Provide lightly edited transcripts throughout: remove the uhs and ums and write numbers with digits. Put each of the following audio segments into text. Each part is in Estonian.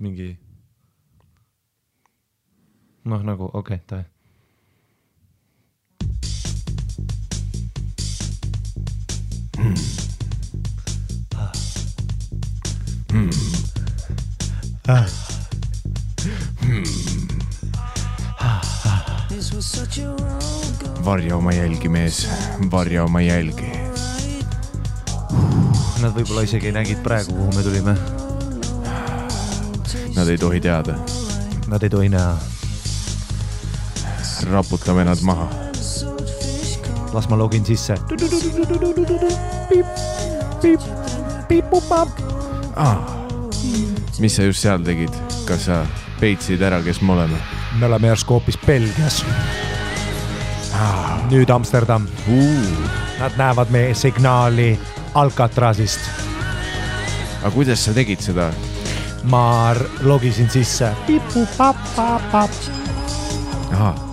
mingi noh nagu okei, ta Varja oma jälgi, mees. Varja oma jälgi. Nad võib-olla isegi nägid praegu, kuhu me tulime. Nad ei tohi teada. Nad ei tohi näha. Raputame nad maha. Las ma login sisse. Mis sa just seal tegid? Kas sa peitsid ära, kes me oleme? Me oleme järsku hoopis Belgias. Nüüd Amsterdam. Nad näevad meie signaali Alcatrazist. Aga kuidas sa tegid seda? Ma logisin sisse.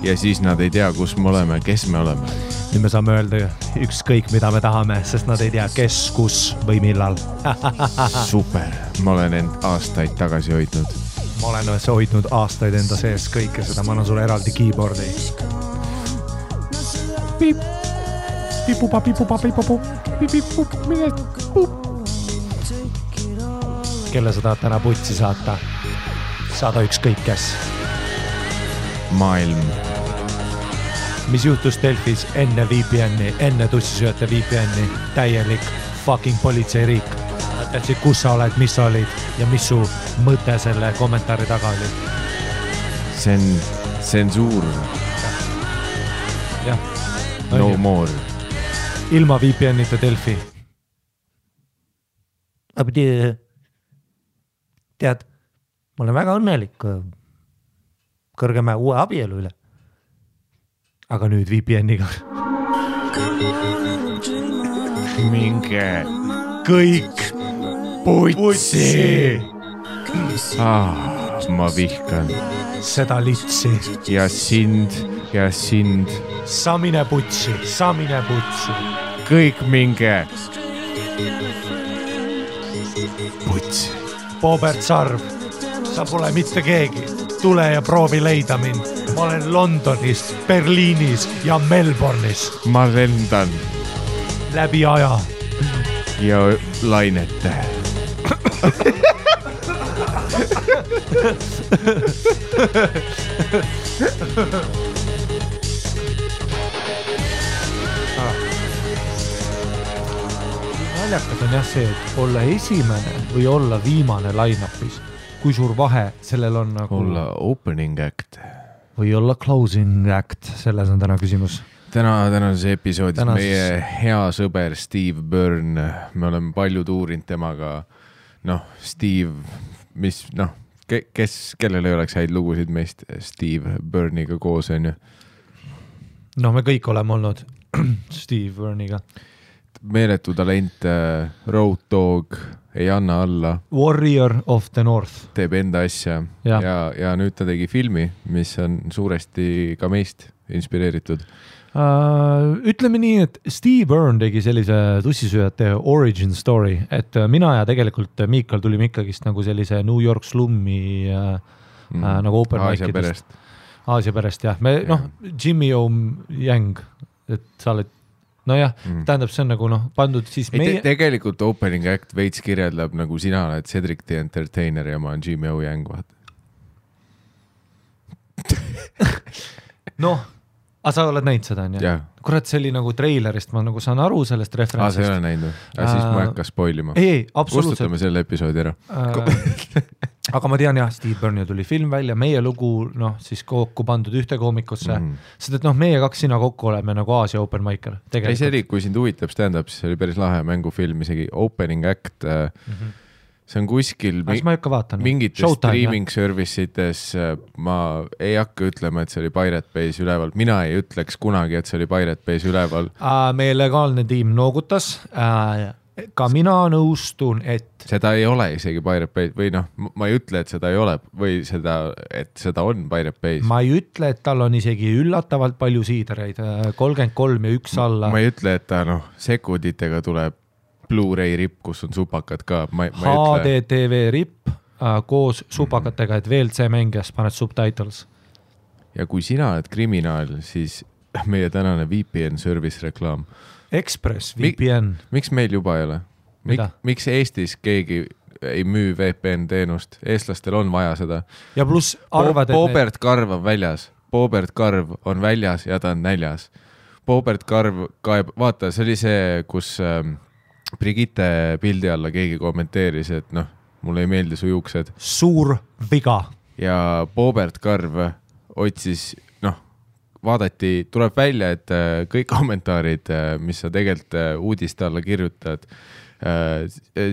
Ja siis nad ei tea, kus me oleme, kes me oleme. Nüüd me saame öelda ükskõik, mida me tahame, sest nad ei tea, kes, kus või millal. Super, ma olen end aastaid tagasi hoidnud. Ma olen hoidnud aastaid enda sees kõike seda, ma annan sulle eraldi keyboardi. Piip, pipupa, pipupa, pipupu, pipup, pipup. Kelle sa tahad täna putsi saata? Saada ükskõik kes. Maailm. Mis juhtus Delfis enne VPN-i, enne tussisööte VPN-i? Täielik fucking politseiriik. Tähtsid, kus sa oled, mis sa olid ja mis su mõte selle kommentaari taga oli? See on tsensuur. Jah. No more. Ilma VPN-ita Delfi. Tead, ma olen väga õnnelik kõrgemäe uue abielu üle. Aga nüüd VPN-iga. Minge kõik putsi. Ma vihkan. Seda litsi. Ja sind. Samine putsi. Kõik minge. Putsi. Bobert Sarv, sa pole mitte keegi. Tule ja proovi leida mind. Ma olen Londonis, Berliinis ja Melbourne'is. Ma lendan. Läbi aja. Ja lainete. Naljakas on jah see, et olla esimene või olla viimane line-upis. Kui suur vahe sellel on nagu... Olla opening act. Või olla closing act, selles on täna küsimus. Tänases episoodis meie hea sõber Steve Byrne, me oleme palju tuurinud temaga, Steve, kellel ei oleks häid lugusid meist Steve Byrne'iga koos, on ju? Me kõik oleme olnud Steve Byrne'iga. Meeletu talent, Road Dog, ei anna alla. Warrior of the North. Teeb enda asja ja nüüd ta tegi filmi, mis on suuresti ka meist inspireeritud. Ütleme nii, et Steve Byrne tegi sellise tussisööjate origin story, et mina ja tegelikult Miikal tulime ikkagist nagu sellise New York slummi nagu open mic'idest. Aasia perest, jah. Jimmy O. Yang, et sa oled, tähendab, see on nagu pandud siis meie... Tegelikult opening act veits kirjeldab nagu sina oled Cedric the Entertainer ja ma on Jimmy O. Yang, vaat. Aga sa oled näinud seda, on ju? Kurat, see oli nagu treilerist, ma nagu saan aru sellest referentsist. Sa ei ole näinud? Siis ma ei hakka spoilima. Ei, absoluutselt. Kustutame selle episoodi ära. Aga ma tean jah, Steve Byrne tuli film välja, meie lugu siis kokku pandud ühte koomikusse. Sest, et meie kaks sina kokku oleme nagu Aasia open micer. Ei, see oli, kui sind huvitab stand-up, siis oli päris lahe mängufilm, isegi opening act. See on kuskil mingites streaming servicites, ma ei hakka ütlema, et see oli Pirate Bay's üleval. Mina ei ütleks kunagi, et see oli Pirate Bay's üleval. Meie legaalne tiim noogutas. Ka mina nõustun, et... Seda ei ole isegi Pirate Bay's või ma ei ütle, et seda ei ole või et seda on Pirate Bay's. Ma ei ütle, et tal on isegi üllatavalt palju siidereid, 33 ja 1 alla. Ma ei ütle, et ta sekunditega tuleb Blu-ray ripp, kus on supakad ka. HDTV ripp, koos supakatega, et VLC mängijas paned subtitles. Ja kui sina oled kriminaal, siis meie tänane VPN service reklaam. Express VPN. Miks meil juba ei ole? Miks Eestis keegi ei müü VPN teenust? Eestlastel on vaja seda. Ja pluss arvad, Boobert Karv on väljas. Boobert Karv on väljas ja ta on näljas. Boobert Karv kaeb, vaata, see oli see, kus Brigitte pildi alla keegi kommenteeris, et noh, mulle ei meeldi su juuksed. Suur viga. Ja Boobert Karv otsis, vaadati, tuleb välja, et kõik kommentaarid, mis sa tegelikult uudiste alla kirjutad,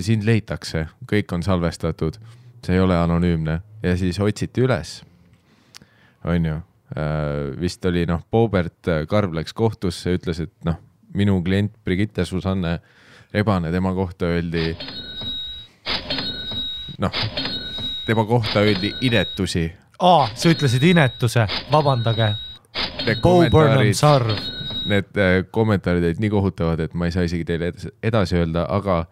sind leitakse, kõik on salvestatud, see ei ole anonüümne ja siis otsiti üles, on ju, vist oli, Boobert Karv läks kohtusse, ütles, et minu klient Brigitte Susanne Rebane, tema kohta öeldi inetusi. Sa ütlesid inetuse, vabandage. Need kommentaarid olid nii kohutavad, et ma ei saa isegi teile edasi öelda, aga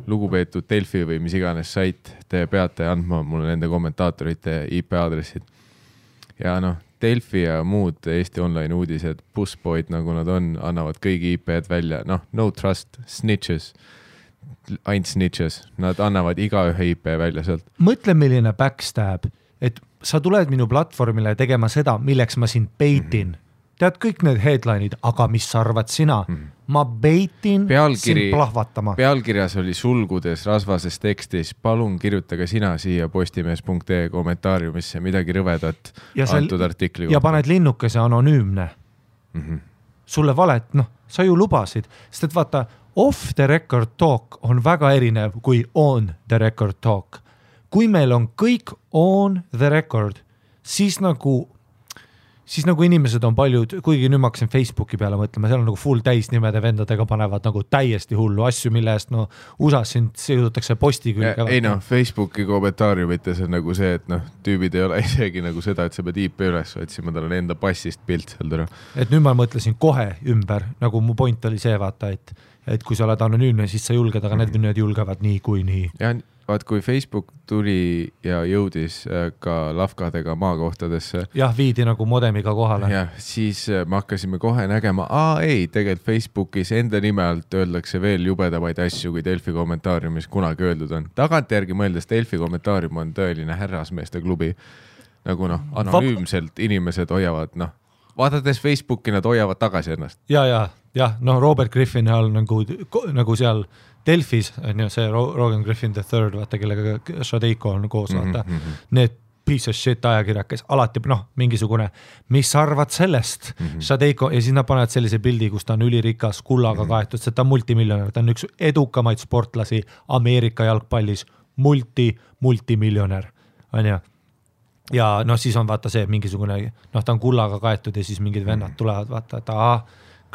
lugupeetud Delfi või mis iganes sait, te peate andma mulle nende kommentaatorite IP aadressid. Ja Delfi ja muud Eesti online uudised, Busboyd, nagu nad on, annavad kõigi IP-d välja. No trust, snitches, ainult snitches. Nad annavad iga ühe IP välja sealt. Mõtle, milline backstab, et sa tuled minu platvormile tegema seda, milleks ma sind baitin. Tead kõik need headline'id, aga mis sa arvad sina? Ma baitin sind plahvatama. Pealkirjas oli sulgudes rasvases tekstis, palun kirjutage sina siia postimees.ee kommentaariumisse midagi rõvedat antud artikli. Ja paned linnukese anonüümne. Sulle valet, sa ju lubasid, sest et vaata, off the record talk on väga erinev kui on the record talk. Kui meil on kõik on the record, siis nagu inimesed on paljud, kuigi nüüd ma hakkasin Facebooki peale mõtlema, seal on nagu full täisnimede vendadega panevad nagu täiesti hullu asju, mille eest USAs sind siudutakse posti külge. Ei Facebooki kommentaariumites on nagu see, et tüübid ei ole isegi nagu seda, et sa pead IP üles otsima, tal on enda passist pilt seal täna. Et nüüd ma mõtlesin kohe ümber, nagu mu point oli see, vaata, et kui sa oled anonüümne, siis sa julged, aga need julgevad nii kui nii. Ja vaat, kui Facebook tuli ja jõudis ka lafkadega maakohtadesse. Jah, viidi nagu modemiga kohale. Ja siis me hakkasime kohe nägema, tegelikult Facebookis enda nime alt öeldakse veel jubedamaid asju, kui Delfi kommentaariumis kunagi öeldud on. Tagantjärgi mõeldes Delfi kommentaarium on tõeline härrasmeeste klubi. Nagu anonüümselt inimesed hoiavad, vaadates Facebooki, nad hoiavad tagasi ennast. Ja, Robert Griffin all nagu seal Delfis on ju see Rogan Griffin III, vaata, kellega Shadeiko on koos, vaata. Need piece of shit ajakirjakes, alati mingisugune, mis arvad sellest? Shadeiko, ja siis nad panevad sellise pildi, kus ta on ülirikas, kullaga kaetud, see ta on multimiljonär, ta on üks edukamaid sportlasi Ameerika jalgpallis, multimiljonär, on ju. Ja siis on vaata see mingisugune, ta on kullaga kaetud ja siis mingid vennad tulevad, vaata, et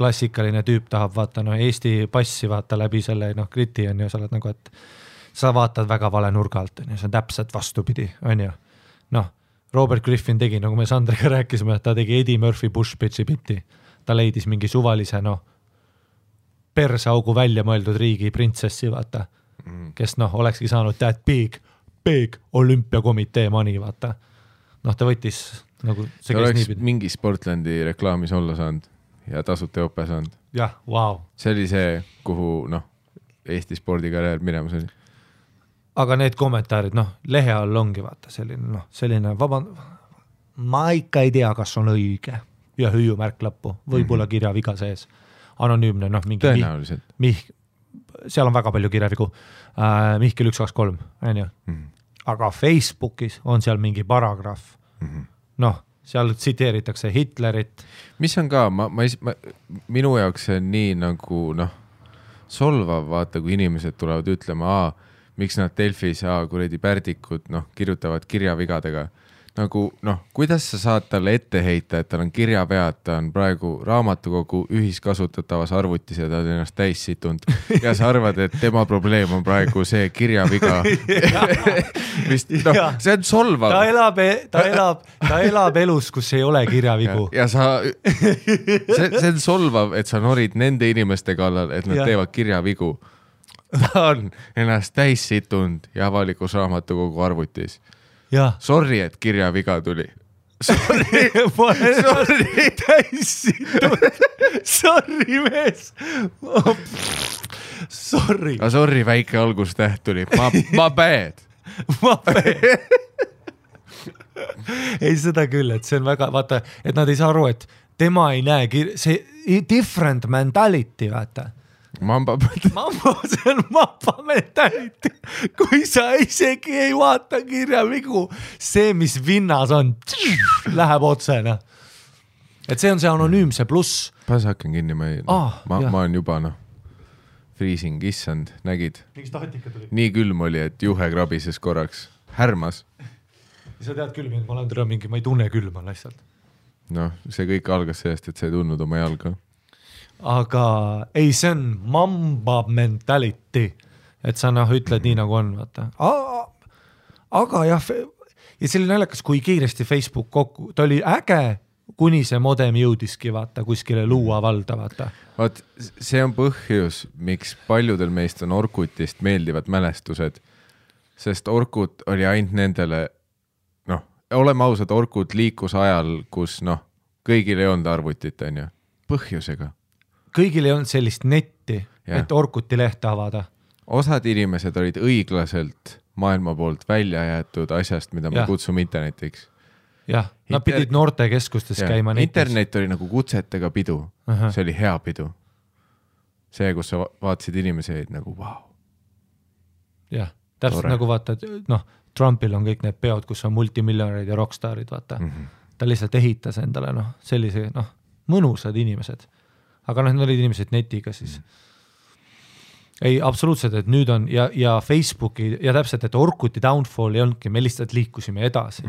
klassikaline tüüp tahab vaata Eesti passi vaata läbi selle kriti on ju, sa oled nagu, et sa vaatad väga vale nurga alt, on ju, see on täpselt vastupidi, on ju. Robert Griffin tegi, nagu me Sandriga rääkisime, et ta tegi Eddie Murphy Bush-Pitchi bitti. Ta leidis mingi suvalise persaugu välja mõeldud riigi printsessi, vaata, kes olekski saanud that big olümpiakomitee money, vaata. Ta võttis nagu see oleks mingi Sportlandi reklaamis olla saanud ja tasuta jope saanud. Jah, wow. See oli see, kuhu Eesti spordikarjäär minemas oli. Aga need kommentaarid, lehe all ongi vaata selline ma ikka ei tea, kas on õige ja hüüumärk lõppu, võib-olla kirjaviga sees. Anonüümne, mingi tõenäoliselt. Seal on väga palju kirjavigu. Mihkel 123, on ju. Aga Facebookis on seal mingi paragrahv. Seal tsiteeritakse Hitlerit. Mis on ka, minu jaoks see on nii nagu solvav, vaata, kui inimesed tulevad ütlema, miks nad Delfis, kuredi pärdikud, kirjutavad kirjavigadega. Nagu, kuidas sa saad talle ette heita, et tal on kirjavead, ta on praegu raamatukogu ühiskasutatavas arvutis ja ta on ennast täis situnud. Ja sa arvad, et tema probleem on praegu see kirjaviga. See on solvav. Ta elab elus, kus ei ole kirjavigu. Ja see on solvav, et sa norid nende inimeste kallal, et nad teevad kirjavigu. ta on ennast täis situnud ja avalikus raamatukogu arvutis. Sorry, et kirjaviga tuli. Sorry. Täis situnud. Sorry, mees. Sorry. Sorry, väike algustäht tuli. Ma bad. Ei, seda küll, et see on väga, vaata, et nad ei saa aru, et tema ei näe, see different mentality, vaata. Mamba, see on mamba mentality. Kui sa isegi ei vaata kirjavigu, see, mis vinnas on, läheb otsena. Et see on see anonüümse pluss. Pas hakkan kinni, ma olen juba, freezing, issand, nägid? Nii külm oli, et juhe krabises korraks. Härmas. Sa tead külm, et ma olen mingi, ma ei tunne külma lihtsalt. See kõik algas sellest, et sa ei tundnud oma jalga. Aga ei, see on mamba mentality, et sa ütled nii nagu on, vaata. Aga jah, ja see oli naljakas, kui kiiresti Facebook kokku, ta oli äge, kuni see modem jõudiski, vaata, kuskile luua valda, vaata. Vaat, see on põhjus, miks paljudel meist on Orkutist meeldivad mälestused, sest Orkut oli ainult nendele, oleme ausad, Orkut liikus ajal, kus kõigil ei olnud arvutit, on ju, põhjusega. Kõigil ei olnud sellist netti, et Orkuti lehte avada. Osad inimesed olid õiglaselt maailma poolt välja jäetud asjast, mida me kutsume internetiks. Jah, nad pidid noortekeskustes käima netis. Internet oli nagu kutsetega pidu, see oli hea pidu. See, kus sa vaatasid inimesi, nagu vau. Jah, täpselt nagu vaatad, Trumpil on kõik need peod, kus on multimiljonärid ja rockstarid, vaata. Ta lihtsalt ehitas endale, sellise, mõnusad inimesed. Aga need olid inimesed netiga siis. Ei, absoluutselt, et nüüd on, ja Facebooki, ja täpselt, et Orkuti downfall ei olnudki, me lihtsalt liikusime edasi.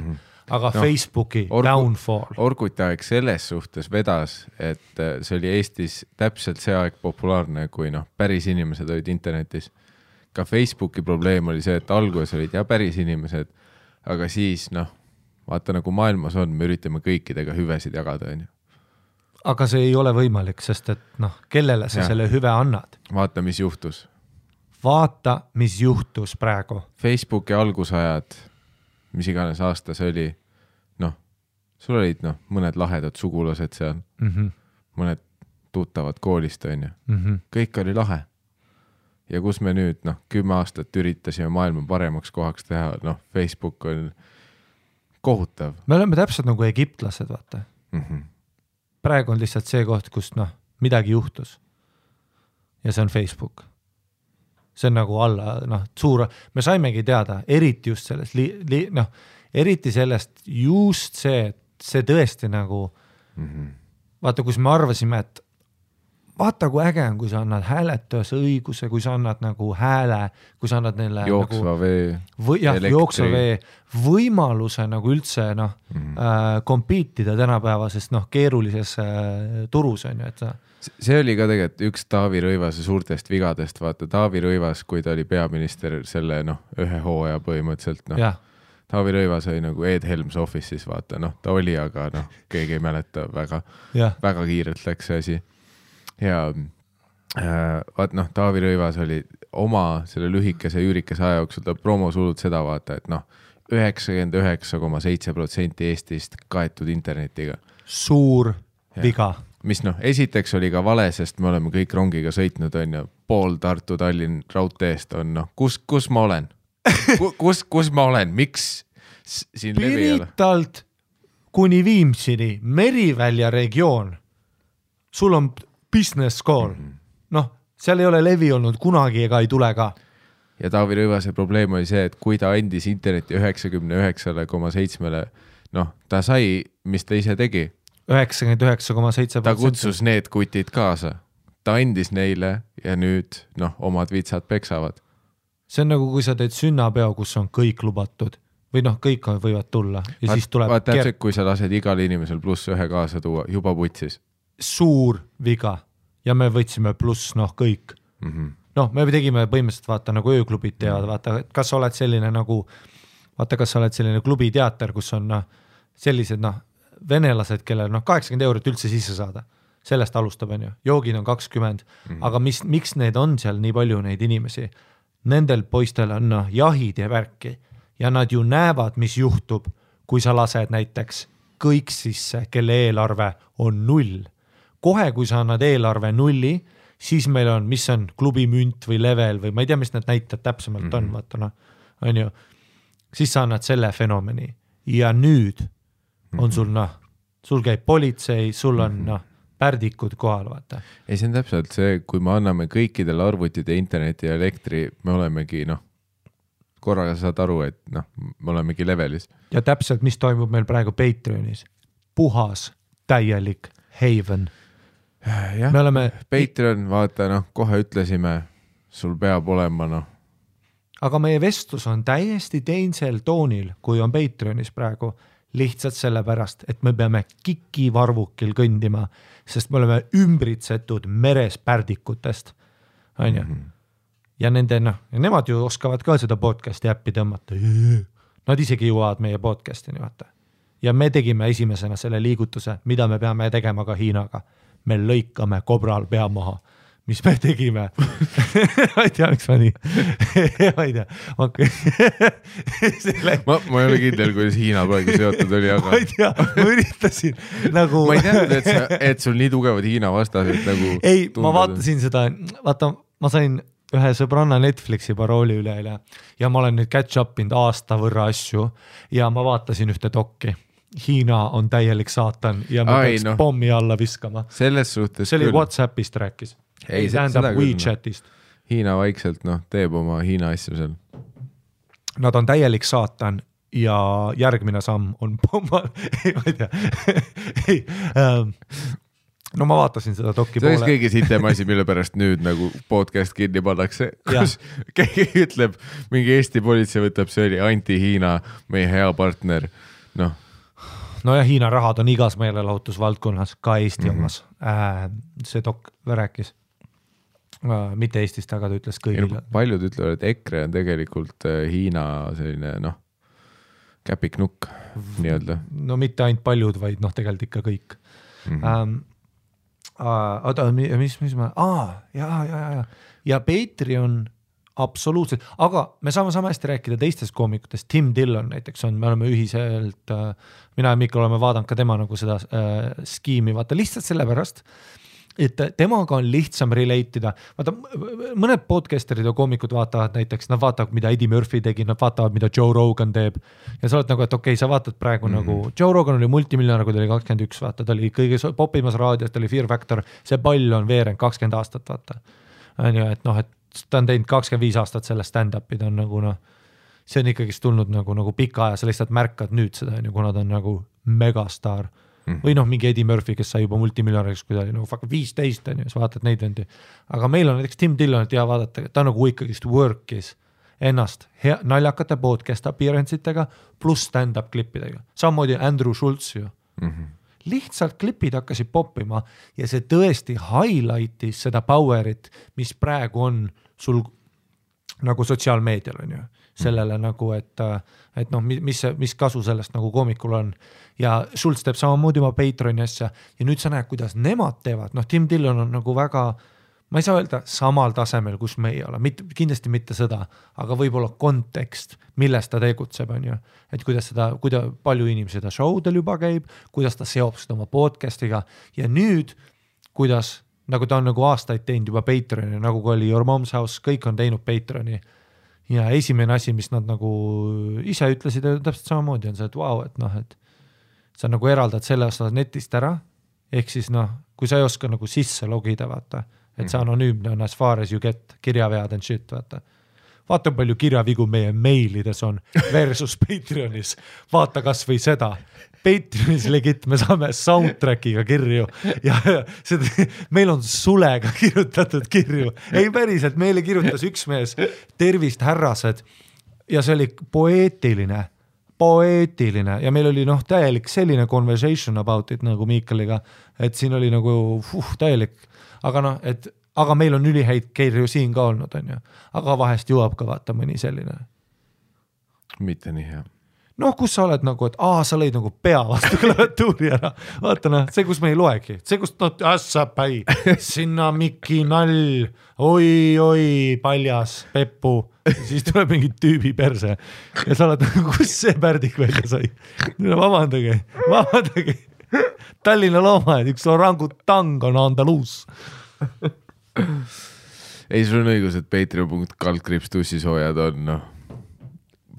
Aga Facebooki downfall. Orkuti aeg selles suhtes vedas, et see oli Eestis täpselt see aeg populaarne, kui päris inimesed olid internetis. Ka Facebooki probleem oli see, et alguses olid päris inimesed, aga siis, vaata nagu maailmas on, me üritame kõikidega hüvesid jagada, on ju. Aga see ei ole võimalik, sest et kellele sa selle hüve annad? Vaata, mis juhtus. Vaata, mis juhtus praegu. Facebooki algusajad, mis iganes aasta see oli, sul olid mõned lahedad sugulased seal, mõned tuttavad koolist, on ju. Kõik oli lahe. Ja kus me nüüd 10 aastat üritasime maailma paremaks kohaks teha, Facebook on kohutav. Me oleme täpselt nagu egiptlased, vaata. Praegu on lihtsalt see koht, kus midagi juhtus. Ja see on Facebook. See on nagu alla, suur, me saimegi teada, eriti just sellest, eriti sellest just see, et see tõesti nagu, vaata, kus me arvasime, et vaata, kui äge on, kui sa annad hääletujas õiguse, kui sa annad nagu hääle, kui sa annad neile jooksva vee, jooksva vee, võimaluse nagu üldse kompiitida tänapäevasest keerulises turus on ju, et sa... See oli ka tegelikult üks Taavi Rõivase suurtest vigadest, vaata Taavi Rõivas, kui ta oli peaminister selle ühe hooaja põhimõtteliselt, Taavi Rõivas oli nagu Ed Helms Office'is, vaata, ta oli, aga keegi ei mäleta väga kiirelt läks see asi. Ja vaat Taavi Rõivas oli oma selle lühikese üürikese aja jooksul, ta promosulud seda vaata, et 99,7% Eestist kaetud internetiga. Suur viga. Mis esiteks oli ka vale, sest me oleme kõik rongiga sõitnud, on ju, pool Tartu Tallinn raudteest on, kus ma olen? Kus ma olen? Miks siin levi ei ole? Piritalt kuni Viimsini, Merivälja regioon, sul on business call. Seal ei ole levi olnud kunagi ega ei tule ka. Ja Taavi Rõivase probleem oli see, et kui ta andis interneti 99,7, ta sai, mis ta ise tegi. 99,7%. Ta kutsus need kutid kaasa. Ta andis neile ja nüüd, omad vitsad peksavad. See on nagu, kui sa teed sünnapeo, kus on kõik lubatud. Või kõik võivad tulla. Ja siis tuleb... Täpselt, kui sa lased igal inimesel +1 kaasa tuua, juba putsis. Suur viga. Ja me võtsime pluss, kõik. Me tegime põhimõtteliselt, vaata, nagu ööklubid teavad, vaata, kas sa oled selline nagu, vaata, kas sa oled selline klubiteater, kus on sellised, venelased, kellel 80 € üldse sisse saada. sellest alustab, on ju, joogid on 20, aga miks need on seal nii palju neid inimesi? Nendel poistel on jahid ja värki ja nad ju näevad, mis juhtub, kui sa lased näiteks kõik sisse, kelle eelarve on 0. Kohe, kui sa annad eelarve 0, siis meil on, mis on klubi münt või level või ma ei tea, mis need näitajad täpsemalt on, vaata on ju, siis sa annad selle fenomeni ja nüüd on sul sul käib politsei, sul on pärdikud kohal, vaata. Ei, see on täpselt see, kui me anname kõikidele arvutid ja interneti ja elektri, me olemegi korraga saad aru, et me olemegi levelis. Ja täpselt, mis toimub meil praegu Patreonis. Puhas, täielik haven. Jah, me oleme Patreon, vaata, kohe ütlesime, sul peab olema, Aga meie vestlus on täiesti teisel toonil, kui on Patreonis praegu, lihtsalt sellepärast, et me peame kikivarvukil kõndima, sest me oleme ümbritsetud meres pärdikutest, on ju. Ja nemad ju oskavad ka seda podcasti äppi tõmmata. Nad isegi jõuavad meie podcastini, vaata. Ja me tegime esimesena selle liigutuse, mida me peame tegema ka Hiinaga. Me lõikame kobral pea maha, mis me tegime. Ma ei tea, miks ma nii. Ma ei tea. Ma ei ole kindel, kuidas Hiina praegu seotud oli, aga... Ma ei tea, ma üritasin nagu... Ma ei teadnud, et sul nii tugevad Hiina vastased nagu... Ei, ma vaatasin seda, vaata, ma sain ühe sõbranna Netflixi parooli üle ja ma olen nüüd catch upinud aasta võrra asju ja ma vaatasin ühte dokki. Hiina on täielik saatan ja ma peaks pommi alla viskama. Selles suhtes see oli küll. WhatsAppist rääkis. Ei tähendab WeChatist. Hiina vaikselt teeb oma Hiina asju seal. Nad on täielik saatan ja järgmine samm on pomma. Ei, ma ei tea. No ma vaatasin seda dokki poole. See on kõige sitem asi, mille pärast nüüd nagu podcast kinni pannakse. Kus keegi ütleb, mingi Eesti politsei võtab, see oli anti-Hiina, meie hea partner. No ja Hiina rahad on igas meelelahutusvaldkonnas, ka Eesti omas. See dok rääkis. Mitte Eestist, aga ta ütles kõigile. Paljud ütlevad, et EKRE on tegelikult Hiina selline, käpiknukk, nii-öelda. No mitte ainult paljud, vaid tegelikult ikka kõik. Mis ma... Ja Patreon absoluutselt, aga me saame hästi rääkida teistest koomikutest. Tim Dillon näiteks on, me oleme ühiselt, mina ja Mikkel oleme vaadanud ka tema nagu seda skiimi, vaata lihtsalt sellepärast, et temaga on lihtsam relate'ida. Vaata, mõned podcasterid ja koomikud vaatavad näiteks, nad vaatavad, mida Eddie Murphy tegi, nad vaatavad, mida Joe Rogan teeb ja sa oled nagu, et okei, sa vaatad praegu nagu, Joe Rogan oli multimiljonär, kui ta oli 21, vaata, ta oli kõige popimas raadios, ta oli Fear Factor, see pall on veerend 20 aastat, vaata. On ju, et et ta on teinud 25 aastat selle stand-up'i, ta on nagu see on ikkagi tulnud nagu pika aja, sa lihtsalt märkad nüüd seda, kuna ta on nagu megastar. Või mingi Eddie Murphy, kes sai juba multimiljonäriks, kui ta oli nagu 15, on ju, sa vaatad neid vendi. Aga meil on näiteks Tim Dillon, et vaadata, ta nagu ikkagist work'is ennast naljakate podcast appearance'itega pluss stand-up klippidega. Samamoodi Andrew Schultz ju. Lihtsalt klipid hakkasid poppima ja see tõesti highlightis seda powerit, mis praegu on sul nagu sotsiaalmeedial on ju. Sellele nagu, et mis kasu sellest nagu koomikul on. Ja Schultz teeb samamoodi oma Patreoni asja ja nüüd sa näed, kuidas nemad teevad. Tim Dillon on nagu väga, ma ei saa öelda samal tasemel, kus me ei ole, kindlasti mitte seda, aga võib-olla kontekst, milles ta tegutseb, on ju. Et kuidas palju inimesi seda showdel juba käib, kuidas ta seob seda oma podcastiga ja nüüd, kuidas, nagu ta on nagu aastaid teinud juba Patreoni, nagu oli Your Mom's House, kõik on teinud Patreoni ja esimene asi, mis nad nagu ise ütlesid, täpselt samamoodi on see, et vau, et sa nagu eraldad selle osa netist ära, ehk siis kui sa ei oska nagu sisse logida, vaata, et see anonüümne on as far as you get, kirjavead and shit, vaata palju kirjavigu meie meilides on versus Patreonis, vaata kas või seda, Patreonis legit, me saame soundtrackiga kirju ja seda, meil on sulega kirjutatud kirju, ei päriselt, meile kirjutas üks mees, tervist härrased ja see oli poeetiline ja meil oli täielik selline conversation about it nagu Miikaliga, et siin oli nagu täielik, aga meil on ülihäid kirju siin ka olnud, on ju. Aga vahest jõuab ka vaata mõni selline. Mitte nii hea. noh, kus sa oled nagu, et sa lõid nagu pea vastu klaviatuuri ära. Vaata noh, see, kus me ei loegi, see, kus ässapäi, sinna Mikki nall, oi, paljas, Peppu, siis tuleb mingi tüübi perse ja sa oled, kus see pärdik välja sai? Vabandage. Tallinna loomad, üks orangutang on Andaluus. Ei, sul on õigus, et patreon.com/tussisoojad on, noh,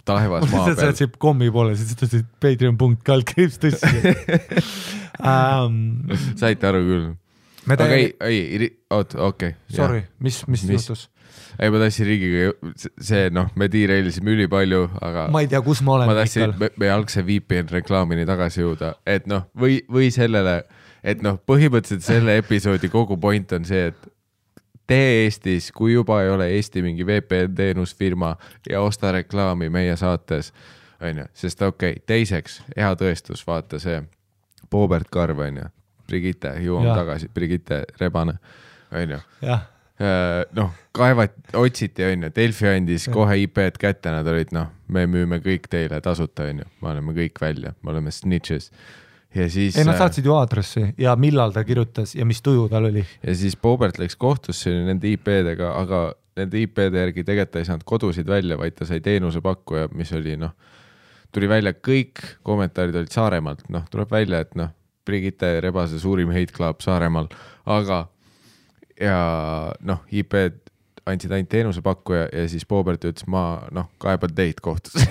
taevas maa peal. Sa said kommi poole, siis ütlesid patreon.com/tussi. Saite aru küll. Okei. Sorry, mis juhtus? Ei, ma tahtsin riigiga, see, noh, me tiireilisime üli palju, aga ma ei tea, kus ma olen. Ma tahtsin me algse VPN reklaamini tagasi jõuda, et noh, või sellele, et noh, põhimõtteliselt selle episoodi kogu point on see, et tee Eestis, kui juba ei ole Eesti mingi VPN teenusfirma ja osta reklaami meie saates, on ju, sest teiseks, hea tõestus, vaata see Boobert Karv, on ju, Brigitte, jõuame tagasi, Brigitte Rebane, on ju. Noh, otsiti, on ju, Delfi andis kohe IP-d kätte, nad olid, noh, me müüme kõik teile tasuta, on ju, me oleme kõik välja, me oleme snitches. Ja siis, nad saatsid ju aadressi ja millal ta kirjutas ja mis tuju tal oli. Ja siis Boobert läks kohtusse nende IP-dega, aga nende IP-de järgi tegelikult ei saanud kodusid välja, vaid ta sai teenusepakkuja, mis oli, noh, tuli välja kõik kommentaarid olid Saaremaalt, noh, tuleb välja, et noh, Brigitte Rebase suurim hate club Saaremaal, aga ja noh, IP-d andsid ainult teenusepakkuja ja siis Boobert ütles, ma noh, kaeban teid kohtusse.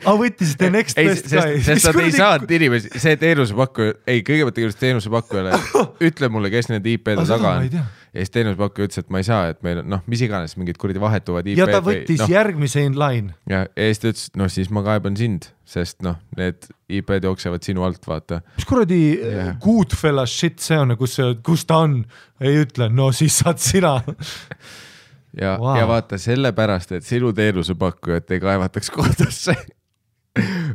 Võttis the next best guy. Sest nad ei saanud inimesi, see teenusepakkuja, kõigepealt tegevust teenusepakkujale, ütle mulle, kes need IP-de taga on. Ja siis teenusepakkuja ütles, et ma ei saa, et meil, noh, mis iganes mingid kuradi vahetuvad IP-d. Ja ta võttis järgmise in line. Ja siis ta ütles, noh, siis ma kaeban sind, sest noh, need IP-d jooksevad sinu alt, vaata. Mis kuradi Goodfella shit see on, kus ta on, ei ütle, no siis saad sina. Ja vaata, sellepärast, et sinu teenusepakkujat ei kaevataks kohtusse.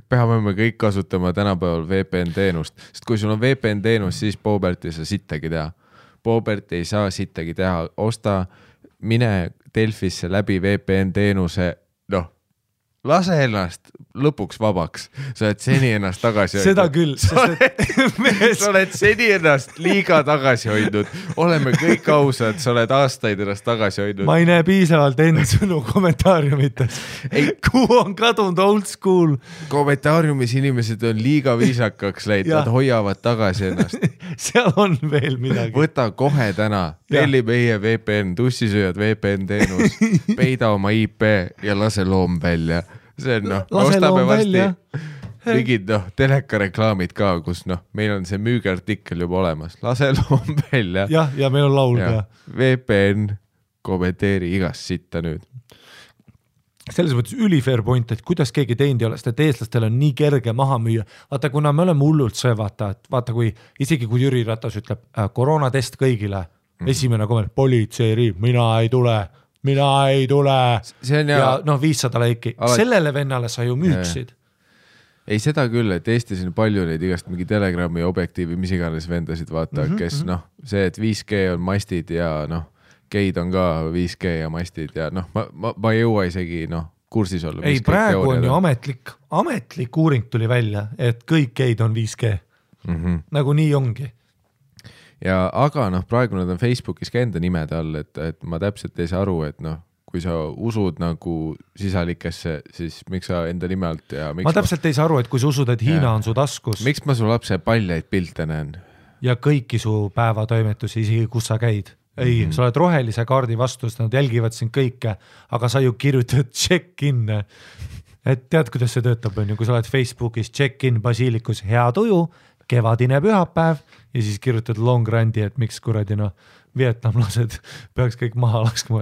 Peame me kõik kasutama tänapäeval VPN teenust, sest kui sul on VPN teenus, siis Boobert ei saa sittagi teha. Boobert ei saa sittagi teha, mine Delfisse läbi VPN teenuse, noh, lase ennast lõpuks vabaks, sa oled seni ennast tagasi hoidnud. Seda küll. Sa oled seni ennast liiga tagasi hoidnud, oleme kõik ausad, sa oled aastaid ennast tagasi hoidnud. Ma ei näe piisavalt sõnu kommentaariumites. Kuhu on kadunud old school? Kommentaariumis inimesed on liiga viisakaks läinud, nad hoiavad tagasi ennast. Seal on veel midagi. Võta kohe täna, telli meie VPN, tussisööjad VPN teenus, peida oma IP ja lase loom välja. See on, noh, ostame vasti mingid, noh, telekareklaamid ka, kus, noh, meil on see müügiartikkel juba olemas. Lase loom välja. Ja meil on laul ka. VPN, kommenteeri igast sitta nüüd. Selles mõttes ülifair point, et kuidas keegi teinud ei ole, sest et eestlastel on nii kerge maha müüa. Vaata, kuna me oleme hullult see, vaata, kui isegi kui Jüri Ratas ütleb koroonatest kõigile, esimene komment, politseiriib, mina ei tule. Ja noh, 500 laiki. Sellele vennale sa ju müüksid. Ei, seda küll, et Eestis on palju neid igast mingi Telegrami objektiivi, mis iganes vendasid, vaata, kes noh, see, et 5G on mastid ja noh, geid on ka 5G ja mastid ja noh, ma ei jõua isegi noh, kursis olla. Ei, praegu on ju ametlik uuring tuli välja, et kõik geid on 5G. Nagu nii ongi. Ja aga noh, praegu nad on Facebookis ka enda nimede all, et ma täpselt ei saa aru, et noh, kui sa usud nagu sisalikesse, siis miks sa enda nime alt ja miks ma täpselt ei saa aru, et kui sa usud, et Hiina on su taskus. Miks ma su lapse paljaid pilte näen? Ja kõiki su päevatoimetusi, isegi kus sa käid. Ei, sa oled rohelise kaardi vastus, nad jälgivad sind kõike, aga sa ju kirjutad check-in. Et tead, kuidas see töötab, on ju, kui sa oled Facebookis check-in Basilikus, hea tuju, kevadine pühapäev ja siis kirjutad long randi, et miks kuradi noh, vietnamlased peaks kõik maha laskma.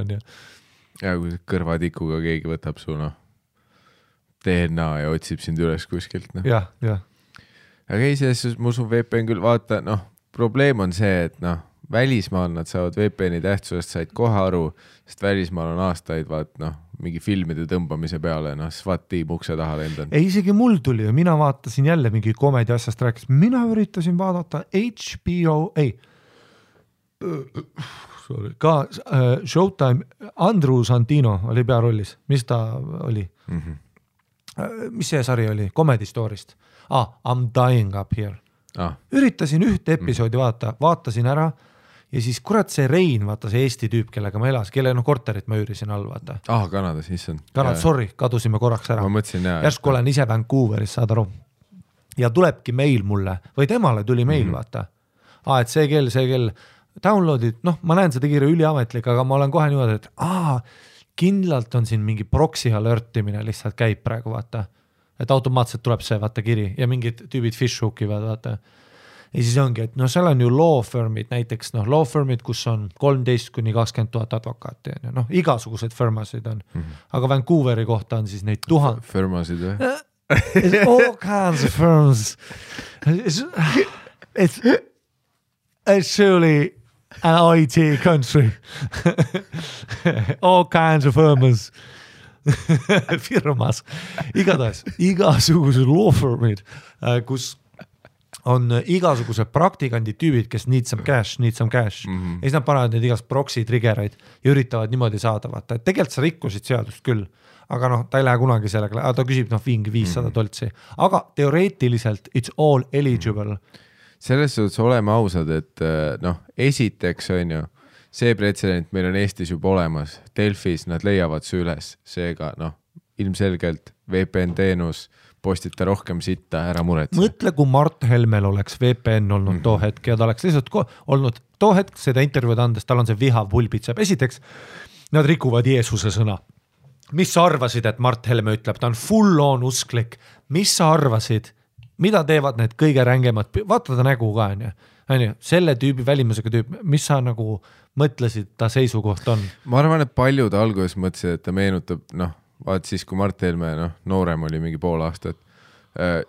Ja kui kõrvatikuga keegi võtab su noh, DNA ja otsib sind üles kuskilt. No. Ja. Aga ei, selles ma usun VPN küll, vaata, noh, probleem on see, et noh, välismaal nad saavad VPN-i tähtsusest said kohe aru, sest välismaal on aastaid, vaat noh, mingi filmide tõmbamise peale, noh, SWAT-tiim ukse taha lendan. Ei, isegi mul tuli ja mina vaatasin jälle mingi komedi asjast rääkis. Mina üritasin vaadata HBO, ka Showtime, Andrew Santino oli pearollis. Mis ta oli? mis see sari oli, Comedy Story'st. I'm dying up here. Üritasin ühte episoodi vaatasin ära ja siis kurat see Rein, vaata see Eesti tüüp, kellega ma elas, kelle korterit ma üürisin all, vaata. Kanadas, issand. Sorry, kadusime korraks ära. Ma mõtlesin, järsku olen ise Vancouveris, saad aru. Ja tulebki meil mulle, või temale tuli meil, vaata. Et see kell, downloadid, ma näen seda kirja üliametlik, aga ma olen kohe niimoodi, et kindlalt on siin mingi proxy alertimine lihtsalt käib praegu, vaata. Et automaatselt tuleb see, vaata, kiri ja mingid tüübid fishhookivad, vaata. Ja siis ongi, et seal on ju law firmid, näiteks law firmid, kus on 13-20 000 advokaati, igasugused firmasid on. Aga Vancouveri kohta on siis neid 1000. Firmasid või? All kinds of firms. It's surely an IT country. All kinds of firms. Firmas. Igasugused law firmid, kus on igasugused praktikandid tüübid, kes need some cash. Ja siis nad panevad neid igast proxy triggereid ja üritavad niimoodi saada, vaata, et tegelikult sa rikkusid seadust küll, aga ta ei lähe kunagi sellega, ta küsib mingi 500 $, aga teoreetiliselt it's all eligible. Selles suhtes oleme ausad, et esiteks on ju, see pretsedent meil on Eestis juba olemas, Delfis nad leiavad see üles, seega ilmselgelt VPN teenus, postita rohkem sitta, ära muretse. Mõtle, kui Mart Helmel oleks VPN olnud too hetk ja ta oleks lihtsalt olnud too hetk seda intervjuud andes, tal on see vihav pulbitseb. Esiteks, nad rikuvad Jeesuse sõna. Mis sa arvasid, et Mart Helme ütleb, ta on full on usklik. Mis sa arvasid, mida teevad need kõige rängemad, vaata ta nägu ka, selle tüübi välimusega tüüp, mis sa nagu mõtlesid ta seisukoht on? Ma arvan, et paljud alguses mõtlesid, et ta meenutab, vaat siis, kui Mart Helme noorem oli mingi pool aastat,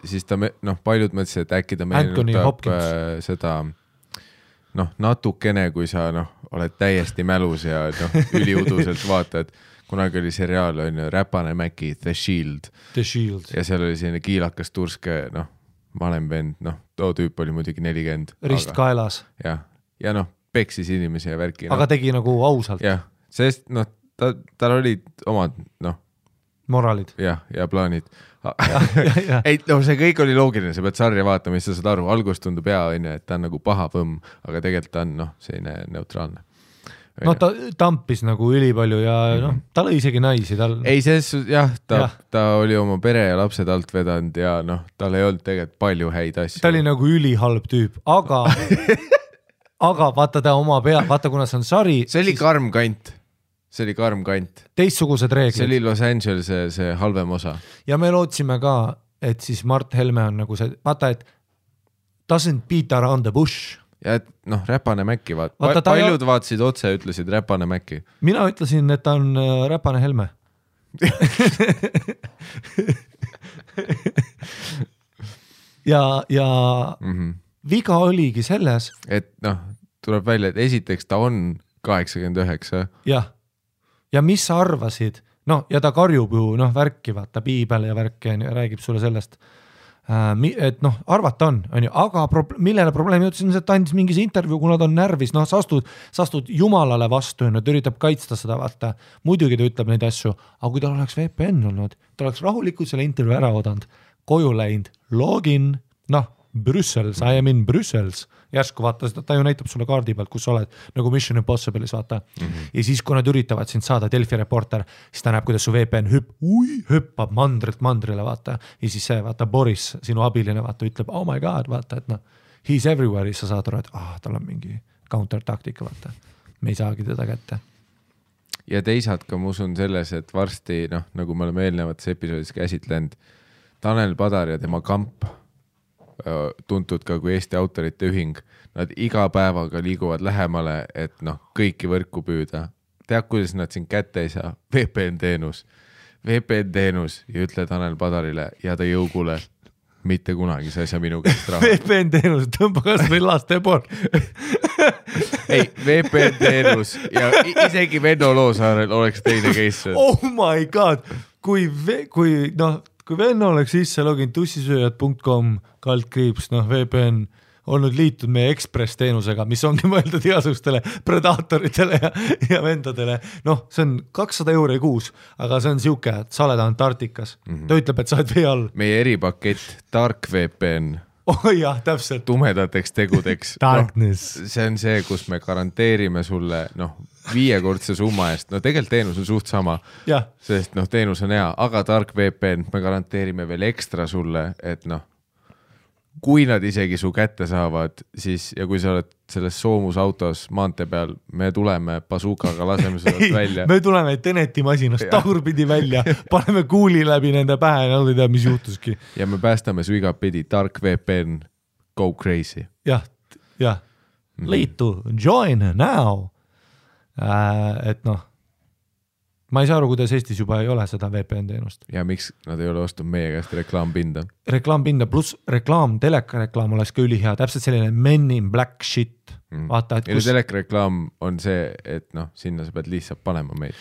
siis ta, paljud mõtlesid, et äkki ta meenutab seda, natukene, kui sa oled täiesti mälus ja üliuduselt vaatad, kunagi oli seriaal, Räpane Mäki, The Shield. Ja seal oli selline kiilakas turske, malemvend, too tüüp oli muidugi 40. Rist kaelas. Ja peksis inimesi ja värki. Aga tegi nagu ausalt. Jah, sest tal olid omad, moraalid. Ja plaanid. Ei, see kõik oli loogiline, sa pead sarja vaatama, mis sa saad aru. Algus tundub et ta on nagu paha võmm, aga tegelikult ta on selline neutraalne. Ta tampis nagu ülipalju ja ta lõi isegi naisi. Ei, ta oli oma pere ja lapsed alt vedanud ja tal ei olnud tegelikult palju häid asju. Ta oli nagu ülihalb tüüp, aga vaata ta oma pea, vaata kuna see on sari. See oli karm kant. Teistsugused reeglid. See oli Los Angeles see halvem osa. Ja me lootsime ka, et siis Mart Helme on nagu see, vaata, et doesn't beat around the bush. Ja et Räpane Mäki, paljud vaatasid otse, ütlesid Räpane Mäki. Mina ütlesin, et ta on Räpane Helme. ja viga oligi selles. Et tuleb välja, et esiteks ta on 89. Jah. Ja mis sa arvasid? Ja ta karjub ju, värki, vaata, piibel ja värki, räägib sulle sellest. Et arvata on ju, aga millele probleem jõudsin, et ta andis mingis intervjuu, kuna ta on närvis, sa astud jumalale vastu ja ta üritab kaitsta seda, vaata. Muidugi ta ütleb neid asju, aga kui tal oleks VPN olnud, ta oleks rahulikult selle intervjuu ära odanud, koju läinud, login, Brüssels, I am in Brüssels. Järsku vaata, ta ju näitab sulle kaardi pealt, kus sa oled, nagu Mission Impossible'is, vaata. Ja siis, kui nad üritavad sind saada, Delfi reporter, siis ta näeb, kuidas su VPN hüppab mandrilt mandrile, vaata. Ja siis see, vaata, Boris, sinu abiline, vaata, ütleb, oh my god, vaata, et he's everywhere, sa saad aru, et tal on mingi counter-taktika, vaata. Me ei saagi teda kätte. Ja teisalt ka ma usun selles, et varsti, nagu me oleme eelnevates episoodis käsitlenud, Tanel Padar ja tema kamp, tuntud ka kui Eesti autorite ühing, nad iga päevaga liiguvad lähemale, et kõiki võrku püüda. Tead, kuidas nad siin kätte ei saa? VPN teenus ja ütle Tanel Padarile ja ta jõugule, mitte kunagi sa ei saa minu käest raha. VPN teenus, tõmba kas või laste pool. Ei, VPN teenus ja isegi Venno Loosaarel oleks teine case. Oh my god, kui Venno oleks sisse login tussisööjad.com /VPN, olnud liitunud meie Express teenusega, mis ongi mõeldud igasugustele predaatoritele ja vendadele. Noh, see on 200 € kuus, aga see on siuke, et sa oled Antarktikas. Ta ütleb, et sa oled vee all. Meie eripakett Dark VPN. Jah, täpselt. Tumedateks tegudeks. Darkness. See on see, kus me garanteerime sulle 5-kordse summa eest. Tegelikult teenus on suht sama, sest teenus on hea, aga Dark VPN me garanteerime veel ekstra sulle, et kui nad isegi su kätte saavad, siis ja kui sa oled selles soomusautos maantee peal, me tuleme bazookaga, laseme seda välja. Me tuleme Teneti masinast tagurpidi välja, paneme kuuli läbi nende pähe ja nad ei tea, mis juhtuski. Ja me päästame su igapidi, Dark VPN, go crazy. Jah. Liitu, join now. Et ma ei saa aru, kuidas Eestis juba ei ole seda VPN teenust. Ja miks nad ei ole ostnud meie käest reklaampinda? Reklaampinda pluss reklaam, telekareklaam oleks ka ülihea, täpselt selline Men in Black shit. Vaata, et kus... telekareklaam on see, et sinna sa pead lihtsalt panema meid.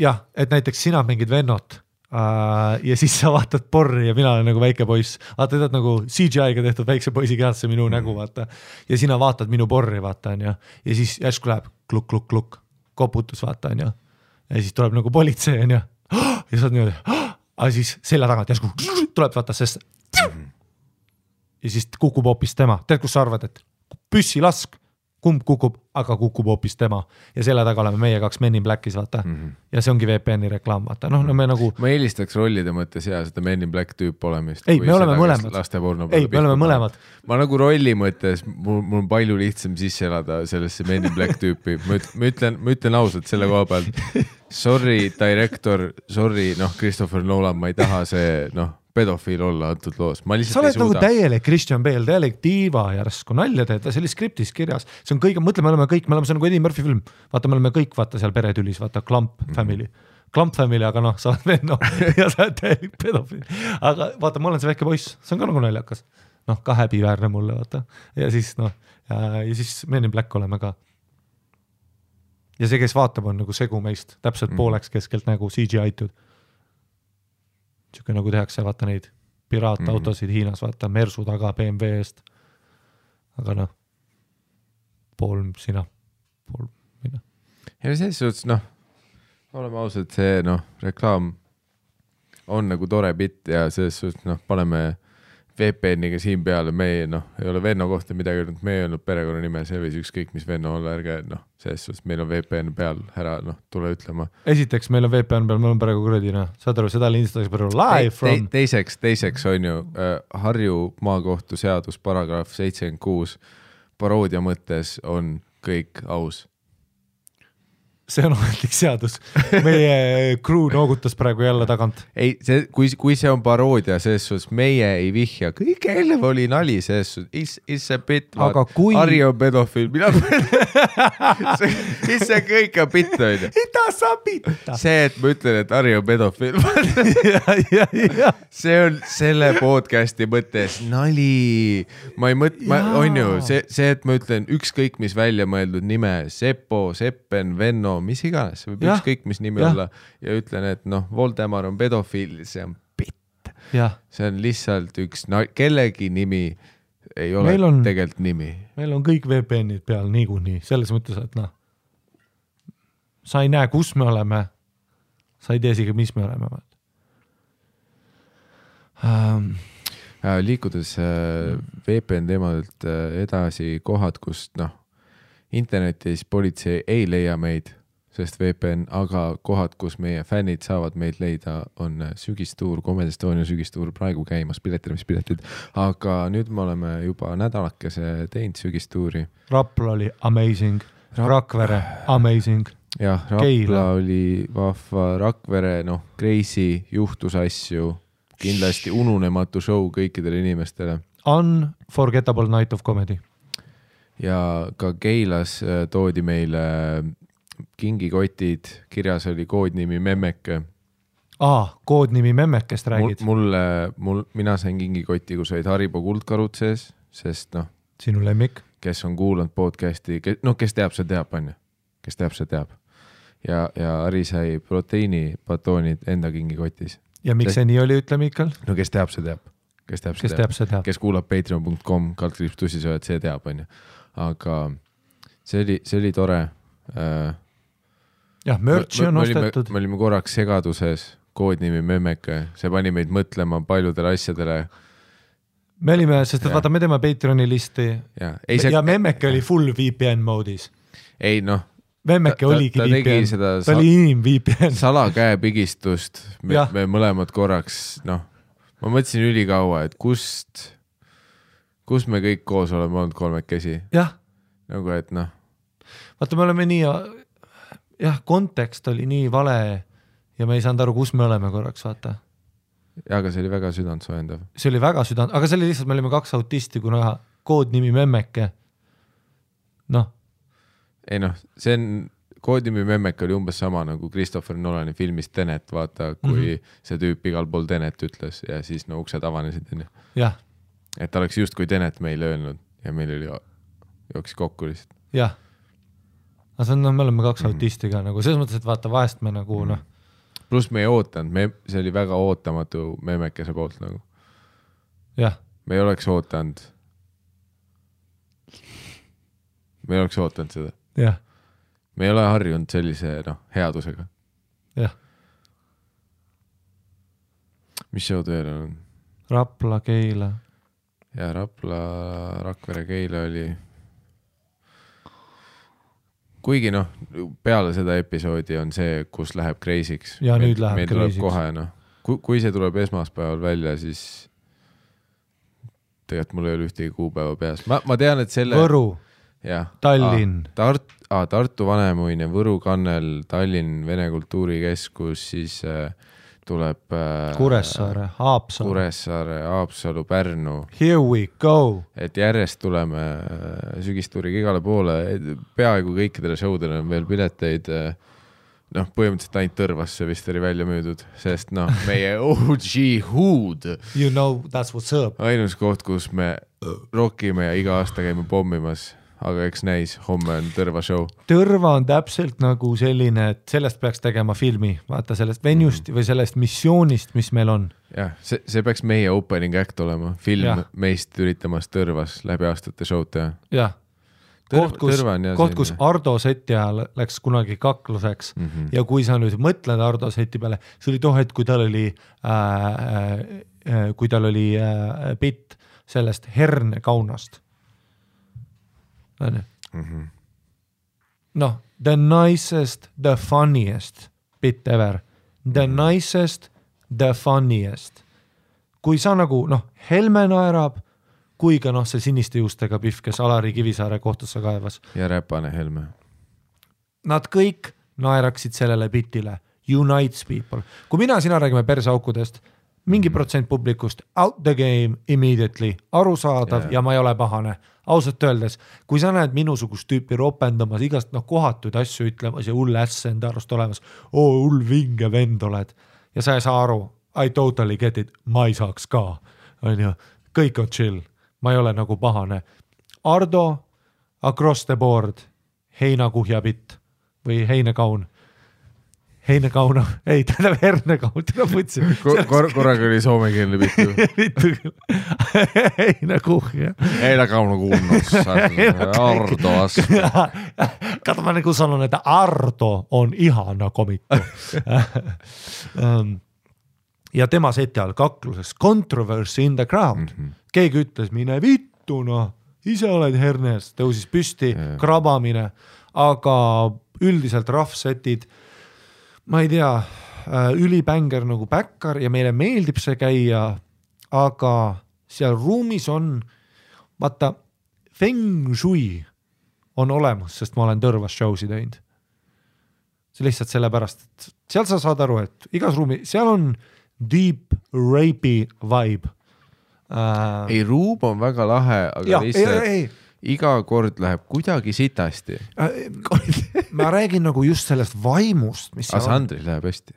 Jah, et näiteks sina mingid vennot ja siis sa vaatad porri ja mina olen nagu väike poiss. Vaata, tead nagu CGI-ga tehtud väikse poisi kehasse minu nägu, vaata. Ja sina vaatad minu porri, vaata, ja siis järsku läheb kluk, koputus, vaata, ja siis tuleb nagu politsei ja sa oled niimoodi, aga siis selja tagant järsku tuleb vaata, sest ja siis kukub hoopis tema. Tead, kus sa arvad, et püssi lask, kumb kukub, aga kukub hoopis tema. Ja selle taga oleme meie 2 Men in Blackis, vaata. Ja see ongi VPN-i reklaam, vaata. Me nagu... Ma eelistaks rollide mõttes seda Men in Black tüüp olemist. Ei, me oleme mõlemad. Ei, me oleme mõlemad. Ma nagu rolli mõttes, mul on palju lihtsam sisse elada sellesse Men in Black tüüpi. Ma ütlen ausalt selle koha pealt. Sorry, director, sorry, Christopher Nolan, ma ei taha see, pedofiil olla antud loos. Ma lihtsalt sa oled nagu täielik Christian Bale, täielik diiva järsku, nalja teed, see oli skriptis kirjas. See on kõige, mõtle, me oleme kõik, see on nagu Eddie Murphy film. Vaata, me oleme kõik, vaata seal peretülis, vaata, Clump Family. Clump Family, aga sa oled venno ja sa oled täielik pedofiil. Aga vaata, ma olen see väike poiss, see on ka nagu naljakas. Ka häbiväärne mulle, vaata. Ja siis, ja siis Men in Black oleme ka. Ja see, kes vaatab, on nagu segu meist, täpselt pooleks keskelt nagu CGI-tud. Siuke nagu tehakse, vaata neid piraatautosid Hiinas, vaata Mersu taga BMW eest. Aga pool sina, pool mina. Ja selles suhtes, oleme ausad, see reklaam on nagu tore bitt ja selles suhtes, paneme VPN-iga siin peale, me ei ole venno kohta midagi öelnud, me ei olnud perekonna nime, see võis ükskõik mis venno olla, ärge, selles suhtes meil on VPN peal, ära, tule ütlema. Esiteks, meil on VPN peal, meil on praegu kuradi, saad aru, seda lindistatakse praegu live from... Teiseks on ju Harju maakohtu seadus paragrahv 76 paroodia mõttes on kõik aus. See on ametlik seadus. Meie crew noogutas praegu jälle tagant. Ei, kui see on paroodia, selles suhtes meie ei vihja. Kõik eelnev oli nali, selles suhtes. Is see bit, Harri on pedofiil. See kõik on bit, on ju. Ita sa bitta. See, et ma ütlen, et Harri on pedofiil. See on selle podcasti mõttes nali. Ma ei on ju, see, et ma ütlen ükskõik mis välja mõeldud nime, Seppo, Seppen, Venno, mis iganes, võib ükskõik mis nimi olla ja ütlen, et Voldemar on pedofiil, see on bitt. See on lihtsalt üks, kellegi nimi ei ole tegelikult nimi. Meil on kõik VPN-id peal niikuinii, selles mõttes, et sa ei näe, kus me oleme, sa ei tea isegi, mis me oleme. Liikudes VPN teemadelt edasi kohad, kus internetis politsei ei leia meid, sest VPN, aga kohad, kus meie fännid saavad meid leida, on sügistuur, Comedy Estonia sügistuur praegu käimas, piletid, aga nüüd me oleme juba nädalakese teinud sügistuuri. Rapla oli amazing, Rakvere amazing. Jah, Rapla oli vahva, Rakvere, crazy, juhtus asju, kindlasti ununematu show kõikidele inimestele. Unforgettable night of comedy. Ja ka Keilas toodi meile kingikotid, kirjas oli koodnimi Memmeke. Koodnimi Memmekest räägid? Mina sain kingikoti, kus olid Haribo kuldkarud sees, sest sinu lemmik? Kes on kuulanud podcasti, kes teab, see teab, on ju. Kes teab, see teab. Ja Hari sai proteiinipatoonid enda kingikotis. Ja miks see nii oli, ütle Miikal? Kes teab, see teab. kes teab, kes kuulab patreon.com/tussisööjad, see teab, on ju. Aga see oli tore. Jah, merch'i on ostetud. Me olime korraks segaduses, koodnimi Memmeke, see pani meid mõtlema paljudele asjadele. Me olime, sest vaata, me teeme Patreoni listi ja Memmeke oli full VPN moodis. Ei noh, Memmeke oligi VPN, ta oli VPN. Salakäepigistust, me mõlemad korraks, noh, ma mõtlesin ülikaua, et kus me kõik koos oleme olnud kolmekesi. Jah. Nagu, et noh. Vaata, me oleme nii, kontekst oli nii vale ja me ei saanud aru, kus me oleme korraks, vaata. Ja, aga see oli väga südantsoojendav. See oli väga aga see oli lihtsalt, me olime 2 autisti, kuna koodnimi Memmeke. Noh. Ei noh, see on, koodnimi Memmeke oli umbes sama nagu Christopher Nolani filmis Tenet, vaata, kui see tüüp igal pool Tenet ütles ja siis no uksed avanesid. Jah. Et ta oleks just kui Tenet meile öelnud ja meil oli jooksis kokku lihtsalt. Jah. Aga see on, me oleme 2 autisti ka nagu, selles mõttes, et vaata vahest me nagu noh. Plus me ei ootanud, see oli väga ootamatu Memmekese poolt nagu. Jah. Me ei oleks ootanud seda. Jah. Me ei ole harjunud sellise headusega. Jah. Mis showd veel on? Rapla, Keila. Ja Rapla, Rakvere, Keila oli. Kuigi peale seda episoodi on see, kus läheb kreisiks. Ja nüüd läheb kreisiks. Kohe, kui see tuleb esmaspäeval välja, siis tegelikult mul ei ole ühtegi kuupäeva peas. Ma tean, et selle... Võru, ja, Tallinn. Tartu Vanemuine, Võru Kannel, Tallinn, Vene Kultuurikeskus, siis tuleb Kuressaare, Haapsalu, Pärnu. Here we go. Et järjest tuleme sügistuuriga igale poole. Peaaegu kõikidele showdele on veel pileteid. Põhimõtteliselt ainult Tõrvasse vist oli välja müüdud, sest meie OG Hood. You know, that's what's up. Ainus koht, kus me rockime ja iga aasta käime pommimas. Aga eks näis, homme on Tõrva show. Tõrva on täpselt nagu selline, et sellest peaks tegema filmi, vaata sellest venjust või sellest missioonist, mis meil on. Jah, see peaks meie opening act olema, film meist üritamas Tõrvas läbi aastate showd teha. Jah, koht, kus Ardo seti ajal läks kunagi kakluseks ja kui sa nüüd mõtled Ardo seti peale, see oli tohet, kui tal oli bitt sellest hernekaunast. The nicest, the funniest bit ever. The nicest, the funniest. Kui sa nagu, Helme naerab, kui ka see siniste juustega pihv, kes Alari Kivisaare kohtusse kaevas. Ja Räpane Helme. Nad kõik naeraksid sellele bitile. Unites people. Kui mina sina räägime perseaukudest, mingi protsent publikust, out the game immediately, arusaadav ja ma ei ole pahane. Ausalt öeldes, kui sa näed minusugust tüüpi ropendamas, igast kohatuid asju ütlemas ja hull äss enda arust olemas, hull vinge vend oled ja sa ei saa aru, I totally get it, ma ei saaks ka, on ju, kõik on chill, ma ei ole nagu pahane. Ardo, across the board, heinakuhjabitt või heinekaun. Heinekauna, ei, tähendab hernekaun, täna mõtlesin. Korraga oli soomekeelne bitu. Bitu küll. Heinekuhja. Heinekauna kuulnud. Ardo asku. Kato, ma nagu sanon, että Ardo on ihana komikko. Ja tema seti all kakluses controversy in the crowd. Keegi ütles, mine vittu, ise oled hernes, tõusis püsti, krabamine, aga üldiselt rahvsetid ma ei tea, ülibänger nagu Bäkkar ja meile meeldib see käia, aga seal ruumis on, vaata, feng shui on olemas, sest ma olen Tõrvas showsi teinud. See lihtsalt sellepärast, et seal sa saad aru, et igas ruumi, seal on deep rapey vibe. Ei, ruum on väga lahe, aga lihtsalt... Iga kord läheb kuidagi sitasti. Ma räägin nagu just sellest vaimust, mis seal Sandril läheb hästi.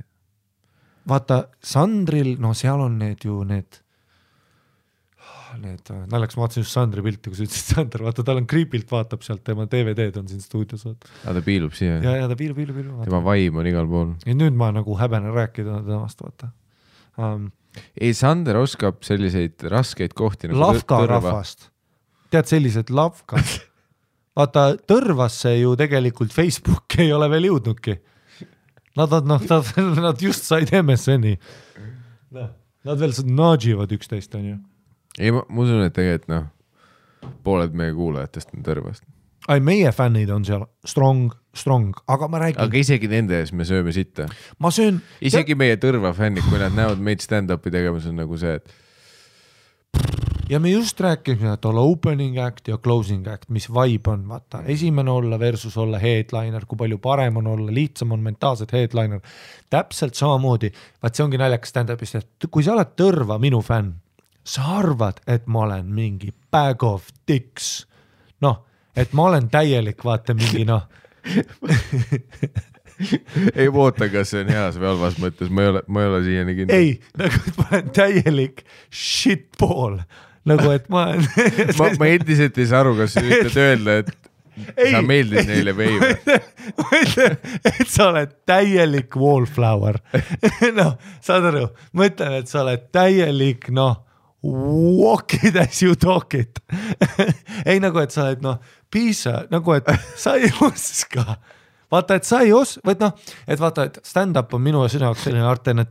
Vaata, Sandril, seal on need naljakas, ma vaatasin just Sandri pilti, kui sa ütlesid Sandr, vaata, tal on Creepilt vaatab sealt, tema DVD-d on siin stuudios. Ta piilub siia. Ja ta piilub. Tema vaim on igal pool. Ja nüüd ma nagu häbenen rääkida temast, vaata. ei, Sander oskab selliseid raskeid kohti nagu Lavka rahvast. Tead, sellised lavkad. Vaata, Tõrvasse ju tegelikult Facebook ei ole veel jõudnudki. Nad just said MSN-i. Nad veel nudživad üksteist, on ju. Ei, ma usun, et tegelikult pooled meie kuulajatest on Tõrvast. Ai, meie fännid on seal strong, aga ma räägin... Aga isegi nende ees me sööme sitta. Ma söön... Isegi meie Tõrva fännid, kui nad näevad meid stand-upi tegemas, on nagu see, et... Ja me just rääkisime, et olla opening act ja closing act, mis vibe on, vaata, esimene olla versus olla headliner, kui palju parem on olla, lihtsam on mentaalselt headliner. Täpselt samamoodi, vaat see ongi naljakas stand-upist, et kui sa oled Tõrva minu fänn, sa arvad, et ma olen mingi bag of dicks. Et ma olen täielik, vaata mingi ei oota, kas see on heas või halvas mõttes, ma ei ole siiani kindel. Ei, nagu et ma olen täielik shitball, nagu et ma olen ma endiselt ei saa aru, kas sa ütled öelda, et sa meeldid neile või ei. Et sa oled täielik wallflower. Saad aru, ma ütlen, et sa oled täielik, walk it as you talk it. Ei nagu, et sa oled, piisa, nagu, et sa ei oska. Vaata, et sa ei et vaata, et stand-up on minu sinu jaoks selline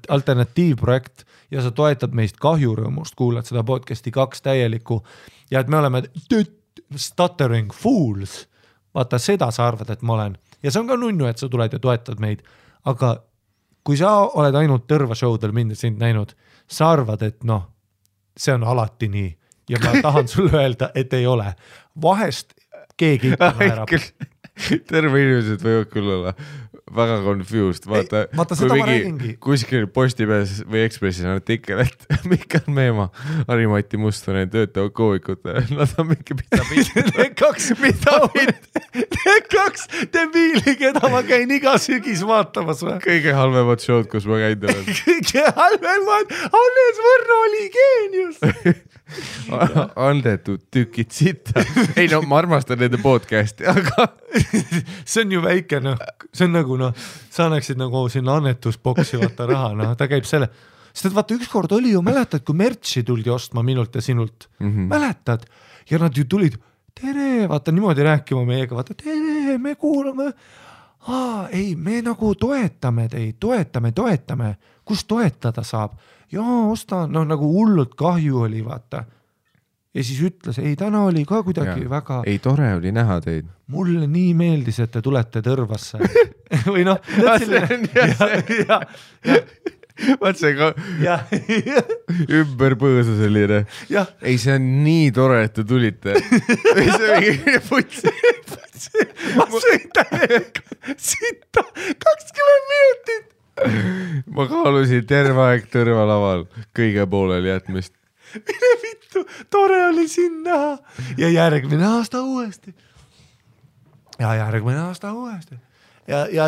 alternatiivprojekt ja sa toetad meist kahjurõõmust, kuulad seda podcasti 2 täielikku ja et me oleme stuttering fools. Vaata, seda sa arvad, et ma olen. Ja see on ka nunnu, et sa tuled ja toetad meid. Aga kui sa oled ainult Tõrva showdel mind ja sind näinud, sa arvad, et see on alati nii ja ma tahan sulle öelda, et ei ole. Vahest keegi ikka naerab. Terve inimesed võivad küll olla väga confused. Vaata kui mingi kuskil Postimees või Ekspressis on artikkel, et Mihkel Meemaa, Harimati Mustonen töötavad koovikute. Nad on mingi Need kaks debiili, keda ma käin iga sügis vaatamas. Kõige halvemad showd, kus ma käin olen. Kõige halvemad. Hannes Võrno oli geenius. Andetud tükid sita. Ei ma armastan nende podcasti, aga see on ju väike, see on nagu sa annaksid nagu sinna annetusboksi vaata raha, ta käib selle, sest et vaata ükskord oli ju, mäletad, kui mertsi tuldi ostma minult ja sinult, mäletad, ja nad ju tulid, tere, vaata niimoodi rääkima meiega, vaata tere, me kuulame, ei, me nagu toetame teid, toetame, kus toetada saab, osta, nagu hullult kahju oli, vaata. Ja siis ütles, ei, täna oli ka kuidagi väga... Ei, tore oli näha teid. Mulle nii meeldis, et te tulete Tõrvasse. Või Vaat see ka ümber põõsa selline. Ei, see on nii tore, et te tulite. See on mingi putsi. Ma sõin täiega sitta 20 minutit. Ma kaalusin terve aeg Tõrva laval kõige pooleli jätmist. Mine vittu, tore oli siin näha. Ja järgmine aasta uuesti. Ja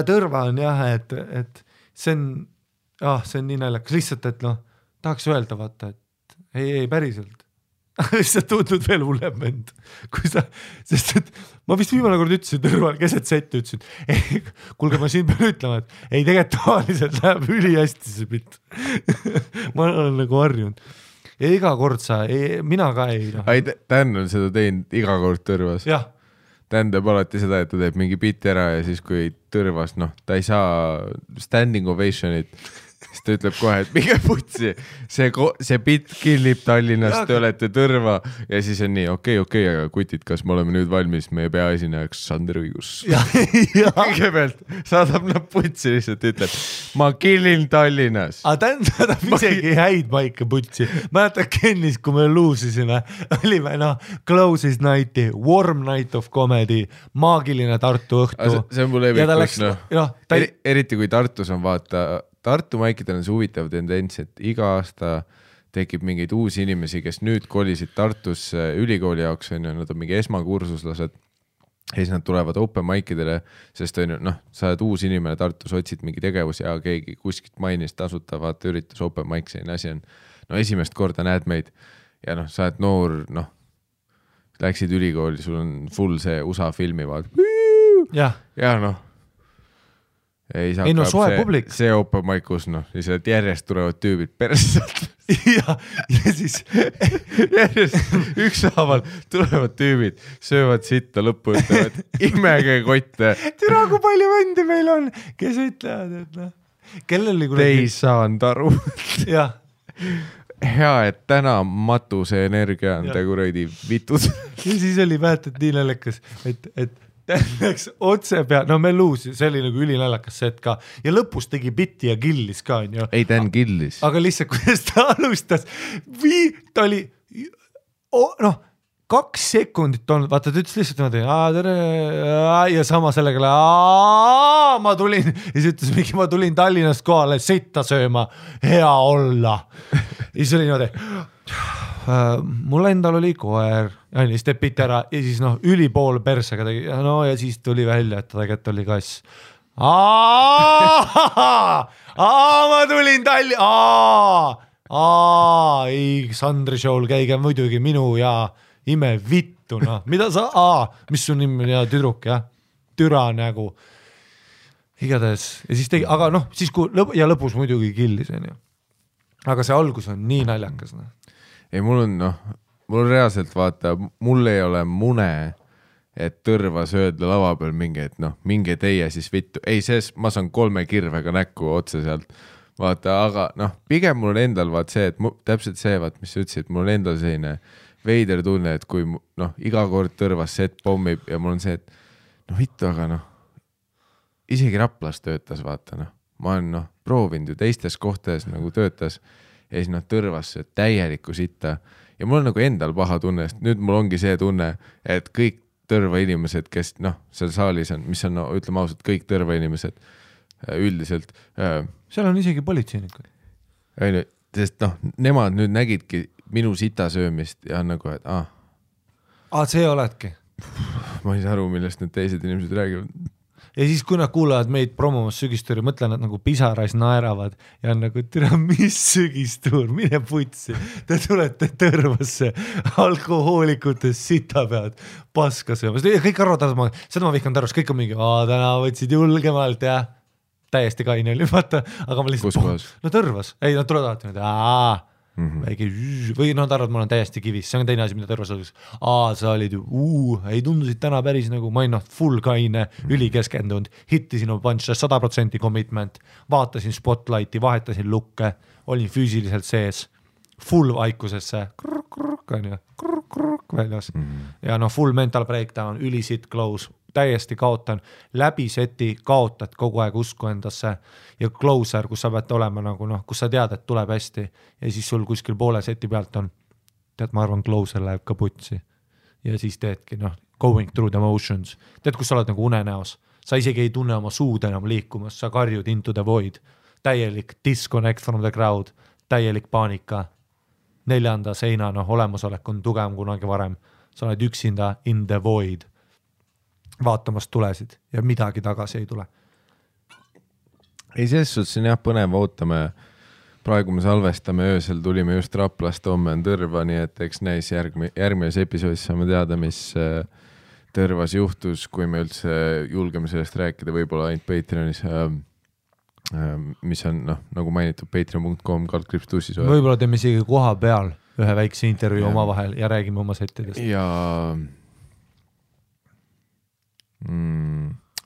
Tõrva on jah, et see on, see on nii naljakas. Lihtsalt, et tahaks öelda, vaata, et ei, päriselt. Lihtsalt tundnud veel hullem vend. Sest et ma vist viimane kord ütlesin Tõrval keset setti, ütlesin, ei, kuulge, ma siin pean ütlema, et ei, tegelikult tavaliselt läheb üli hästi see pitt. Ma olen nagu harjunud. Ja iga kord mina ka ei. Dan on seda teinud iga kord Tõrvas. Jah. Dan teeb alati seda, et ta teeb mingi bitti ära ja siis kui Tõrvas, ta ei saa standing ovationit, siis ta ütleb kohe, et minge putsi, see bitt killib Tallinnas, te olete Tõrva ja siis on nii, okei, aga kutid, kas me oleme nüüd valmis meie peaesinejaks Sander Õigus? Kõigepealt saadab nad putsi lihtsalt, ütleb, ma killin Tallinnas. Dan saadab isegi häid paika putsi. Mäletad Kennis, kui me luusisime, olime Closest Nighti, Warm Night of Comedy, maagiline Tartu õhtu. See on mul evikus, eriti kui Tartus on vaata Tartu maikidel on see huvitav tendents, et iga aasta tekib mingeid uusi inimesi, kes nüüd kolisid Tartusse ülikooli jaoks, nad on mingi esmakursuslased ja siis nad tulevad open maikidele, sest sa oled uus inimene Tartus, otsid mingi tegevus ja keegi kuskilt mainis tasutavat üritus open maik, selline asi on. Esimest korda näed meid ja sa oled noor, läksid ülikooli, sul on full see USA filmi vaat. Ja ei no soe publik. See open mic, kus lihtsalt järjest tulevad tüübid perselt. ja siis järjest ükshaaval tulevad tüübid, söövad sitta lõppu, ütlevad imege kotte. Türa, kui palju vendi meil on, kes ütlevad, et kellel oli Te ei saanud aru. jah. Hea, et täna matuse energia on te kuradi vitud. ja siis oli mäletad nii naljakas, et läks otse pea, me luusi, see oli nagu ülinaljakas set ka ja lõpus tegi bitti ja killis ka, on ju. Ei, ta on killis. Aga lihtsalt, kuidas ta alustas, ta oli, 2 sekundit olnud, vaata, ta ütles lihtsalt niimoodi, ja sama sellega, ma tulin, ja siis ütles mingi, ma tulin Tallinnast kohale sitta sööma, hea olla. Ja siis oli niimoodi, mul endal oli koer, ja siis teeb piti ära ja siis ülipool persega tegi, ja siis tuli välja, et ta tegelikult oli kass. Ma tulin ei, Sandri show'l käige muidugi minu ja ime vittu, mida sa, mis su nimi ja tüdruk, jah, türa nägu. Igatahes, ja siis tegi, aga siis kui lõpus muidugi killis, on ju. Aga see algus on nii naljakas, Ei, mul on reaalselt vaata, mul ei ole mune, et tõrvas öelda lava peal mingi, et minge teie siis vittu. Ei, ma saan 3 kirvega näkku otse sealt. Vaata, aga pigem mul on endal vaat see, et täpselt see, mis sa ütlesid, mul on endal selline veider tunne, et kui iga kord tõrvas set pommib ja mul on see, et vittu, aga isegi Raplas töötas, vaata, ma olen proovinud ju teistes kohtades nagu töötas ja siis tõrvas täielikku sitta ja mul on nagu endal paha tunne, sest nüüd mul ongi see tunne, et kõik tõrva inimesed, kes seal saalis on, mis on, ütleme ausalt, kõik tõrva inimesed üldiselt. Seal on isegi politseinikud. Sest nemad nüüd nägidki minu sita söömist ja on nagu, et see oledki. Ma ei saa aru, millest need teised inimesed räägivad. Ja siis kui nad kuulavad meid promomas sügistuuri, mõtlen, nad nagu pisarais naeravad ja on nagu, tere, mis sügistuur, mine putsi. Te tulete tõrvasse alkohoolikutes sita pead paska söömas. Ja kõik arvavad, seda ma vihkan tõrvas, kõik on mingi, täna võtsid julgemalt ja täiesti kaine oli, vaata. Aga ma lihtsalt, kus kohas? Tõrvas. Ei, nad tulevad alati, väike või nad arvad, ma olen täiesti kivis, see on teine asi, mida tõrvas oleks. Sa olid ju, ei tundusid täna päris nagu, ma olin full kaine, ülikeskendunud, hittisin oma punch 100% commitment, vaatasin spotlighti, vahetasin lukke, olin füüsiliselt sees, full vaikusesse, väljas ja full mental breakdown, ülisit close, täiesti kaotan, läbi seti kaotad kogu aeg usku endasse ja closer, kus sa pead olema nagu kus sa tead, et tuleb hästi ja siis sul kuskil poole seti pealt on, tead, ma arvan, closer läheb ka putsi ja siis teedki going through the motions, tead, kus sa oled nagu unenäos, sa isegi ei tunne oma suud enam liikumas, sa karjud into the void, täielik disconnect from the crowd, täielik paanika, 4. seina olemasolek on tugevam kunagi varem, sa oled üksinda in the void vaatamast tulesid ja midagi tagasi ei tule. Ei, selles suhtes on jah põnev, ootame, praegu me salvestame öösel, tulime just Raplast, homme on Tõrva, nii et eks näis järgmises episoodis saame teada, mis Tõrvas juhtus, kui me üldse julgeme sellest rääkida, võib-olla ainult Patreonis, mis on nagu mainitud patreon.com /tussis. Võib-olla teeme isegi koha peal ühe väikse intervjuu oma vahel ja räägime oma settidest. Ja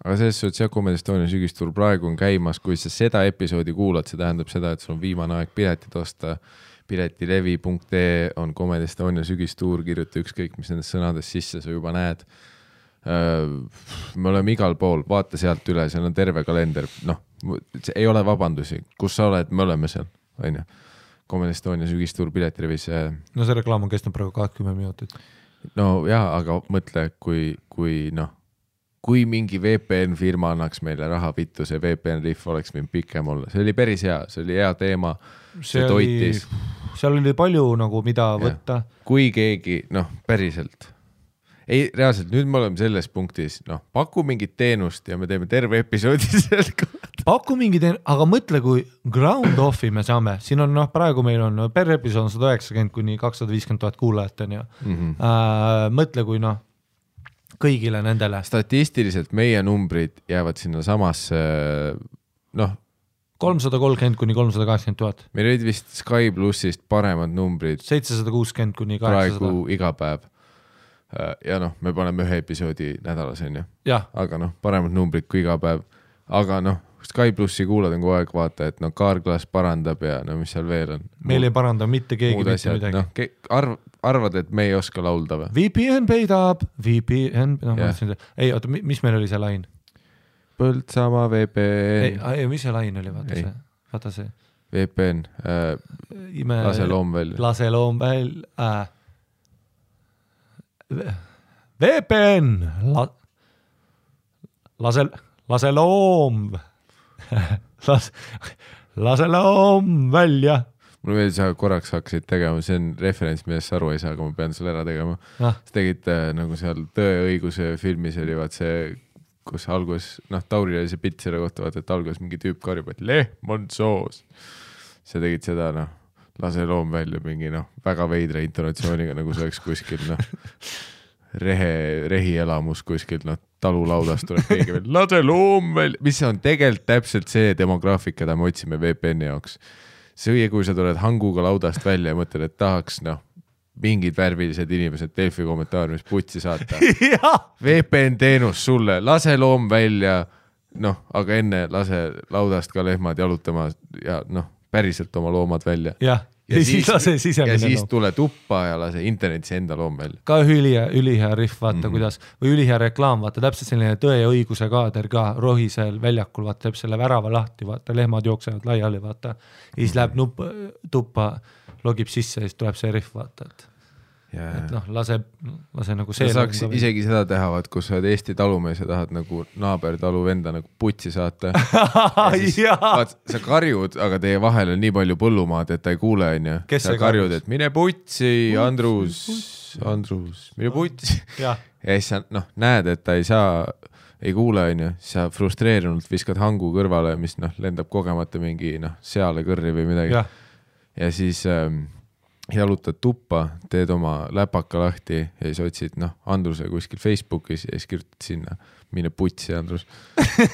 aga selles suhtes jah, Comedy Estonia sügistuur praegu on käimas, kui sa seda episoodi kuulad, see tähendab seda, et sul on viimane aeg piletid osta, piletilevi.ee on Comedy Estonia sügistuur, kirjuta ükskõik, mis nendest sõnadest sisse sa juba näed. Me oleme igal pool, vaata sealt üle, seal on terve kalender, ei ole vabandusi, kus sa oled, me oleme seal, on ju. Comedy Estonia sügistuur piletilevis. No see reklaam on kestnud praegu 20 minutit. No jaa, aga mõtle, kui mingi VPN firma annaks meile raha vittu, see VPN liif oleks võinud pikem olla. See oli päris hea, see oli hea teema, see toitis. Seal oli palju nagu mida võtta. Kui keegi, päriselt. Ei, reaalselt, nüüd me oleme selles punktis, paku mingit teenust ja me teeme terve episoodi selle kohta. Paku mingi teenust, aga mõtle, kui ground off'i me saame, siin on praegu meil on per episood 190 kuni 250 000 kuulajat on ju. Mõtle, kui kõigile nendele. Statistiliselt meie numbrid jäävad sinna samasse, 330 kuni 380 000. Meil olid vist Sky Plussist paremad numbrid 760 kuni 800. praegu iga päev. Ja me paneme ühe episoodi nädalas, on ju. Aga paremad numbrid kui iga päev. Aga Sky Plussi kuulad on kogu aeg vaata, et Kaarklas parandab ja mis seal veel on. Meil ei paranda mitte keegi mitte midagi. Arvad, et me ei oska laulda või? VPN peidab, VPN, ei, oota, mis meil oli see lain? Põltsamaa VPN. Ei, mis see lain oli, vaata see. VPN, lase loom välja. Lase loom välja. VPN, lase loom. Lase loom välja. Mulle veel sa korraks hakkasid tegema, see on referents, millest aru ei saa, aga ma pean selle ära tegema. Sa tegid nagu seal Tõe õiguse filmis oli vaat see, kus algus, Tauri oli see pilt selle kohta, vaata, et algus mingi tüüp karjub, et lehm on soos. Sa tegid seda, lase loom välja mingi, väga veidra intonatsiooniga, nagu see oleks kuskil, rehi elamus kuskil, talulaudast tuleb keegi veel, lase loom välja, mis on tegelikult täpselt see demograafika, mida me otsime VPN-i jaoks. See, kui sa tuled hanguga laudast välja ja mõtled, et tahaks, mingid värvilised inimesed Delfi kommentaariumis putsi saata. VPN teenus sulle, lase loom välja, aga enne lase laudast ka lehmad jalutama ja päriselt oma loomad välja. Ja siis tule tuppa ja lase internetis enda loom välja. Ka ülihea riff, vaata kuidas, või ülihea reklaam, vaata täpselt selline Tõe ja õiguse kaader ka rohisel väljakul, vaata teeb selle värava lahti, vaata lehmad jooksevad laiali, vaata. Ja siis läheb tuppa, logib sisse ja siis tuleb see riff, vaata, et lase nagu see. Sa saaks isegi seda teha, vaat, kus sa oled Eesti talumees ja tahad nagu naaber talu venda nagu putsi saata. Siis, vaat, sa karjud, aga teie vahel on nii palju põllumaad, et ta ei kuule, on ju. Sa karjud, et mine putsi, Andrus, mine putsi. Ja siis sa näed, et ta ei kuule, on ju. Sa frustreerunult viskad hangu kõrvale, mis lendab kogemata mingi seale kõrri või midagi. Ja siis jalutad tuppa, teed oma läpaka lahti ja siis otsid Andruse kuskil Facebookis ja siis kirjutad sinna, mine putsi, Andrus.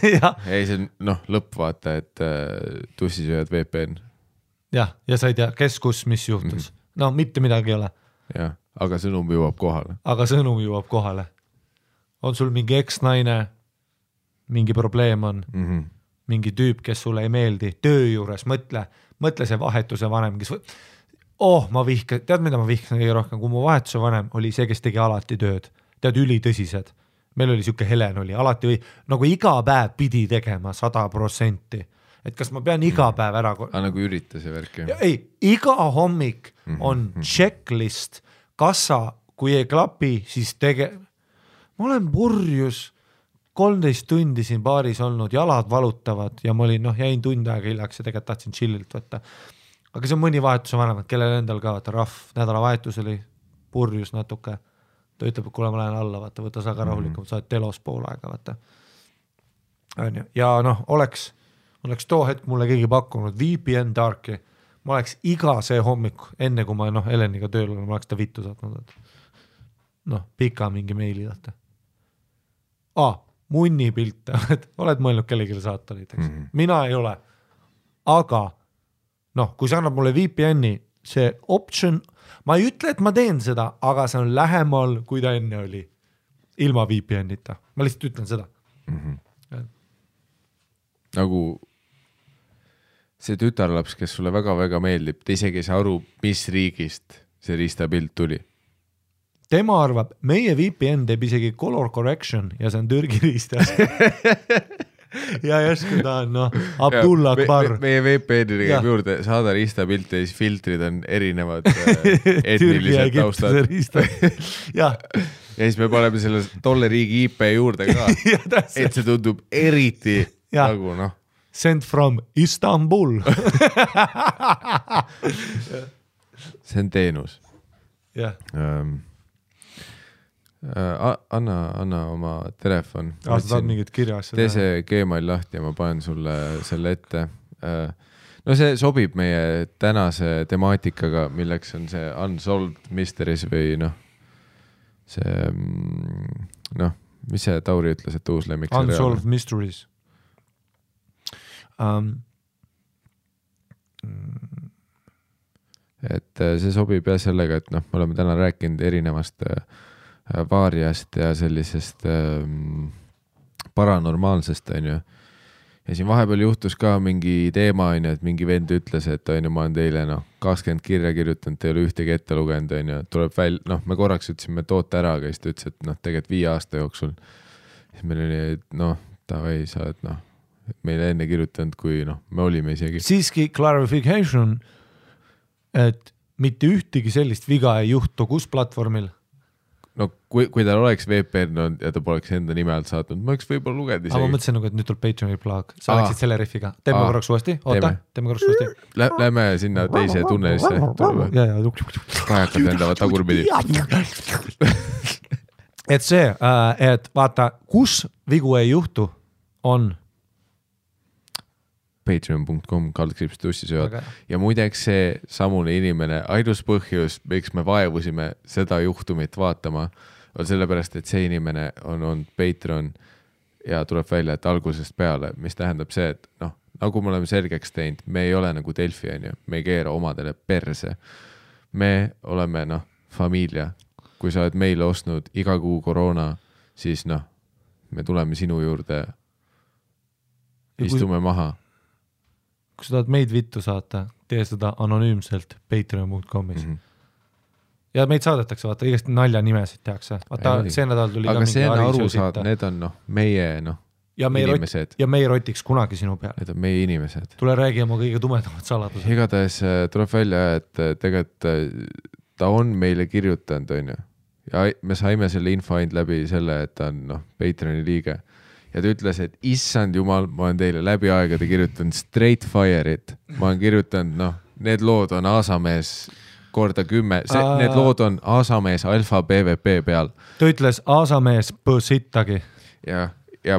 Ja siis on lõpp vaata, et tussisööjad VPN. Ja sa ei tea, kes kus, mis juhtus. Mitte midagi ei ole. Ja, aga sõnum jõuab kohale. On sul mingi eksnaine, mingi probleem on, mingi tüüp, kes sulle ei meeldi, töö juures, mõtle see vahetuse vanem, kes tead, mida ma vihkan kõige rohkem, kui mu vahetuse vanem oli see, kes tegi alati tööd. Tead, ülitõsised. Meil oli siuke Helen oli, alati või nagu iga päev pidi tegema 100%. Et kas ma pean iga päev ära... nagu ürita see värk. Ei, iga hommik on checklist. Kas sa, kui ei klapi, siis Ma olen purjus 13 tundi siin baaris olnud, jalad valutavad ja ma olin, jäin tund aega hiljaks ja tegelikult tahtsin chillilt võtta. Aga see on mõni vahetuse vanemad, kellel endal ka, vaata rahv, nädala vahetus oli purjus natuke. Ta ütleb, et kuule, ma lähen alla, vaata, võta sa ka rahulikum, sa oled telos pool aega, vaata. Ja oleks too hetk mulle keegi pakkunud VPN Darki, ma oleks iga see hommik, enne kui ma Heleniga tööl olen, ma oleks ta vittu saatnud. Pika mingi meili, vaata. Munni pilte, oled mõelnud kellegile saata näiteks. Mina ei ole, aga kui sa annab mulle VPN-i, see option, ma ei ütle, et ma teen seda, aga see on lähemal, kui ta enne oli. Ilma VPN-ita. Ma lihtsalt ütlen seda. Nagu see tütarlaps, kes sulle väga-väga meeldib, te isegi ei saa aru, mis riigist see riistapilt tuli. Tema arvab, meie VPN teeb isegi color correction ja see on Türgi riistas. Ja järsku ta on, Abdullah Akbar. Meie VPN-i käib juurde, saada riistapilte ja siis filtrid on erinevad etnilised taustad. Ja siis me paneme selle tolle riigi IP juurde ka, et see tundub eriti nagu Sent from Istanbul. See on teenus. Jah. Anna oma telefon. Sa tahad mingit kirjas. Tee see Gmail lahti ja ma panen sulle selle ette. See sobib meie tänase temaatikaga, milleks on see Unsolved Mysteries või see noh, mis see Tauri ütles, et uus lemmik? Unsolved Mysteries. Et see sobib jah sellega, et noh, me oleme täna rääkinud erinevast vaariast ja sellisest paranormaalsest, on ju. Ja siin vahepeal juhtus ka mingi teema, on ju, et mingi vend ütles, et on ju, ma olen teile 20 kirja kirjutanud, te ei ole ühtegi ette lugenud, on ju, tuleb me korraks ütlesime toote ära, aga siis ta ütles, et tegelikult 5 aasta jooksul. Siis meil oli, davai, sa oled meile enne kirjutanud, kui me olime isegi. Siiski clarification, et mitte ühtegi sellist viga ei juhtu, kus platvormil? No kui tal oleks VPN ja ta poleks enda nime alt saatnud, ma oleks võib-olla lugenud isegi. Aga ma mõtlesin, et nüüd tuleb Patreoni plug. Sa läksid selle riffiga. Teeme korraks uuesti. Oota, teeme korraks uuesti. Lähme sinna teise tunnelisse. Kajakad lendavad tagurpidi. Et see, et vaata, kus vigu ei juhtu, on patreon.com/tussisööd. Ja muideks see samune inimene, ainus põhjus, miks me vaevusime seda juhtumit vaatama, on sellepärast, et see inimene on olnud Patreon ja tuleb välja, et algusest peale, mis tähendab see, et nagu me oleme selgeks teinud, me ei ole nagu Delfi, me ei keera omadele perse. Me oleme familia. Kui sa oled meile ostnud iga kuu koroona, siis me tuleme sinu juurde, istume maha. Kui sa tahad meid vittu saata, tee seda anonüümselt patreon.comis. Ja meid saadetakse, vaata, igast nalja nimesid tehakse. Vaata, see nädal tuli aga see on aru saada, need on meie inimesed. Ja me ei rotiks kunagi sinu peale. Need on meie inimesed. Tule räägi oma kõige tumedamad saladused. Igatahes tuleb välja, et tegelikult ta on meile kirjutanud, on ju. Ja me saime selle info ainult läbi selle, et ta on Patreoni liige. Ja ta ütles, et issand jumal, ma olen teile läbi aegade kirjutanud Straight Fire'it. Ma olen kirjutanud, need lood on Aasamees korda 10. Need lood on Aasamees Alfa PvP peal. Ta ütles Aasamees põsittagi. Ja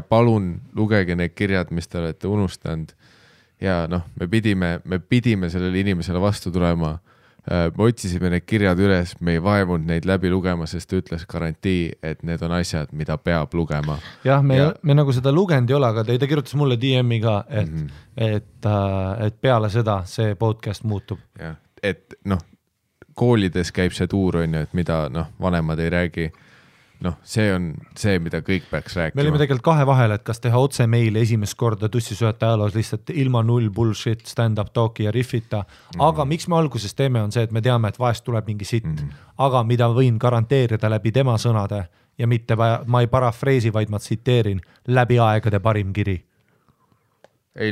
palun lugege need kirjad, mis te olete unustanud. Ja me pidime sellele inimesele vastu tulema. Me otsisime need kirjad üles, me ei vaevunud neid läbi lugema, sest ta ütles garantii, et need on asjad, mida peab lugema. Jah, me nagu seda lugenud ei ole, aga ta kirjutas mulle DM-i ka, et peale seda see podcast muutub. Ja, et koolides käib see tuur, on ju, et mida vanemad ei räägi. See on see, mida kõik peaks rääkima. Me olime tegelikult kahe vahel, et kas teha otse meile esimest korda tussisööte ajaloos lihtsalt ilma null bullshit, stand-up talki ja riffita. Aga miks me alguses teeme on see, et me teame, et vahest tuleb mingi sitt. Aga mida võin garanteerida läbi tema sõnade ja mitte ma ei parafreesi, vaid ma tsiteerin läbi aegade parim kiri. Ei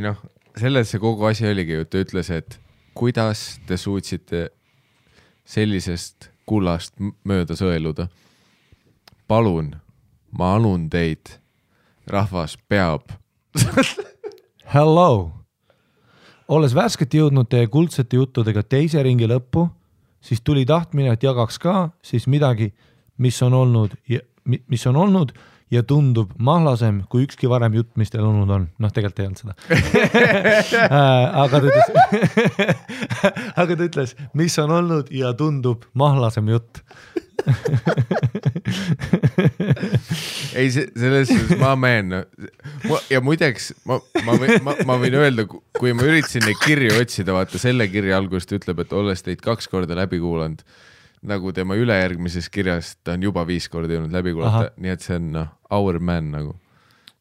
selles see kogu asi oligi, ta ütles, et kuidas te suutsite sellisest kullast mööda sõeluda. Palun, ma anun teid. Rahvas peab. Hello. Olles värskelt jõudnud teie kuldsete juttudega teise ringi lõppu, siis tuli tahtmine, et jagaks ka siis midagi, mis on olnud ja tundub mahlasem kui ükski varem jutt, mis teil olnud on. Tegelikult ei olnud seda. Aga ta ütles, mis on olnud ja tundub mahlasem jutt. Ei, selles ma meen. Ja muideks, ma võin öelda, kui ma üritasin neid kirju otsida, vaata selle kirja algust ütleb, et olles teid 2 korda läbi kuulanud, nagu tema ülejärgmises kirjas, ta on juba 5 korda jõudnud läbi kuulata, nii et see on our man nagu.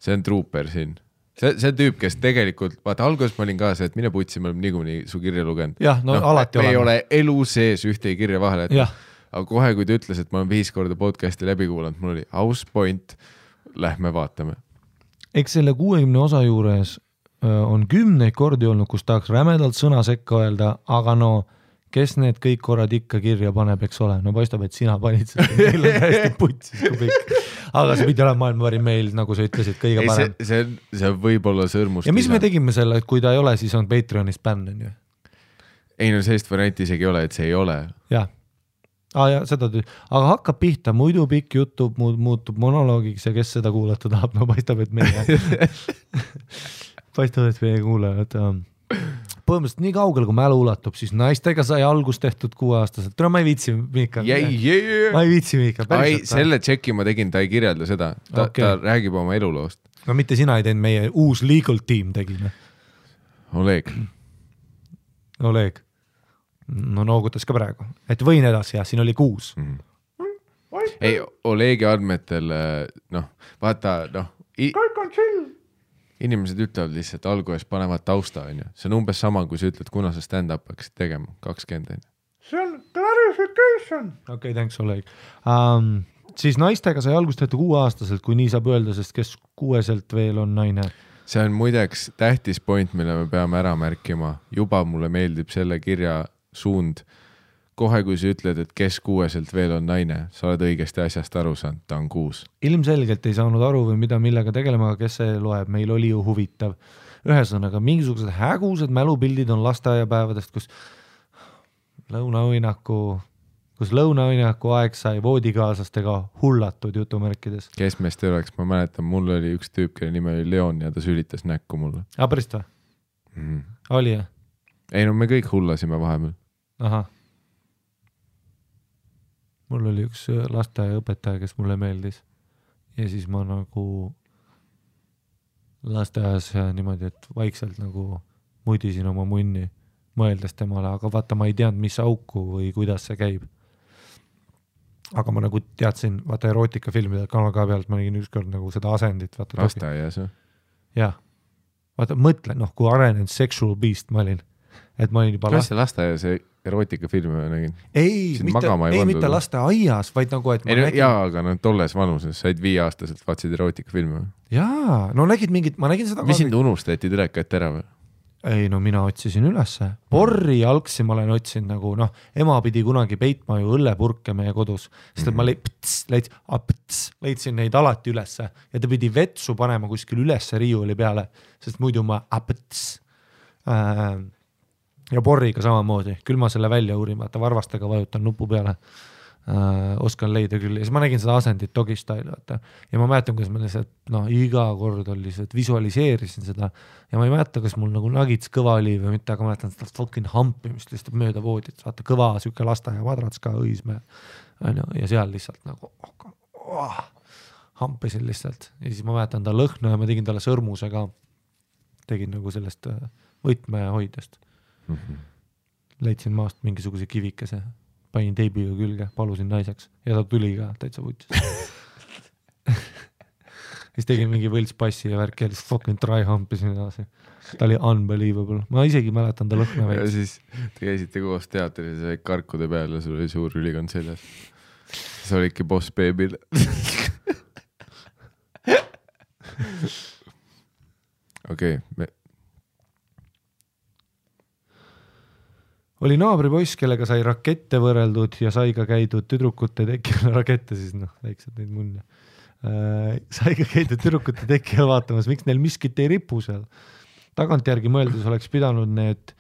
See on trooper siin. See tüüp, kes tegelikult, vaata alguses ma olin ka see, et mine putsi, me oleme niikuinii su kirja lugenud. Jah, alati oleme. Me ei ole elu sees ühtegi kirja vahele, aga kohe, kui ta ütles, et ma olen 5 korda podcasti läbi kuulanud, mul oli aus point, lähme vaatame. Eks selle 60 osa juures on 10 kordi olnud, kus tahaks rämedalt sõna sekka öelda, aga kes need kõik korrad ikka kirja paneb, eks ole? Paistab, et sina panid seda, meil on hästi putsis kui pikk. Aga see pidi olema maailma parim meil, nagu sa ütlesid, kõige parem. See võib olla sõrmust. Ja mis me tegime selle, et kui ta ei ole, siis on Patreonis bänn, on ju? Ei, sellist varianti isegi ei ole, et see ei ole. Jah. Aga hakkab pihta, muidu pikk jutu muutub monoloogiks ja kes seda kuulata tahab, paistab, et meie kuulajad. põhimõtteliselt nii kaugel, kui mälu ulatub, siis naistega sai algust tehtud 6-aastaselt. Ma ei viitsi, Miika. Ma ei viitsi, Miika. Selle tšeki ma tegin, ta ei kirjelda seda. Ta räägib oma eluloost. No mitte sina ei teinud, meie uus legal team tegime. Oleg. No noogutas ka praegu. Et võin edasi, jah, siin oli 6. Ei, Olegi andmetel, vaata, kõik on chill. Inimesed ütlevad lihtsalt alguses panevad tausta, on ju. See on umbes sama, kui sa ütled, kuna sa stand-up hakkasid tegema, 20. See on clarification. Okei, thanks, Oleg. Siis naistega sai algust tehtud 6-aastaselt, kui nii saab öelda, sest kes 6-selt veel on naine. See on muideks tähtis point, mille me peame ära märkima. Juba mulle meeldib selle kirja suund. Kohe, kui sa ütled, et kes 6-selt veel on naine, sa oled õigesti asjast aru saanud, ta on 6. Ilmselgelt ei saanud aru või millega tegelema, aga kes see loeb, meil oli ju huvitav. Ühesõnaga, mingisugused hägused mälupildid on lasteaiapäevadest, kus lõunaõinaku aeg sai voodikaaslastega hullatud jutumärkides. Kes meest ei oleks, ma mäletan, mul oli üks tüüp, kelle nime oli Leon ja ta sülitas näkku mulle. Pärast või? Oli, jah? Ei, no me kõik hullasime vahepeal. Ahah. Mul oli üks lasteaiaõpetaja, kes mulle meeldis ja siis ma nagu lasteaias niimoodi, et vaikselt nagu mudisin oma munni mõeldes temale, aga vaata, ma ei teadnud, mis auku või kuidas see käib. Aga ma nagu teadsin, vaata erootikafilmide kanal ka pealt, ma nägin ükskord nagu seda asendit. Lasteaias või? Jah. Vaata, mõtle, kui arenenud sexual beast ma olin. Et ma olin juba lasteaias erootikafilme nägin. Ei, mitte lasteaias, vaid nagu, et ma nägin... Jaa, aga tolles vanuses said 5-aastaselt vaatsid erootikafilme. Jaa, no nägid mingit, ma nägin seda... Mis sind unustati direkat ära või? Ei, no mina otsisin ülesse. Porri jalgsi ma olen otsinud nagu, ema pidi kunagi peitma ju õllepurke meie kodus, sest et ma leidsin neid alati ülesse ja ta pidi vetsu panema kuskil ülesse riiuli peale, sest muidu ma ja porriga samamoodi, küll ma selle välja uurin, vaata varvastega vajutan nupu peale, oskan leida küll, ja siis ma nägin seda asendit Dogistyle, vaata, ja ma mäletan, kuidas ma lihtsalt, iga kord oli lihtsalt visualiseerisin seda, ja ma ei mäleta, kas mul nagu nagits kõva oli või mitte, aga ma mäletan seda fucking hampimist lihtsalt mööda voodit, vaata kõva süke lasteaia madrats ka õisme, ja seal lihtsalt nagu hampisin lihtsalt, ja siis ma mäletan ta lõhna ja ma tegin talle sõrmuse ka, tegin nagu sellest võtmehoidest. Leidsin maast mingisuguse kivikese, panin teibiga külge, palusin naiseks ja ta tuli ka täitsa vutis. Siis tegin mingi võltspassi ja värk ja lihtsalt fucking try hampisin edasi. Ta oli unbelievable. Ma isegi mäletan ta lõhna veits. Ja siis te käisite koos teatris ja karkude peal ja sul oli suur ülikond seljas. See olidki boss baby'l. Okei, oli naabripoiss, kellega sai rakette võrreldud ja sai ka käidud tüdrukute tekil rakette, siis väiksed neid munne. Sai ka käidud tüdrukute tekil vaatamas, miks neil miskit ei ripu seal. Tagantjärgi mõeldes oleks pidanud need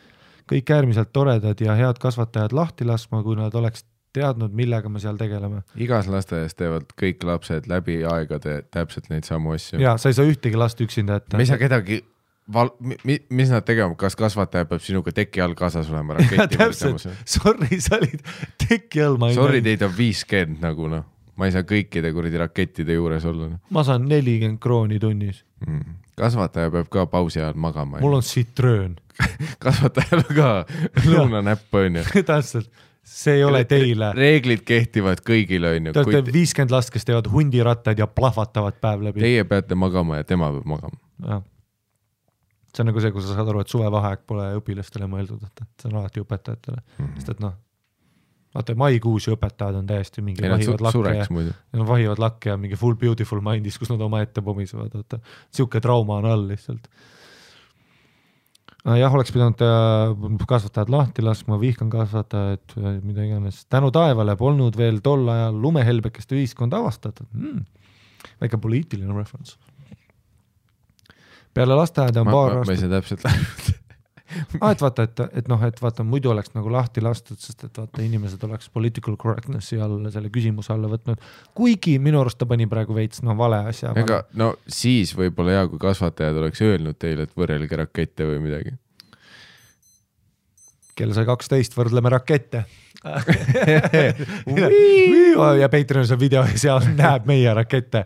kõik äärmiselt toredad ja head kasvatajad lahti laskma, kui nad oleks teadnud, millega me seal tegeleme. Igas lasteaias teevad kõik lapsed läbi aegade täpselt neid samu asju. Jaa, sa ei saa ühtegi last üksinda ette. Me ei saa kedagi... mis nad tegema, kas kasvataja peab sinuga teki all kaasas olema raketi? Sorry, sa olid teki all. Sorry, teid on 50 nagu ma ei saa kõikide kuradi rakettide juures olla. Ma saan 40 krooni tunnis. Kasvataja peab ka pausi ajal magama. Mul on sitröön. Kasvatajal ka lõunanäpp on ju. Täpselt, see ei ole teile. Reeglid kehtivad kõigile on ju. Te olete 50 last, kes teevad hundirattad ja plahvatavad päev läbi. Teie peate magama ja tema peab magama. Jah. See on nagu see, kui sa saad aru, et suvevaheaeg pole õpilastele mõeldud, et see on alati õpetajatele. Sest et vaata, maikuus õpetajad on täiesti mingi vahivad lakke ja mingi full beautiful mindis, kus nad oma ette pomisevad. Siuke trauma on all lihtsalt. Jah, oleks pidanud kasvatajad lahti laskma, vihkan kasvatajad, mida iganes. Tänu taevale polnud veel tol ajal lumehelbekest ühiskond avastatud. Väike poliitiline reference. Peale lasteaeda on paar aastat. Ma ei saa täpselt läbi. et vaata, muidu oleks nagu lahti lastud, sest et vaata, inimesed oleks political correctnessi all selle küsimuse alla võtnud. Kuigi minu arust ta pani praegu veits vale asja. Ega, siis võib-olla hea, kui kasvatajad oleks öelnud teile, et võrrelge rakette või midagi. kell sai 12, võrdleme rakette. Ja Patreonis on video ja seal näeb meie rakette,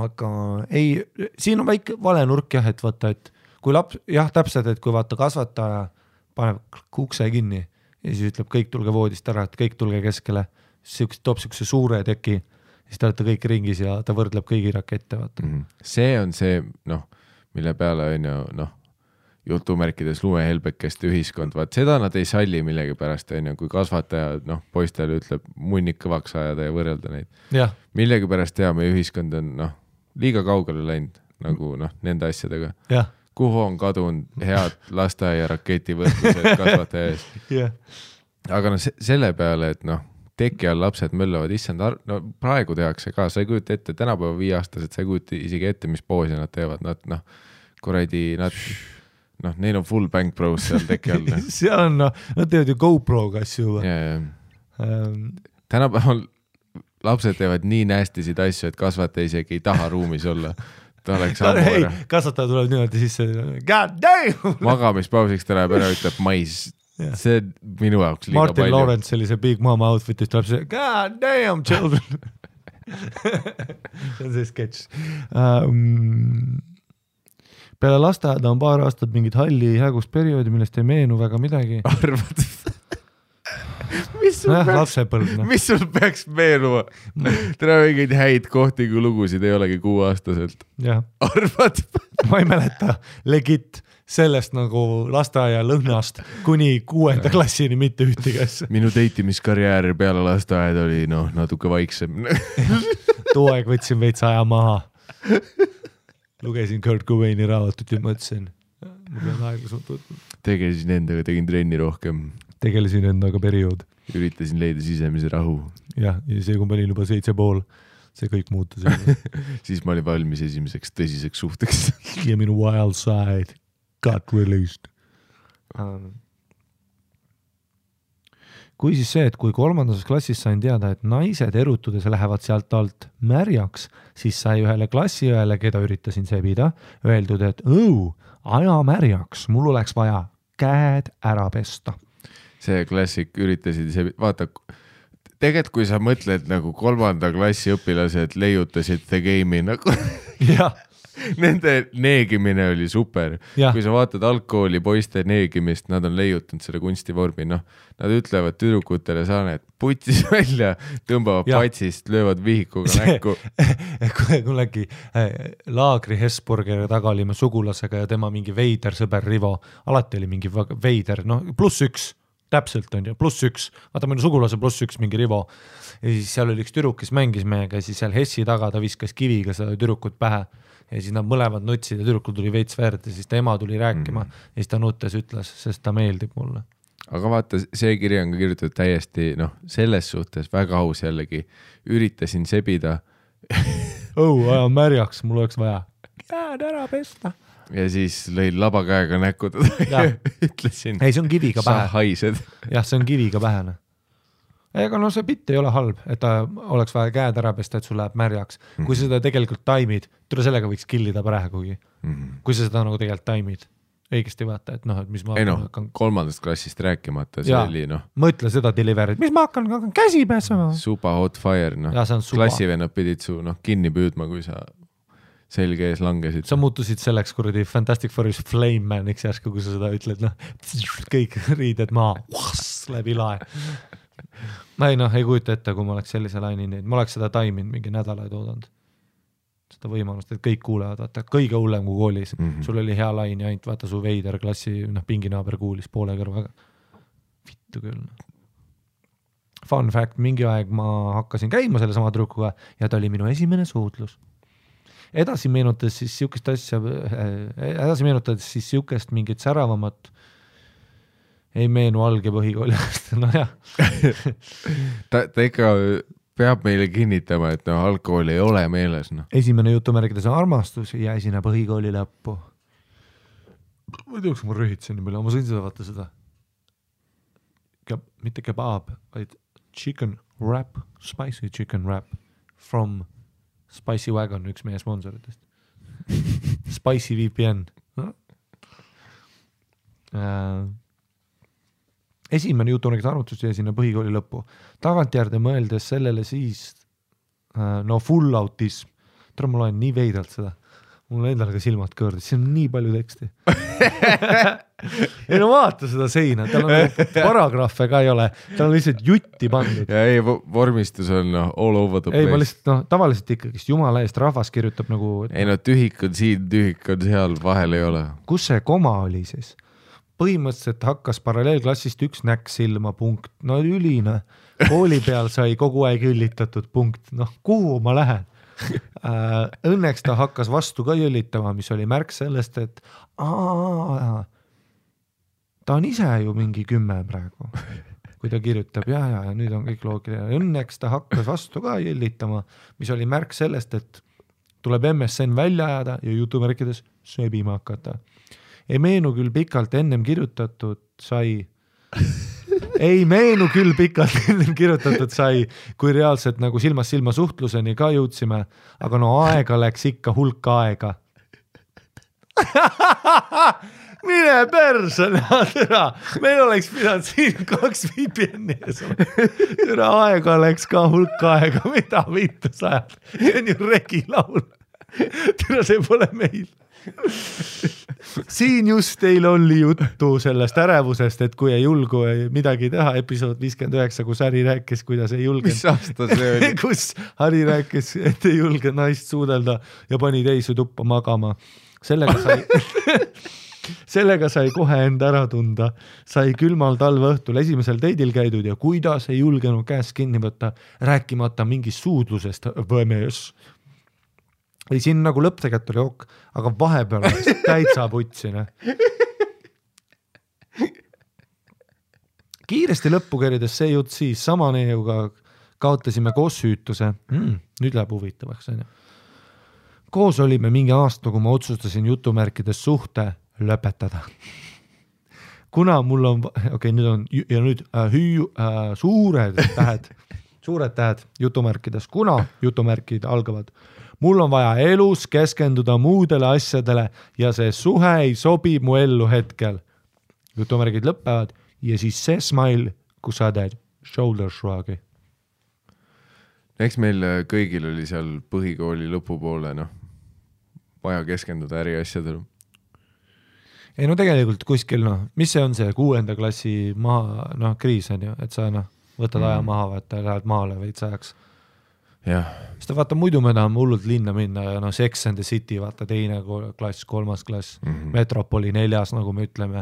aga ei, siin on väike vale nurk jah, et vaata, et kui laps, jah täpselt, et kui vaata kasvataja paneb ukse kinni ja siis ütleb kõik tulge voodist ära, et kõik tulge keskele, siis toob siukse suure teki, siis te olete kõik ringis ja ta võrdleb kõigi rakette, vaata. See on see, mille peale on ju, jutumärkides lumehelbekeste ühiskond, vaat seda nad ei salli millegipärast, kui kasvataja, poistele ütleb munnik kõvaks ajada ja võrrelda neid. Millegipärast meie ühiskond on, liiga kaugele läinud, nagu nende asjadega. Kuhu on kadunud head lasteaia raketi võrdlused kasvataja ees. Aga selle peale, et teki all lapsed möllavad, issand, praegu tehakse ka, sa ei kujuta ette, tänapäeva 5-aastased, sa ei kujuta isegi ette, mis poosi nad teevad, neil on full bank pros seal teki all. seal on, nad teevad ju GoPro-ga asju. Tänapäeval lapsed teevad nii nästisid asju, et kasvataja isegi ei taha ruumis olla. Ta oleks ammu ära. Kasvataja tuleb niimoodi sisse, god damn! Magamispausiks ta läheb ära, ütleb mais. See minu jaoks liiga Martin palju. Martin Lawrence sellise Big Mama outfitist tuleb see, god damn children! See on see sketš. Peale lasteaeda on paar aastat mingid halli hägusperioodi, millest ei meenu väga midagi. Arvad? Mis sul peaks meenuma? Täna mingeid häid kohti, kui lugusid ei olegi 6-aastaselt. Arvad? Ma ei mäleta legit sellest nagu lasteaia lõhnast kuni 6. klassini mitte ühtiges. Minu deitimiskarjäär peale lasteaed oli natuke vaiksem. Too aeg võtsin veits aja maha. Lugesin Kurt Cobaini raamatut ja mõtlesin, ma pean aeglaselt võtma. Tegelesin endaga, tegin trenni rohkem. Tegelesin endaga periood. Üritasin leida sisemise rahu. Ja see, kui ma olin juba 7,5, see kõik muutus. Siis ma olin valmis esimeseks tõsiseks suhteks. Ja minu wild side got released. Kui siis see, et kui 3. klassis sain teada, et naised erutudes lähevad sealt alt märjaks, siis sai ühele klassiõele, keda üritasin sebida, öeldud, et aja märjaks, mul oleks vaja käed ära pesta. See klassik üritasid sebida, vaata, tegelikult kui sa mõtled nagu 3. klassi õpilased leiutasid The Game'i nagu... Nende neegimine oli super. Kui sa vaatad algkooli poiste neegimist, nad on leiutanud selle kunstivormi. Nad ütlevad tüdrukutele saaned putis välja, tõmbavad patsist, löövad vihikuga näkku. Kui äkki laagri Hesburgeri taga olime sugulasega ja tema mingi veider sõber Rivo. Alati oli mingi veider, +1. Täpselt on ju, +1. Vaata minu sugulase +1 mingi Rivo. Ja siis seal oli üks tüdruk, kes mängis meiega ja siis seal Hessi taga ta viskas kiviga seda tüdrukut pähe. Ja siis nad mõlemad nutsid ja tüdrukul tuli veits verd ja siis ta ema tuli rääkima ja siis ta nuttes ütles, sest ta meeldib mulle. Aga vaata, see kiri on ka kirjutatud täiesti, selles suhtes väga aus jällegi. Üritasin sebida. Aja märjaks, mul oleks vaja käed ära pesta. Ja siis lõin labakäega näkku ja ütlesin. Ei, see on kiviga pähe. Sa haised. Jah, see on kiviga pähene. Ega see bitt ei ole halb, et ta oleks vaja käed ära pesta, et sul läheb märjaks. Kui sa seda tegelikult taimid, tule sellega võiks killida praegugi. Kui sa seda nagu tegelikult taimid, õigesti vaata, et et mis ma hakkan... 3. klassist rääkimata, see oli Mõtle seda deliverit, mis ma hakkan käsi pääsema. Supa hot fire, klassivennad pidid su kinni püüdma, kui sa selge ees langesid. Sa muutusid selleks kuradi Fantastic Fourish Flame Maniks järsku, kui sa seda ütled, kõik riided maa, läbi lae. Ma ei kujuta ette, kui ma oleks sellise laini neid. Ma oleks seda taiminud mingi nädalaid oodanud. Seda võimalust, et kõik kuulevad, vaata, kõige hullem kui koolis. Sul oli hea lain ja ainult vaata su veider klassi, pinginaaber kuulis poole kõrvaga. Vittu küll. Fun fact, mingi aeg ma hakkasin käima selle sama tüdrukuga ja ta oli minu esimene suutlus. Edasi meenutades siis siukest mingit säravamat ei meenu alg- ja põhikoolist, jah. Ta ikka peab meile kinnitama, et algkool ei ole meeles. Esimene jutumärkides on armastus ja esine põhikooli lõppu. Ma ei teaks, kui ma rõhitsen nii palju, ma sõin seda vaata seda. Mitte kebab, vaid chicken wrap, spicy chicken wrap from Spicy Wagon, üks meie sponsoritest. Spicy VPN. Esimene jutunägid arvutus jäi sinna põhikooli lõppu. Tagantjärde mõeldes sellele siis full autism. Tule ma loen nii veidralt seda. Mul endal ka silmad kõõrdis, siin on nii palju teksti. Ei no vaata seda seina, tal on paragrahve ka ei ole, tal on lihtsalt jutti pandud. Ja ei, vormistus on all over the place. Ei, ma lihtsalt, tavaliselt ikkagist jumala eest rahvas kirjutab nagu... Ei no tühik on siin, tühik on seal, vahel ei ole. Kus see koma oli siis? Põhimõtteliselt hakkas paralleelklassist üks näkk silma punkt. No ülina. Kooli peal sai kogu aeg üllitatud punkt. Kuhu ma lähen? Õnneks ta hakkas vastu ka jõllitama, mis oli märk sellest, et ta on ise ju mingi 10 praegu, kui ta kirjutab ja nüüd on kõik loogiline. Õnneks ta hakkas vastu ka jõllitama, mis oli märk sellest, et tuleb MSN välja ajada ja jutumärkides sööbima hakata. Ei meenu küll pikalt ennem kirjutatud sai, kui reaalselt nagu silmast silma suhtluseni ka jõudsime, aga aega läks ikka hulk aega. Mine perse, meil oleks pidanud siin 2 VPN-i ees. Aega läks ka hulk aega, mida vittu sajad. See on ju regilaul. See pole meil. Siin just teil oli juttu sellest ärevusest, et kui ei julgu midagi teha, episood 59, kus Harri rääkis, kuidas ei julge. Mis aasta see oli? Kus Harri rääkis, et ei julge naist suudelda ja pani teisi tuppa magama. Sellega sai kohe enda ära tunda. Sai külmal talve õhtul esimesel teidil käidud ja kuidas ei julgenud käest kinni võtta, rääkimata mingist suudlusest võmees. Ei, siin nagu lõpptegelt oli ok, aga vahepeal täitsa putsine. Kiiresti lõppu kerides see jutt siis sama neiuga kaotasime koos süütuse. Nüüd läheb huvitavaks. Koos olime mingi aasta, kui ma otsustasin jutumärkides suhte lõpetada. Kuna mul on, nüüd suured tähed jutumärkides, kuna jutumärkid algavad, mul on vaja elus keskenduda muudele asjadele ja see suhe ei sobi mu ellu hetkel. Jutumärgid lõppevad ja siis see smile, kus sa teed shoulder shrug'i. Eks meil kõigil oli seal põhikooli lõpupoole, vaja keskenduda äri asjadele. Ei tegelikult kuskil, mis see on see 6. klassi maha, kriis on ju, et sa võtad aja maha, vaata, lähed maale veits ajaks. Ja. Sest vaata, muidu me tahame hullult linna minna ja Sex and the City, vaata 2. klass, 3. klass, Metropoli 4, nagu me ütleme,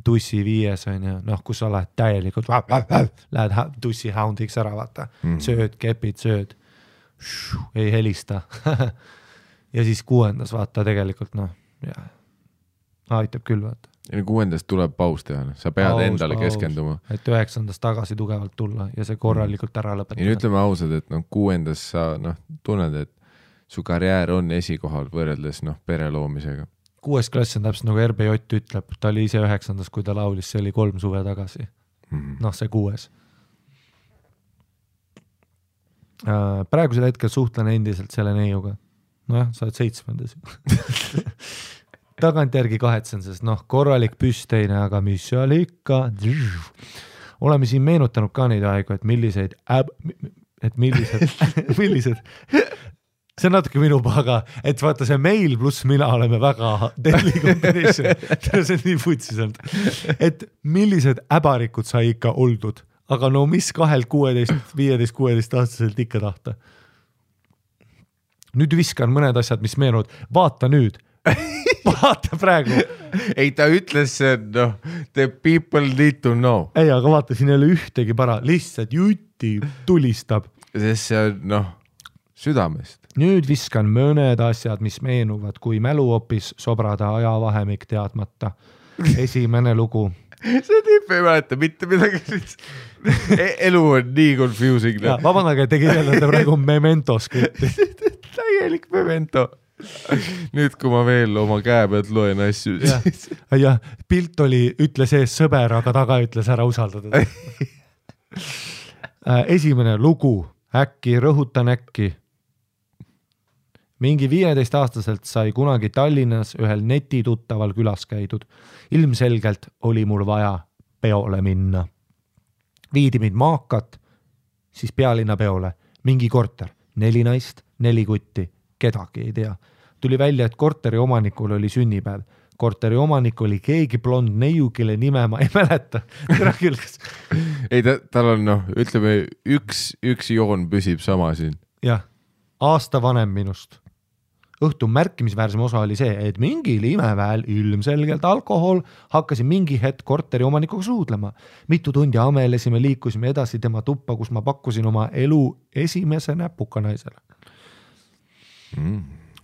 tussi 5 on ju, kus sa lähed täielikult, lähed tussi houndiks ära, vaata, sööd, kepid, sööd, ei helista. Ja siis 6. vaata tegelikult, aitab küll, vaata. Ja 6. tuleb paus teha, sa pead endale keskenduma. Et 9. tagasi tugevalt tulla ja see korralikult ära lõpetada. Ja ütleme ausad, et 6. sa tunned, et su karjäär on esikohal võrreldes pere loomisega. 6. klass on täpselt nagu RB Jott ütleb, ta oli ise 9. kui ta laulis, see oli 3 suve tagasi. See 6. Praegusel hetkel suhtlen endiselt selle neiuga. Sa oled 7. Tagantjärgi kahetsen, sest korralik püsteine, aga mis seal ikka. Oleme siin meenutanud ka neid aegu, et millised see on natuke minu paga, et vaata see meil pluss mina oleme väga deadly combination. See on nii putsis olnud. Et millised äbarikud sai ikka oldud, aga mis 2-16, 15-16 aastaselt ikka tahta. Nüüd viskan mõned asjad, mis meenuvad. Vaata nüüd. Vaata praegu. Ei, ta ütles see, the people need to know. Ei, aga vaata, siin ei ole ühtegi para. Lihtsalt jutti tulistab. Sest see on, südamest. Nüüd viskan mõned asjad, mis meenuvad, kui mäluopis sobrada ajavahemik teadmata. Esimene lugu. See tüüp ei mäleta mitte midagi. Elu on nii confusing. Vabandage, te kirjeldate praegu Memento skripti. Täielik Memento. Nüüd, kui ma veel oma käe pealt loen asju. Ja, pilt oli, ütle sees sõber, aga taga ütles ära usaldada. Esimene lugu, rõhutan äkki. mingi 15-aastaselt sai kunagi Tallinnas ühel netituttaval külas käidud. Ilmselgelt oli mul vaja peole minna. Viidi mind Maakat, siis pealinna peole. Mingi korter, 4 naist, 4 kutti, kedagi ei tea. Tuli välja, et korteri omanikul oli sünnipäev. Korteri omanik oli keegi blond neiu, kelle nime ma ei mäleta. Ei, tal on ütleme, üks joon püsib sama siin. Jah, aasta vanem minust. Õhtu märkimisväärsem osa oli see, et mingil imeväel ilmselgelt alkohol hakkasin mingi hetk korteri omanikuga suudlema. Mitu tundi amelesime, liikusime edasi tema tuppa, kus ma pakkusin oma elu esimese näpuka naisele.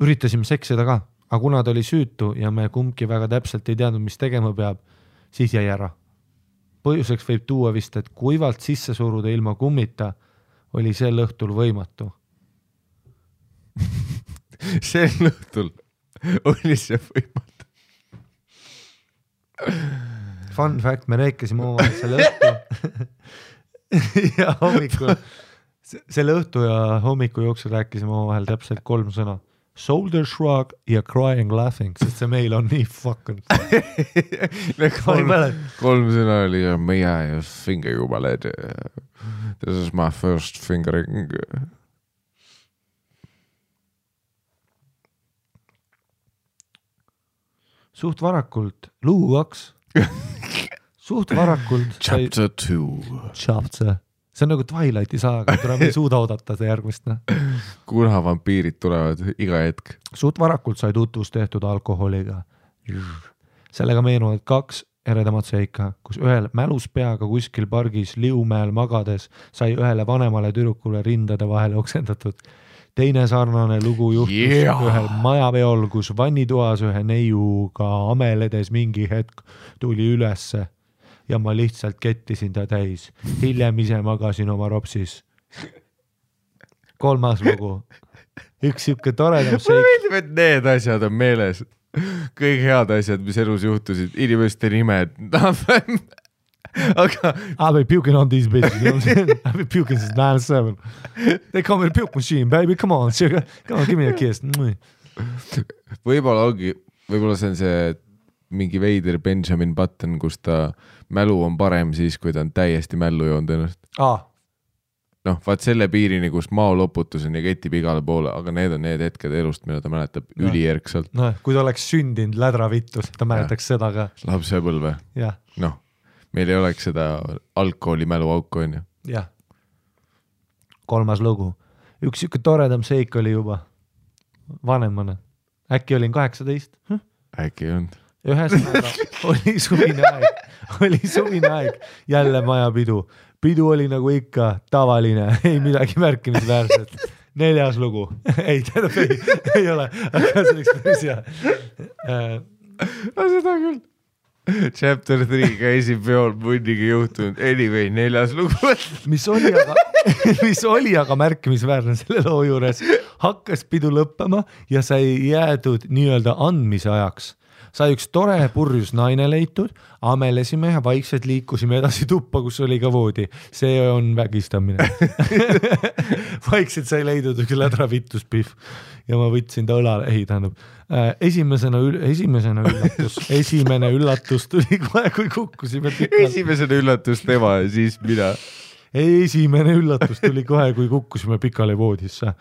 Üritasime seksida ka, aga kuna ta oli süütu ja me kumbki väga täpselt ei teadnud, mis tegema peab, siis jäi ära. Põhjuseks võib tuua vist, et kuivalt sisse suruda ilma kummita oli sel õhtul võimatu. Sel õhtul oli see võimatu. Fun fact, me rääkisime omavahel selle õhtu ja hommikul, selle õhtu ja hommiku jooksul rääkisime omavahel täpselt 3 sõna. Shoulder shrug ja crying laughing, sest see meil on nii fucking. 3 sõna oli may I finger you my lady. This is my first fingering. Suht varakult, lugu 2. Suht varakult. Chapter 2. Chapter. See on nagu Twilighti saaga, kuna me ei suuda oodata see järgmist. Kuna vampiirid tulevad iga hetk. Suht varakult sai tutvus tehtud alkoholiga. Sellega meenuvad 2 eredamat seika, kus ühel mälus peaga kuskil pargis Liumäel magades sai ühele vanemale tüdrukule rindade vahele oksendatud. Teine sarnane lugu juhtus ühel majaveol, kus vannitoas ühe neiuga ameledes mingi hetk tuli ülesse ja ma lihtsalt kettisin ta täis. Hiljem ise magasin oma ropsis. 3. lugu. Üks siuke toredam seik. Mulle meeldib, et need asjad on meeles. Kõik head asjad, mis elus juhtusid. Inimeste nimed. Aga I've been puking on these bitches, you know what I'm saying? I've been puking since 9-7. They call me the puke machine, baby, come on, sugar. Come on, give me a kiss. Võib-olla see on see mingi veider Benjamin Button, kus ta mälu on parem siis, kui ta on täiesti mällu joonud ennast. Vaat selle piirini, kus maoloputus on ja ketib igale poole, aga need on need hetked elust, mida ta mäletab ülierkselt. Kui ta oleks sündinud lädravittus, ta mäletaks seda ka. Lapsepõlve. Meil ei oleks seda alkoholi mälu auku, on ju. Jah. 3. lugu. Üks siuke toredam seik oli juba vanemana. Äkki olin 18? Äkki on. Ühesõnaga oli suvine aeg. Jälle majapidu. Pidu oli nagu ikka tavaline. Ei midagi märkimisväärset. 4. lugu. Ei ole. Aga see oleks päris hea. Seda küll. Chapter 3 käisin peol munniga juhtunud. Anyway, 4. lugu. mis oli aga märkimisväärne selle loo juures. Hakkas pidu lõppema ja sai jäädud nii-öelda andmise ajaks. Sai üks tore purjus naine leitud, amelesime ja vaikselt liikusime edasi tuppa, kus oli ka voodi. See on vägistamine. Vaikselt sai leidud üks lädravittuspihv ja ma võtsin ta õlale. Esimene üllatus tuli kohe, kui kukkusime pikalt. Esimesena üllatus tema ja siis mina. Esimene üllatus tuli kohe, kui kukkusime pikale voodisse.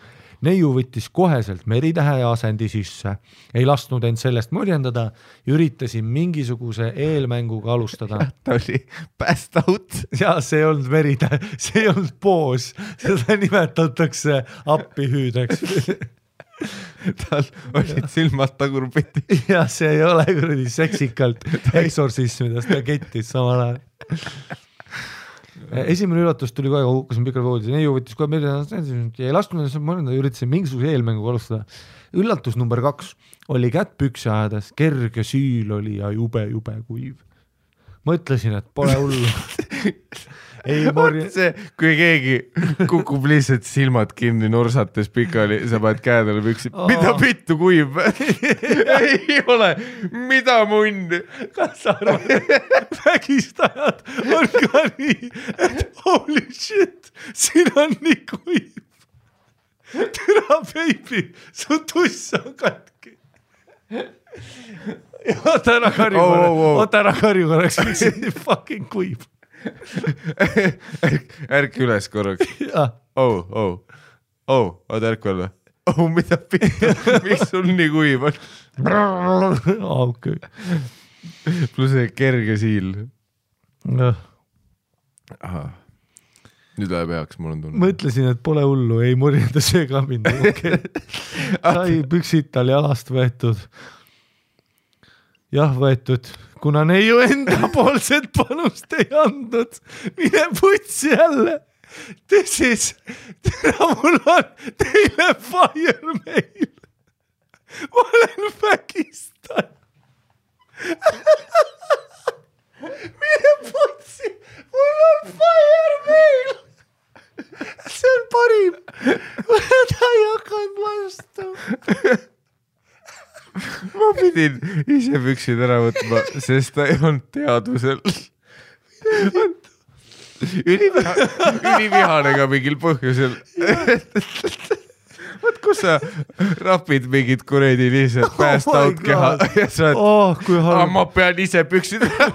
Neiu võttis koheselt meritähe asendi sisse, ei lasknud end sellest morjendada, üritasin mingisuguse eelmänguga alustada. Ta oli passed out. Ja see ei olnud meritähe, see ei olnud poos, seda nimetatakse appihüüdeks. Tal olid silmad tagurpiti. Ja see ei ole kuradi seksikalt eksorsismidest, ta kettis samal ajal. Esimene üllatus tuli kohe, kui hukkasin pikal voodis. Neiu võttis kohe meile ja ei lasknud, üritasin mingisuguse eelmänguga alustada. Üllatus number 2 oli kätt pükse ajades, kerge süül oli ja jube kuiv. Mõtlesin, et pole hullu. See, kui keegi kukub lihtsalt silmad kinni norsates pikali, sa paned käedele püksi. Mida vittu kuiv? Ei ole. Mida munn? Kas sa arvad, vägistajad on ka nii, et holy shit, siin on nii kuiv. Türa baby, su tuss on katki. Oota ära karju korraks, miks see nii fucking kuib. Ärk üles korraks. Oota ärk veel või? Mida pihta, miks sul nii kuib on? Okay. Pluss kerge siil. Nüüd läheb heaks, mul on tunne. Mõtlesin, et pole hullu, ei murjenda see ka mind. Okay. Sai püksid tal jalast võetud. Jah, võetud. Kuna neiu enda poolset panust ei andnud, mine putsi jälle. Tõsis, tere mul on teile fire mail. Ma olen vägistan. Mine putsi, mul on fire mail. See on parim. Ta ei hakanud vastu. Ma pidin ise püksid ära võtma, sest ta ei olnud teadvusel. Ülivihane ka mingil põhjusel. Võt, kus sa rapid mingid kuredi lihtsalt pääst out keha ja sa oled, ma pean ise püksid ära.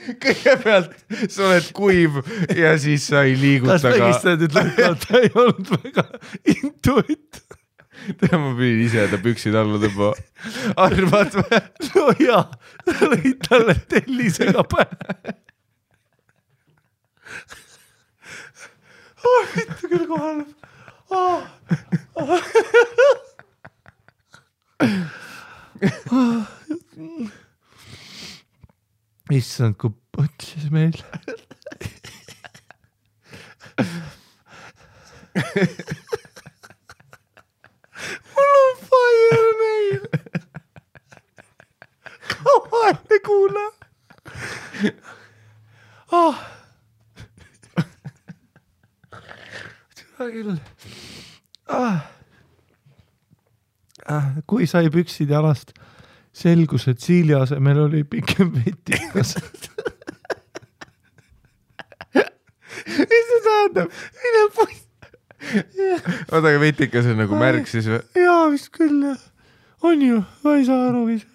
Kõigepealt sa oled kuiv ja siis sa ei liiguta ka. Kas vägistad, et ta ei olnud väga intuit. Ma pidin ise ta püksid alla tõmba. Arvad või? No jaa, sa lõid talle tellisega pähe. Mitte küll kohal. Issand, kui põtsis meil. Mul on fire meil. Kavalne kuule. Küll. Kui sai püksid jalast, selgus, et siili asemel oli pikem vetikas. Mis see tähendab? Mine putt. Oota, aga vetikas on nagu märg siis või? Jaa, vist küll. On ju, ma ei saa aru ise.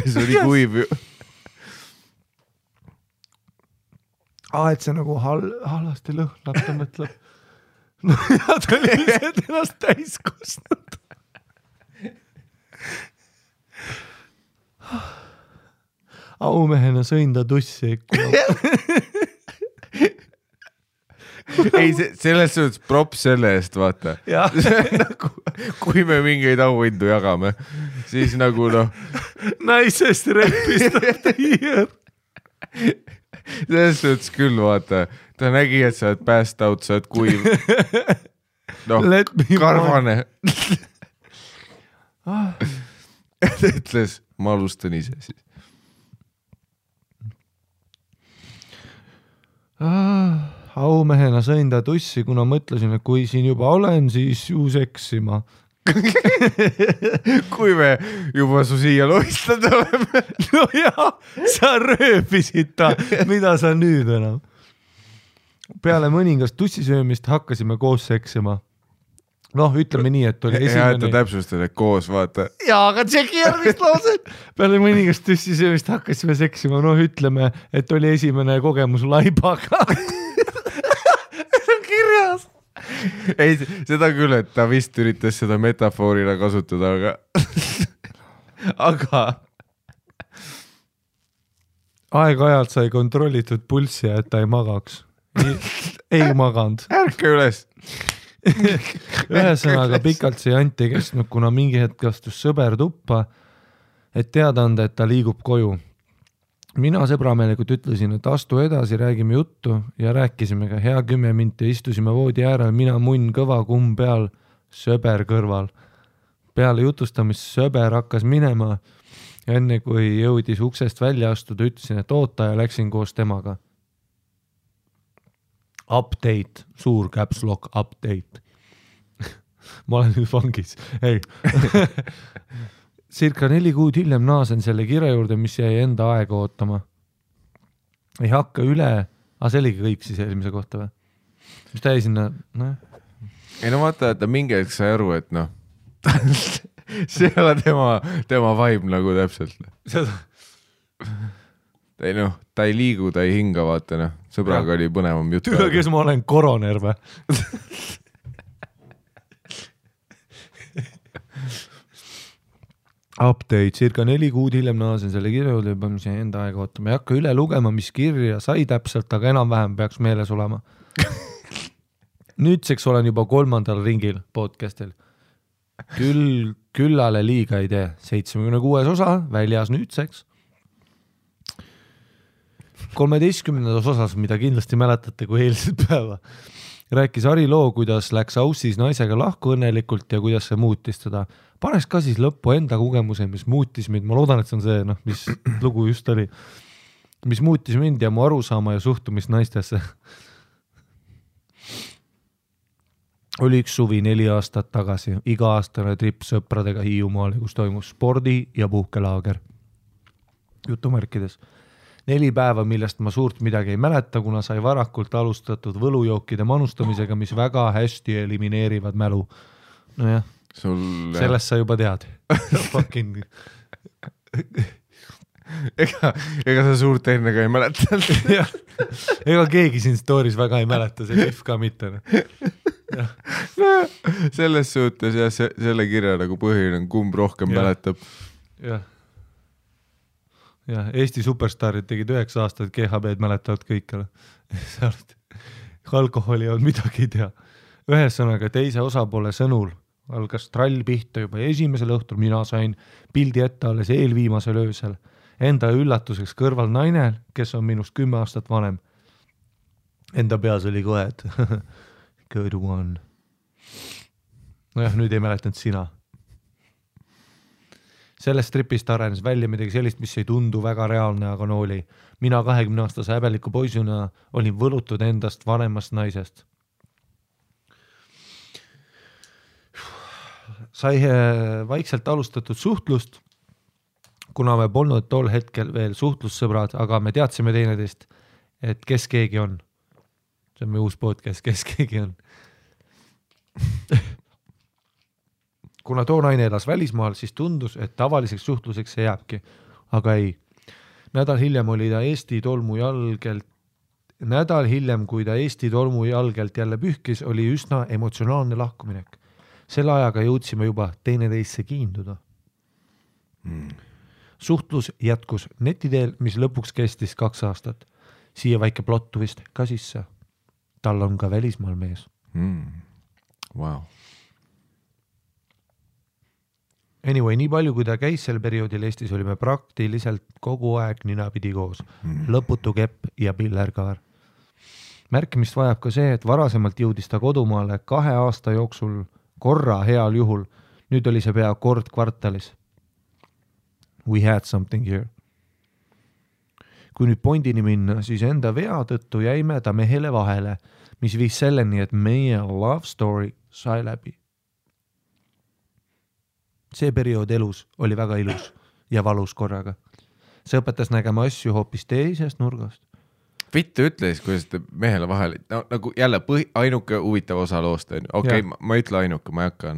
See oli kuiv ju. Et see nagu halvasti lõhnab, ta mõtleb. No ja ta oli lihtsalt ennast täis kustnud. Aumehena sõin ta tussi ikkuna. Ei, selles suhtes props selle eest, vaata. Nagu, kui me mingeid auhindu jagame, siis nagu noh. Naisest repist of the year. Selles suhtes küll, vaata. Ta nägi, et sa oled passed out, sa oled kuiv. Noh, karvane. Ta ütles, ma alustan ise siis. Aumehena sõin ta tussi, kuna mõtlesin, et kui siin juba olen, siis ju seksima. Kui me juba su siia loistad oleme. No jaa, sa rööbisid ta, mida sa nüüd enam. Peale mõningast tussisöömist hakkasime koos seksima. Noh, ütleme nii, et oli esimene... Ja, et ta täpsustada koos, vaata. Jaa, aga tšeki järgmist lauset. Peale mõningast tussisöömist hakkasime seksima. Noh, ütleme, et oli esimene kogemus laibaga. See on kirjas. Ei, seda küll, et ta vist üritas seda metafoorina kasutada, aga aeg-ajalt sai kontrollitud pulssi, et ta ei magaks. Ei maganud. Ärke üles. Ühesõnaga pikalt see jant ei kestnud, kuna mingi hetk astus sõber tuppa, et teada anda, et ta liigub koju. Mina sõbrameelikult ütlesin, et astu edasi, räägime juttu ja rääkisime ka hea 10 minti, istusime voodi äärel, mina munn kõva kumm peal, sõber kõrval. Peale jutustamist sõber hakkas minema ja enne kui jõudis uksest välja astuda, ütlesin, et oota ja läksin koos temaga. Update, suur caps lock update. Ma olen nüüd vangis. Ei. Circa 4 kuud hiljem naasen selle kirja juurde, mis jäi enda aega ootama. Ei hakka üle, see oligi kõik siis eelmise kohta või? Mis ta jäi sinna? ei no vaata, et ta mingi hetk sai aru, et noh, see ei ole tema vibe nagu täpselt. ei noh, ta ei liigu, ta ei hinga, vaata noh, sõbraga oli põnevam jutt. Tüle, kes ma olen, koroner või? Update, circa 4 kuud hiljem naasen selle kirja juurde, juba enda aega ootama. Ei hakka üle lugema, mis kirja sai täpselt, aga enam-vähem peaks meeles olema. Nüüdseks olen juba 3. ringil podcastil. Küllale liiga ei tee. 76 osa, väljas nüüdseks. 13. osas, mida kindlasti mäletate kui eilset päeva, rääkis Ari loo, kuidas läks Aussis naisega lahku õnnelikult ja kuidas see muutis teda. Paneks ka siis lõppu enda kogemuse, mis muutis mind. Ma loodan, et see on see, mis lugu just oli. Mis muutis mind ja mu arusaama ja suhtumist naistesse. Oli üks suvi 4 aastat tagasi. Iga-aastane trip sõpradega Hiiumaale, kus toimus spordi- ja puhkelaager. Jutumärkides. 4 päeva, millest ma suurt midagi ei mäleta, kuna sai varakult alustatud võlujookide manustamisega, mis väga hästi elimineerivad mälu. Nojah, sellest sa juba tead. Fucking... ega sa suurt enne ka ei mäleta. Ega keegi siin stories väga ei mäleta, see Pihv ka mitte. Selles suhtes ja selle kirja nagu põhiline, kumb rohkem mäletab. Jah. Ja Eesti superstaarid tegid 9 aastat, GHB-d mäletavad kõikele. Alkoholi on midagi ei tea. Ühesõnaga teise osapoole sõnul algas trall pihta juba esimesel õhtul, mina sain pildi ette alles eelviimasel öösel. Enda üllatuseks kõrval naine, kes on minust 10 aastat vanem. Enda peas oli kohe, et good one. Nojah, nüüd ei mäletanud sina. Sellest tripist arenes välja midagi sellist, mis ei tundu väga reaalne, aga no oli. Mina 20-aastase häbeliku poisuna olin võlutud endast vanemast naisest. Sai vaikselt alustatud suhtlust, kuna me polnud tol hetkel veel suhtlussõbrad, aga me teadsime teineteist, et kes keegi on. See on meie uus podcast, kes keegi on. Kuna too naine elas välismaal, siis tundus, et tavaliseks suhtluseks see jääbki. Aga ei. Nädal hiljem, kui ta Eesti tolmu jalgelt jälle pühkis, oli üsna emotsionaalne lahkuminek. Selle ajaga jõudsime juba teineteisse kiinduda. Suhtlus jätkus netiteel, mis lõpuks kestis 2 aastat. Siia väike plottu vist ka sisse. Tal on ka välismaal mees. Wow. Anyway, nii palju, kui ta käis sel perioodil Eestis, olime praktiliselt kogu aeg ninapidi koos. Lõputu kepp ja pillerkaar. Märkimist vajab ka see, et varasemalt jõudis ta kodumaale 2 aasta jooksul korra heal juhul. Nüüd oli see pea kord kvartalis. We had something here. Kui nüüd pointini minna, siis enda vea tõttu jäime ta mehele vahele, mis viis selleni, et meie love story sai läbi. See periood elus oli väga ilus ja valus korraga. See õpetas nägema asju hoopis teisest nurgast. Vittu ütle siis, kuidas te mehele vahele, no, nagu jälle ainuke huvitav osa loost on. Okei, ma ei ütle ainuke, ma ei hakka,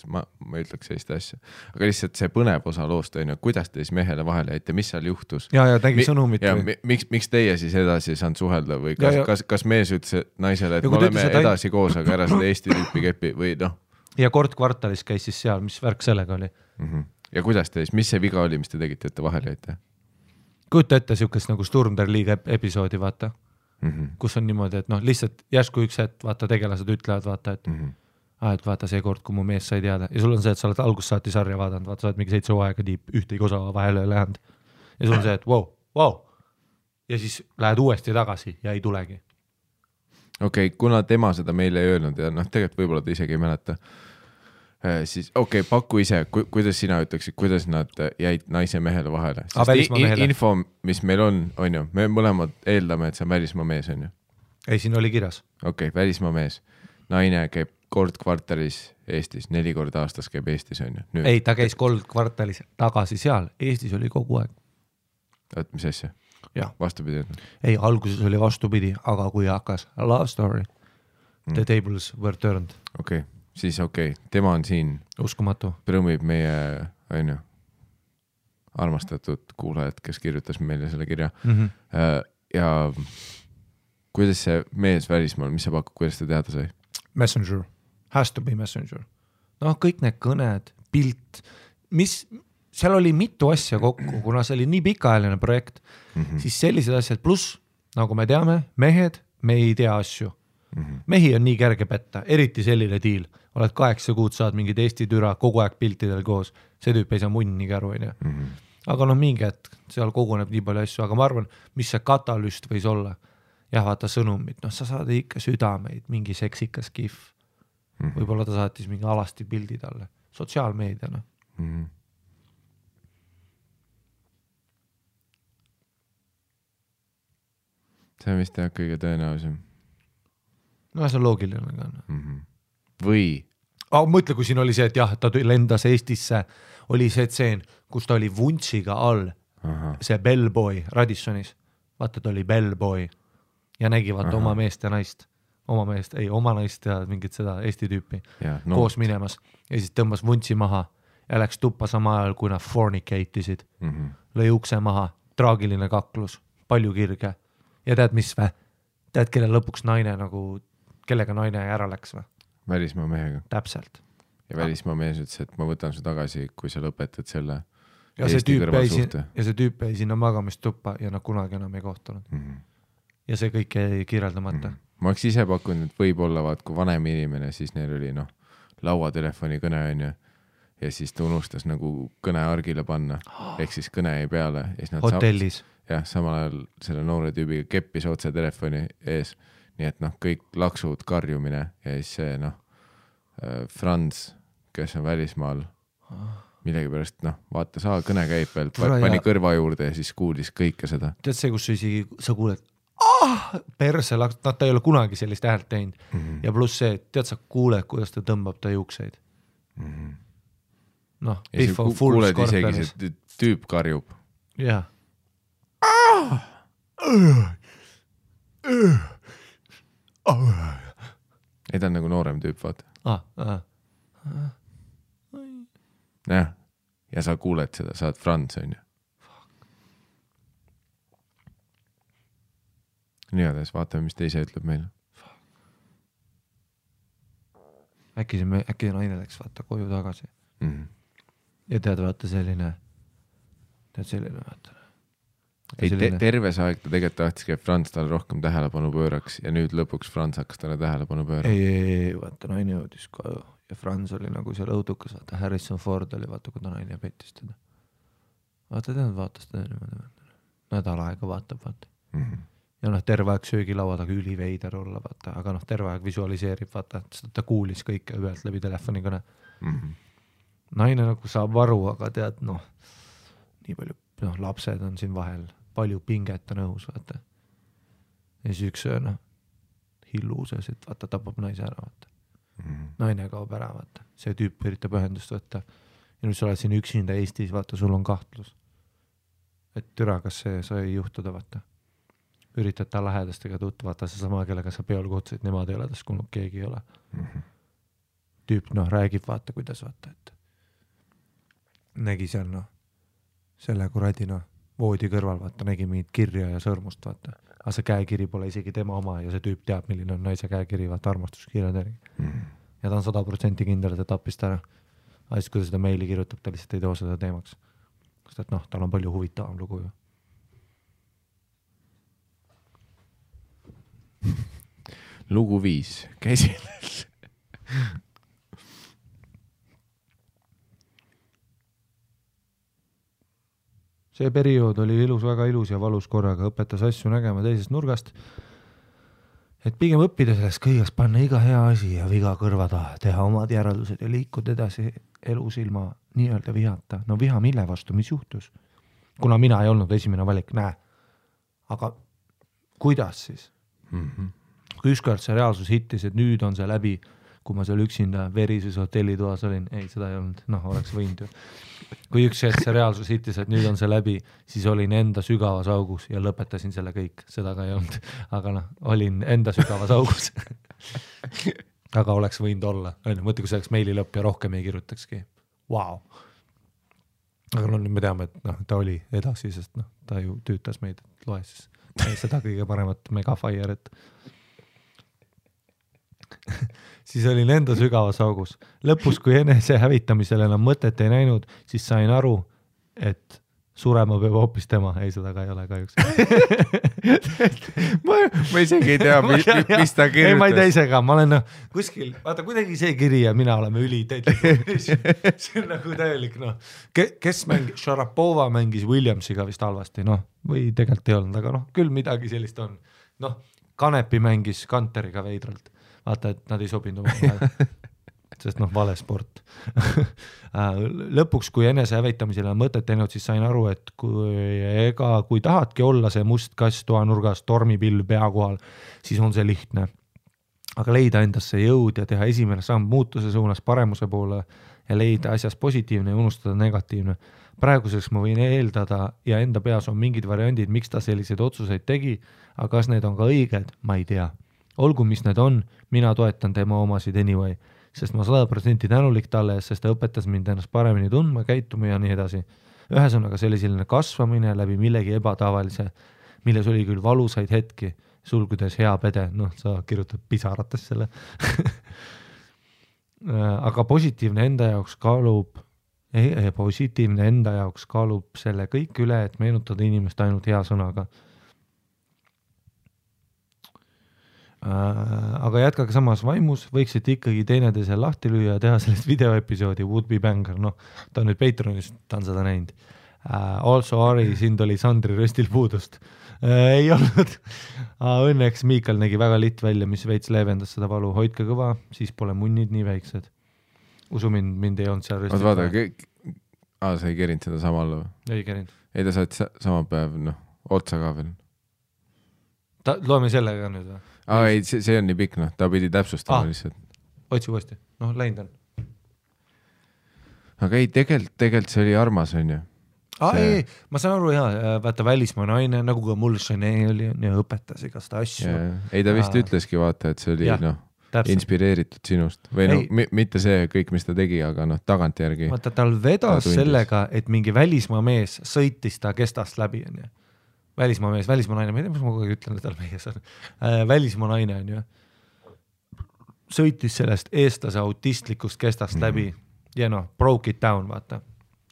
ma ei ütleks sellist asja. Aga lihtsalt see põnev osa loost on, kuidas te siis mehele vahele jäite, mis seal juhtus? Ja tegi sõnumit. Ja miks teie siis edasi saanud suhelda või kas mees ütles naisele, et me oleme edasi koos, aga ära seda Eesti tüüpi kepi või noh? Ja kord kvartalis käis siis seal, mis värk sellega oli. Ja kuidas te siis, mis see viga oli, mis te tegite, et te vahele jäite? Kujuta ette siukest nagu Sturm der Liiga episoodi, vaata, kus on niimoodi, et lihtsalt järsku üks hetk, vaata, tegelased ütlevad, vaata, et vaata see kord, kui mu mees sai teada ja sul on see, et sa oled algust saati sarja vaadanud, vaata, sa oled mingi 7 aega tiip, ühtegi osa vahele lähenud ja sul on see, et wow. Ja siis lähed uuesti tagasi ja ei tulegi. Okei, kuna tema seda meile ei öelnud ja tegelikult võib-olla ta isegi ei mäleta, siis paku ise, kuidas sina ütleksid, kuidas nad jäid naise mehele vahele? Info, mis meil on ju, me mõlemad eeldame, et see on välismaa mees, on ju? Ei, siin oli kirjas. Välismaa mees. Naine käib kord kvartalis Eestis, 4 korda aastas käib Eestis, on ju? Ei, ta käis kord kvartalis tagasi seal, Eestis oli kogu aeg. Oot, mis asja? Vastupidi. Ei, alguses oli vastupidi, aga kui hakkas love story, The tables were turned. Okei, siis tema on siin. Uskumatu. Prõmib meie, armastatud kuulajad, kes kirjutas meile selle kirja. Ja kuidas see mees välismaal, mis sa pakud, kuidas ta teada sai? Messenger. Has to be Messenger. Kõik need kõned, pilt, seal oli mitu asja kokku, kuna see oli nii pikaajaline projekt, siis sellised asjad, pluss, nagu me teame, mehed, me ei tea asju. Mehi on nii kerge petta, eriti selline diil. Oled 8 kuud, saad mingid Eesti türa kogu aeg piltidel koos. See tüüp ei saa munnigi aru. Aga mingi hetk, seal koguneb nii palju asju, aga ma arvan, mis see katalüst võis olla. Jah, vaata sõnumid, sa saad ikka südameid, mingi seksikas kihv. Võib-olla ta saatis mingi alasti pildi talle. Sotsiaalmeediana. See on vist kõige tõenäolisem. See on loogiline ka. Või? Mõtle, kui siin oli see, et jah, ta lendas Eestisse, oli see tseen, kus ta oli vuntsiga all, see bellboy Radissonis. Vaata, ta oli bellboy ja nägi vaata oma meest ja naist. Oma naist ja mingit seda Eesti tüüpi koos minemas. Ja siis tõmbas vuntsi maha ja läks tuppa sama ajal, kui nad fornicatisid. Lõi ukse maha, traagiline kaklus, palju kirge. Ja tead, mis vä? Tead, kelle lõpuks naine kellega naine ära läks või? Välismaa mehega. Täpselt. Ja välismaa mees ütles, et ma võtan su tagasi, kui sa lõpetad selle Eesti kõrvalsuhte. Ja see tüüp jäi sinna magamistuppa ja nad kunagi enam ei kohtunud. Ja see kõik jäi kirjeldamata. Ma oleks ise pakkunud, et võib-olla kui vanem inimene, siis neil oli lauatelefoni kõne ja siis ta unustas kõne argile panna. Ehk siis kõne jäi peale. Hotellis. Jah, samal ajal selle noore tüübiga keppis otse telefoni ees. Nii et kõik laksud, karjumine ja siis see Franz, kes on välismaal, millegi pärast, vaata, kõne käib veel, pani kõrva juurde ja siis kuulis kõike seda. Tead see, kus sa kuuled, perse laks, ta ei ole kunagi sellist häält teinud. Ja pluss see, tead sa kuuled, kuidas ta tõmbab ta juukseid. Biff on full scorperis. Kuuled isegi see tüüp karjub. Jah. Ei, ta on noorem tüüp, vaata. Jah, ja sa kuuled seda, sa oled Franz, on ju. Nii gades, vaatame, mis ta ise ütleb meile. Äkki naine läks vaata koju tagasi. Ja tead, vaata selline vaata. Ei, terve see aeg ta tegelikult tahtis, et Franz talle rohkem tähelepanu pööraks ja nüüd lõpuks Franz hakkas talle tähelepanu pöörama. Ei, vaata naine jõudis koju ja Franz oli seal õudukas, vaata Harrison Ford oli, vaata kui ta naine pettis teda. Vaata vaatas teda niimoodi. Nädal aega vaatab, vaata. Ja terve aeg söögilaua taga üliveider olla, vaata, aga terve aeg visualiseerib, vaata, ta kuulis kõike ühelt läbi telefoni kõne. Naine saab aru, aga tead, nii palju lapsed on siin vahel, palju pinget on õhus, vaata. Ja siis üks hilluuses, et vaata, tapab naise ära, vaata. Naine kaob ära, vaata. See tüüp üritab ühendust võtta. Ja nüüd sa oled siin üksinda Eestis, vaata, sul on kahtlus. Et türa, kas see sai juhtuda, vaata. Üritad ta lähedastega tuttu, vaata, see sama, kellega sa peol kutsid, nemad ei ole tast kuulnud, keegi ei ole. Tüüp, räägib, vaata, kuidas, vaata, et nägi seal, selle kuradina voodi kõrval, vaata, nägi mingit kirja ja sõrmust, vaata. Aga see käekiri pole isegi tema oma ja see tüüp teab, milline on naise käekiri, vaata, armastuskirjad järgi. Ja ta on 100% kindel, et ta tappis ta ära. Aga siis, kui ta seda meili kirjutab, ta lihtsalt ei too seda teemaks. Sest et tal on palju huvitavam lugu ju. Lugu 5. Käsil. See periood oli ilus, väga ilus ja valus korraga, õpetas asju nägema teisest nurgast, et pigem õppida sellest kõigest, panna iga hea asi ja viga kõrva taha, teha omad järeldused ja liikuda edasi elus ilma nii-öelda vihata. Viha mille vastu, mis juhtus? Kuna mina ei olnud esimene valik, Aga kuidas siis? Kui ükskord see reaalsus hittis, et nüüd on see läbi, kui ma seal üksinda verises hotellitoas olin, ei, seda ei olnud, oleks võinud ju. Kui üks hetk see reaalsus hittis, et nüüd on see läbi, siis olin enda sügavas augus ja lõpetasin selle kõik, seda ka ei olnud, aga olin enda sügavas augus. aga oleks võinud olla, mõtle, kui see oleks meili lõpp ja rohkem ei kirjutakski. Wow. Aga nüüd me teame, et ta oli edasi, sest ta ju tüütas meid, et loe siis seda kõige paremat Megafire, siis olin enda sügavas augus. Lõpus, kui enese hävitamisel enam mõtet ei näinud, siis sain aru, et surema peab hoopis tema. Ei, seda ka ei ole kahjuks. ma isegi ei tea, mis ta kirjutas. Ei, ma ei tea ise ka. Ma olen kuskil, vaata kuidagi see kiri ja mina oleme see on nagu täielik, kes Sharapova mängis Williamsiga vist halvasti, või tegelikult ei olnud, aga küll midagi sellist on. Kanepi mängis Kanteriga veidralt. Vaata, et nad ei sobinud oma sest vale sport. Lõpuks, kui enese hävitamisele on mõtet teinud, siis sain aru, et kui tahadki olla see must kass toanurgas tormipilv pea kohal, siis on see lihtne. Aga leida endasse jõud ja teha esimene samm muutuse suunas paremuse poole ja leida asjas positiivne ja unustada negatiivne. Praeguseks ma võin eeldada ja enda peas on mingid variandid, miks ta selliseid otsuseid tegi, aga kas need on ka õiged, ma ei tea. Olgu, mis need on, mina toetan tema omasid anyway, sest ma 100% tänulik talle, sest ta õpetas mind ennast paremini tundma, käituma ja nii edasi. Ühesõnaga see oli selline kasvamine läbi millegi ebatavalise, milles oli küll valusaid hetki, sulgudes hea pede, sa kirjutad pisarates selle. Aga positiivne enda jaoks kaalub selle kõik üle, et meenutada inimest ainult hea sõnaga. Aga jätkage samas vaimus, võiksite ikkagi teineteise lahti lüüa ja teha sellest videoepisoodi Would Be Banger, ta on nüüd Patreonis, ta on seda näinud. Also Ari, sind oli Sandri röstil puudust. Ei olnud. Õnneks Miikal nägi väga litt välja, mis veits leevendas seda valu. Hoidke kõva, siis pole munnid nii väiksed. Usu mind ei olnud seal röstil. Vaata, sa ei kerinud seda samal või? Ei kerinud. Ei, ta saad sama päev, otsa ka veel. Loeme sellega nüüd või? Ei, see on nii pikk, ta pidi täpsustama lihtsalt. Otsi uuesti, läinud on. Aga ei, tegelikult see oli armas, on ju. Ei, ma saan aru, vaata välismaa naine, nagu ka mul Chanel oli ja õpetas igast asju. Ei, ta vist ütleski, vaata, et see oli inspireeritud sinust. Või mitte see kõik, mis ta tegi, aga tagant järgi. Vaata, tal vedas sellega, et mingi välismaa mees sõitis ta kestast läbi, on ju. Välismaa naine, ma ei tea, mis ma kogu aeg ütlen, et tal mees on. Välismaa naine on ju. Sõitis sellest eestlase autistlikust kestast läbi ja broke it down, vaata.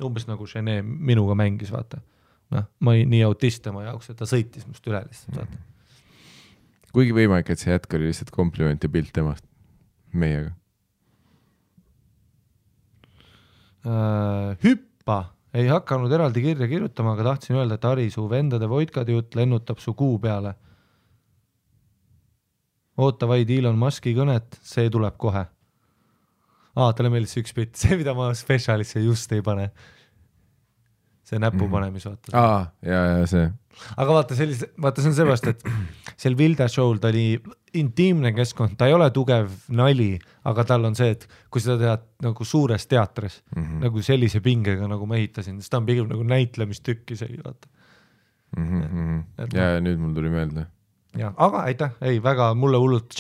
Umbes nagu Chanel minuga mängis, vaata. Ma ei nii autist tema jaoks, et ta sõitis must üle lihtsalt, vaata. Kuigi võimalik, et see jätk oli lihtsalt kompliment ja pilt temast meiega. Hüppa! Ei hakanud eraldi kirja kirjutama, aga tahtsin öelda, et Ari, su vendade voidkade jutt lennutab su kuu peale. Oota vaid Elon Muski kõnet, see tuleb kohe. Talle meeldis üks bitt, see mida ma spetsialisse just ei pane. See näpu panemis, vaata. Ja see. Aga vaata, see on seepärast, et seal Vilda show'l ta oli intiimne keskkond, ta ei ole tugev nali, aga tal on see, et kui seda tead nagu suures teatris, nagu sellise pingega, nagu ma ehitasin, siis ta on pigem nagu näitlemistükki see, vaata. Ja nüüd mul tuli meelde. Ja, aga aitäh, väga mulle hullult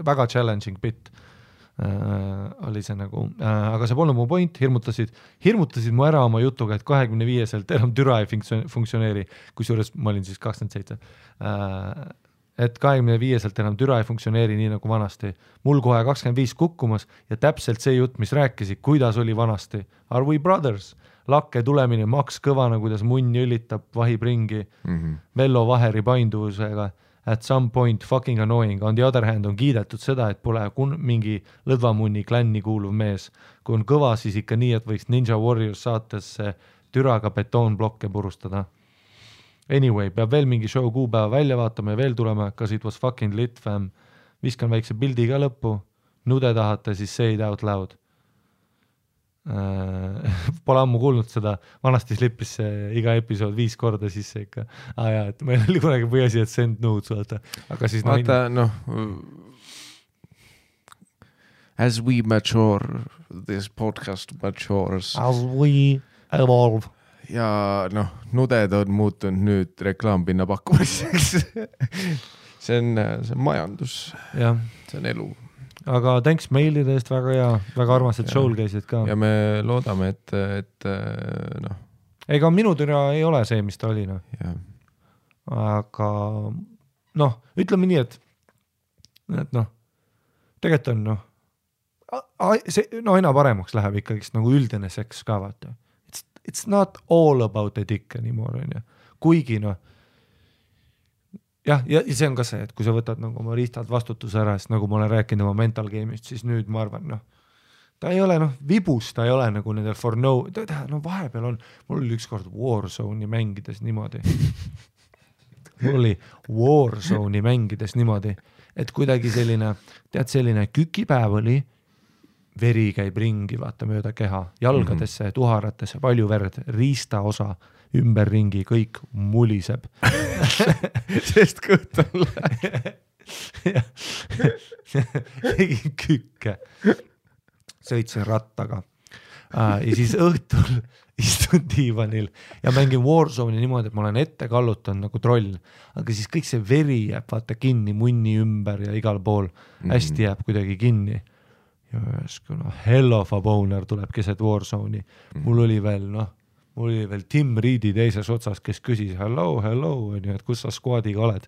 väga challenging bit oli see nagu, aga see polnud mu point, hirmutasid mu ära oma jutuga, et 25-selt enam türa ei funktsioneeri, kusjuures ma olin siis 27. Et 25-selt enam türa ei funktsioneeri nii nagu vanasti. Mul kohe 25 kukkumas ja täpselt see jutt, mis rääkisi, kuidas oli vanasti. Are we brothers? Lakke tulemine, maks kõvana, kuidas munn jõlitab, vahib ringi, Vello Vaheri painduvusega. At some point fucking annoying. On the other hand on kiidetud seda, et pole mingi lõdvamunni klänni kuuluv mees. Kui on kõva, siis ikka nii, et võiks Ninja Warriors saatesse türaga betoonblokke purustada. Anyway, peab veel mingi show kuupäeva välja vaatama ja veel tulema, kas it was fucking lit, fam. Viskan väikse pildi ka lõppu. Nude tahate, siis say it out loud. Pole ammu kuulnud seda, vanasti slippis see iga episood 5 korda sisse ikka. Et meil oli kunagi põhiasi, et send nudes, vaata. Aga siis vaata, as we mature, this podcast matures. As we evolve. Ja nuded on muutunud nüüd reklaampinna pakkumiseks. See on majandus. Ja. See on elu. aga thanks meilide eest, väga hea, väga armas, et show'l käisid ka. Ja me loodame, et noh. Ega minu türa ei ole see, mis ta oli, noh. Aga noh, ütleme nii, et noh, tegelikult on noh, see aina paremaks läheb ikkagist nagu üldine seks ka, vaata. It's not all about the dick anymore, on ju. Kuigi noh, ja see on ka see, et kui sa võtad nagu oma riistad vastutuse ära, siis nagu ma olen rääkinud oma mental game'ist, siis nüüd ma arvan, noh, ta ei ole noh, vibus, ta ei ole nagu nendel for no, no vahepeal on, mul oli ükskord Warzone'i mängides niimoodi. Mul oli Warzone'i mängides niimoodi, et kuidagi selline, tead, selline kükipäev oli, veri käib ringi, vaata mööda keha, jalgadesse, tuharatesse, palju verd, riista osa, ümberringi, kõik muliseb. Sest kõht on läheb. Tegin kükke. Sõitsin rattaga. Ja siis õhtul istun diivanil ja mängin Warzone'i niimoodi, et ma olen ette kallutanud nagu troll, aga siis kõik see veri jääb vaata kinni munni ümber ja igal pool hästi jääb kuidagi kinni. Ja no, hell of a boner tuleb keset Warzone'i. Mul oli veel Tim Reedi teises otsas, kes küsis hello, et kus sa squadiga oled.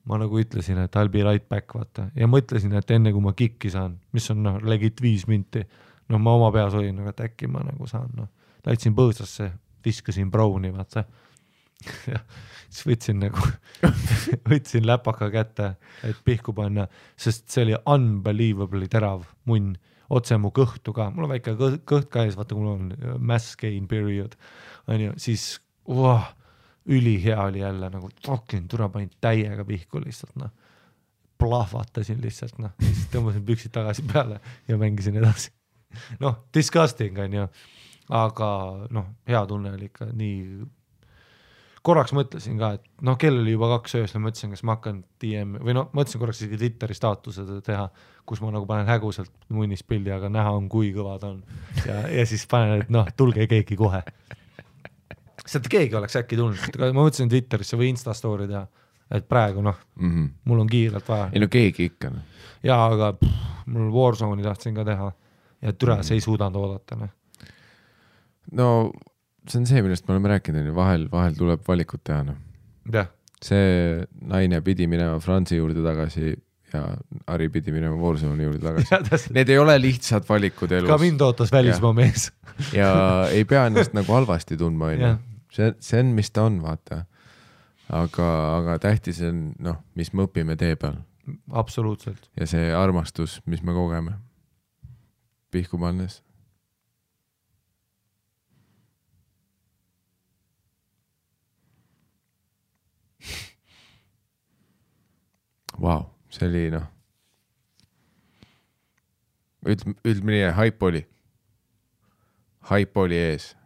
Ma nagu ütlesin, et I'll be right back, vaata. Ja mõtlesin, et enne kui ma kikki saan, mis on legit 5 minti, ma oma peas olin, et äkki ma nagu saan, läitsin põõsasse, viskasin browni, vaata. Ja siis võtsin läpaka kätte, et pihku panna, sest see oli unbelievably terav munn, otse mu kõhtu ka, mul on väike kõht ka ees, vaata, mul on mass gain period, siis üli hea oli jälle, nagu fucking tura panin täiega pihku lihtsalt, plahvatasin lihtsalt, siis tõmbasin püksid tagasi peale ja mängisin edasi. Disgusting on ju, aga hea tunne oli ikka nii. Korraks mõtlesin ka, et kell oli juba 2 öösel, mõtlesin, kas ma hakkan DM või mõtlesin korraks isegi Twitteri staatused teha, kus ma nagu panen häguselt munnis pildi, aga näha on, kui kõva ta on. Ja siis panen, et tulge keegi kohe. Sealt keegi oleks äkki tulnud. Ma mõtlesin Twitterisse või Instastory teha, et praegu mul on kiirelt vaja. Ei keegi ikka. Ja, aga mul Warzone'i tahtsin ka teha ja türa see ei suudanud oodata. See on see, millest me oleme rääkinud, vahel tuleb valikut teha. Yeah. See naine pidi minema Franzi juurde tagasi ja Ari pidi minema Warzone'i juurde tagasi. Need ei ole lihtsad valikud elus. Ka mind ootas välismaa mees. Ja ei pea ennast nagu halvasti tundma. See on, mis ta on, vaata. Aga tähtis on, mis me õpime tee peal. Absoluutselt. Ja see armastus, mis me kogeme. Pihku pannes. Wow, see oli ütleme nii, hype oli ees.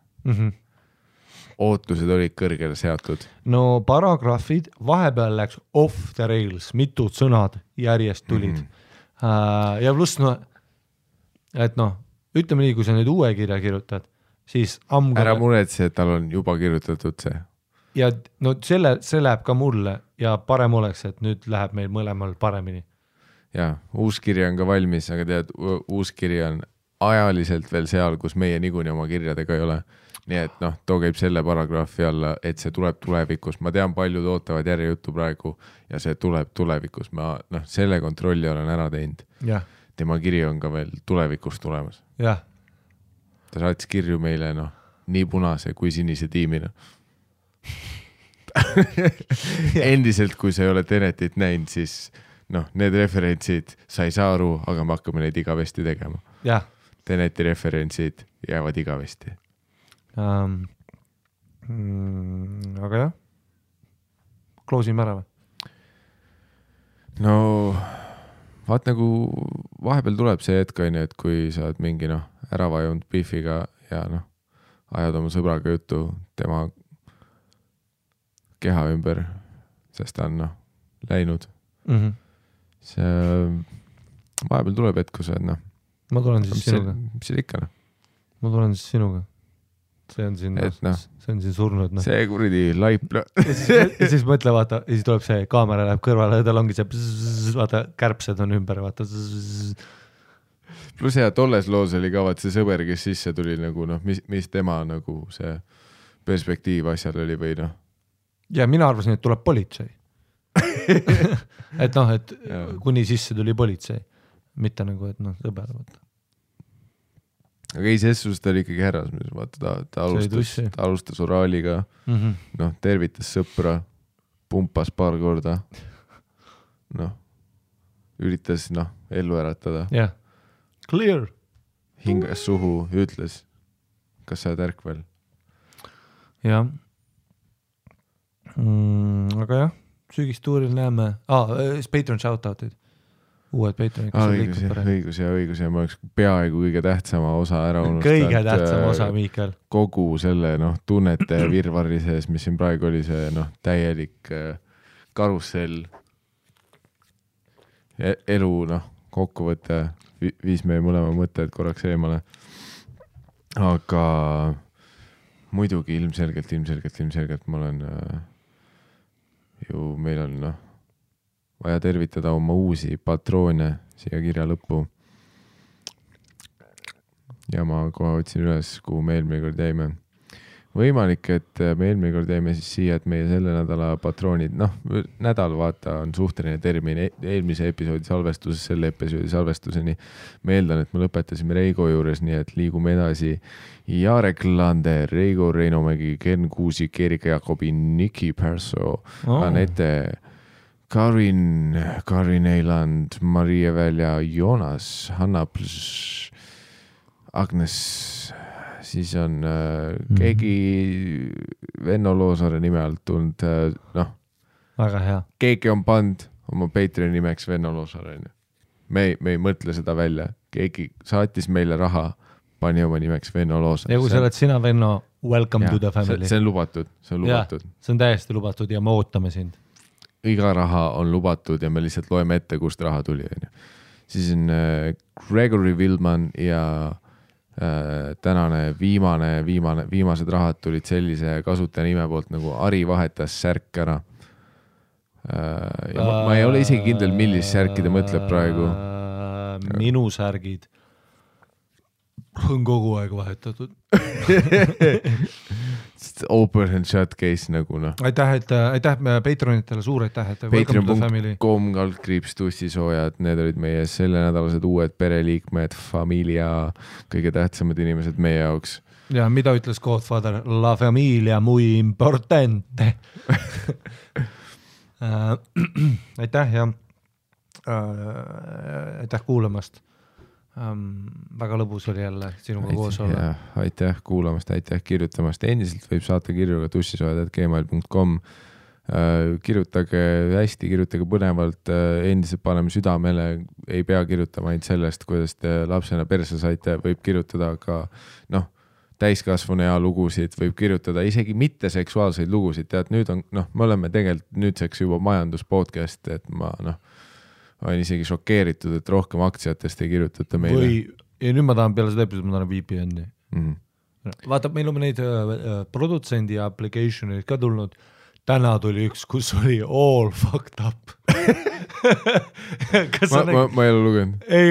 Ootused olid kõrgele seatud. No paragrahvid vahepeal läks off the rails, mitud sõnad järjest tulid. Ja pluss, et ütleme nii, kui sa nüüd uue kirja kirjutad, siis ära muretse, et tal on juba kirjutatud see. Ja see läheb ka mulle ja parem oleks, et nüüd läheb meil mõlemal paremini. Ja, uus kirja on ka valmis, aga tead, uus kirja on ajaliselt veel seal, kus meie niikuinii oma kirjadega ei ole. Nii et too käib selle paragrahvi alla, et see tuleb tulevikus. Ma tean, paljud ootavad järjejuttu praegu ja see tuleb tulevikus. Ma selle kontrolli olen ära teinud. Ja. Tema kiri on ka veel tulevikus tulemas. Ja. Ta saatis kirju meile nii punase kui sinise tiimina. Endiselt, kui sa ei ole Tenetit näinud, siis need referentsid sa ei saa aru, aga me hakkame neid igavesti tegema. Ja. Teneti referentsid jäävad igavesti. Aga jah, kloosime ära või? Vaat nagu vahepeal tuleb see hetk, et kui sa oled mingi ära vajunud beefiga ja ajad oma sõbraga juttu tema keha ümber, sest ta on läinud. See vahepeal tuleb hetk, kui sa oled ma tulen siis sinuga. Mis see ikka? Ma tulen siis sinuga. see on siin surnud. No. See kuradi laip. ja siis mõtle, vaata, ja siis tuleb see kaamera läheb kõrvale ja tal ongi see vaata, kärbsed on ümber, vaata. Plus tolles loos oli ka vaat see sõber, kes sisse tuli nagu mis tema nagu see perspektiiv asjal oli või noh. Ja mina arvasin, et tuleb politsei. et kuni sisse tuli politsei. Mitte nagu, et sõber, vaata. Aga ei, ses ta oli ikkagi härras, vaata, ta alustas oraaliga, tervitas sõpra, pumpas paar korda, üritas, ellu äratada. Jah, clear. Hingas suhu, ütles, kas sa oled ärkvel? Jah. Aga jah, sügistuuril näeme, Patreon shoutoutid. Uued Patreonid. Õigus ja ma oleks peaaegu kõige tähtsama osa ära unustanud. Kõige tähtsama osa, Miikael. Kogu selle tunnete virvarri sees, mis siin praegu oli see täielik karussell. Elu kokkuvõte viis meie mõlema mõtted korraks eemale. Aga muidugi ilmselgelt ma olen meil on vaja tervitada oma uusi patroone siia kirja lõppu. Ja ma kohe otsin üles, kuhu me eelmine kord jäime. Võimalik, et me eelmine kord jäime siis siia, et meie selle nädala patroonid, nädal vaata on suhteline termin eelmise episoodi salvestusest selle episoodi salvestuseni. Ma eeldan, et me lõpetasime Reigo juures, nii et liigume edasi. Jarek Lander, Reigo Reinomägi, Ken Kuusik, Erika Jakobi, Niki Perso, Anette Karin Eiland, Maria Välja, Joonas, Hanna Plš, Agnes, siis on keegi Venno Loosaare nime alt tulnud, väga hea. Keegi on pand oma Patreoni nimeks Venno Loosaare. Me ei mõtle seda välja. Keegi saatis meile raha, pani oma nimeks Venno Loosaare. Ja kui sa oled sina, Venno, welcome to the family. See on lubatud. Ja, see on täiesti lubatud ja me ootame sind. Iga raha on lubatud ja me lihtsalt loeme ette, kust raha tuli. Siis on Gregory Wildman ja tänane viimased rahad tulid sellise kasutaja nime poolt nagu Ari vahetas särk ära. Ja ma ei ole isegi kindel, millist särki ta mõtleb praegu. Minu särgid on kogu aeg vahetatud. Open and shut case nagu Aitäh Patreonitele, suur aitäh, Patreon.com/, tussisoojad, need olid meie selle nädalased uued pereliikmed, familia, kõige tähtsamad inimesed meie jaoks. Ja mida ütles Godfather? La familia muy importante. Aitäh ja aitäh kuulamast. Väga lõbus oli jälle sinuga koos olla. Aitäh kuulamast, aitäh kirjutamast. Endiselt võib saata kirju ka tussisoojad@gmail.com. Kirjutage hästi, kirjutage põnevalt, endiselt paneme südamele, ei pea kirjutama ainult sellest, kuidas te lapsena perse saite, võib kirjutada ka täiskasvanu ja lugusid, võib kirjutada isegi mitte seksuaalseid lugusid. Tead, nüüd on, me oleme tegelikult nüüdseks juba majanduspodcast, et ma olen isegi šokeeritud, et rohkem aktsiatest ei kirjutata meile. Ja nüüd ma tahan peale seda episoodi, ma tahan VPN-i. Vaata, meil on neid produtsendi application'id ka tulnud. Täna tuli üks, kus oli all fucked up. Ma ei ole lugenud. Ei,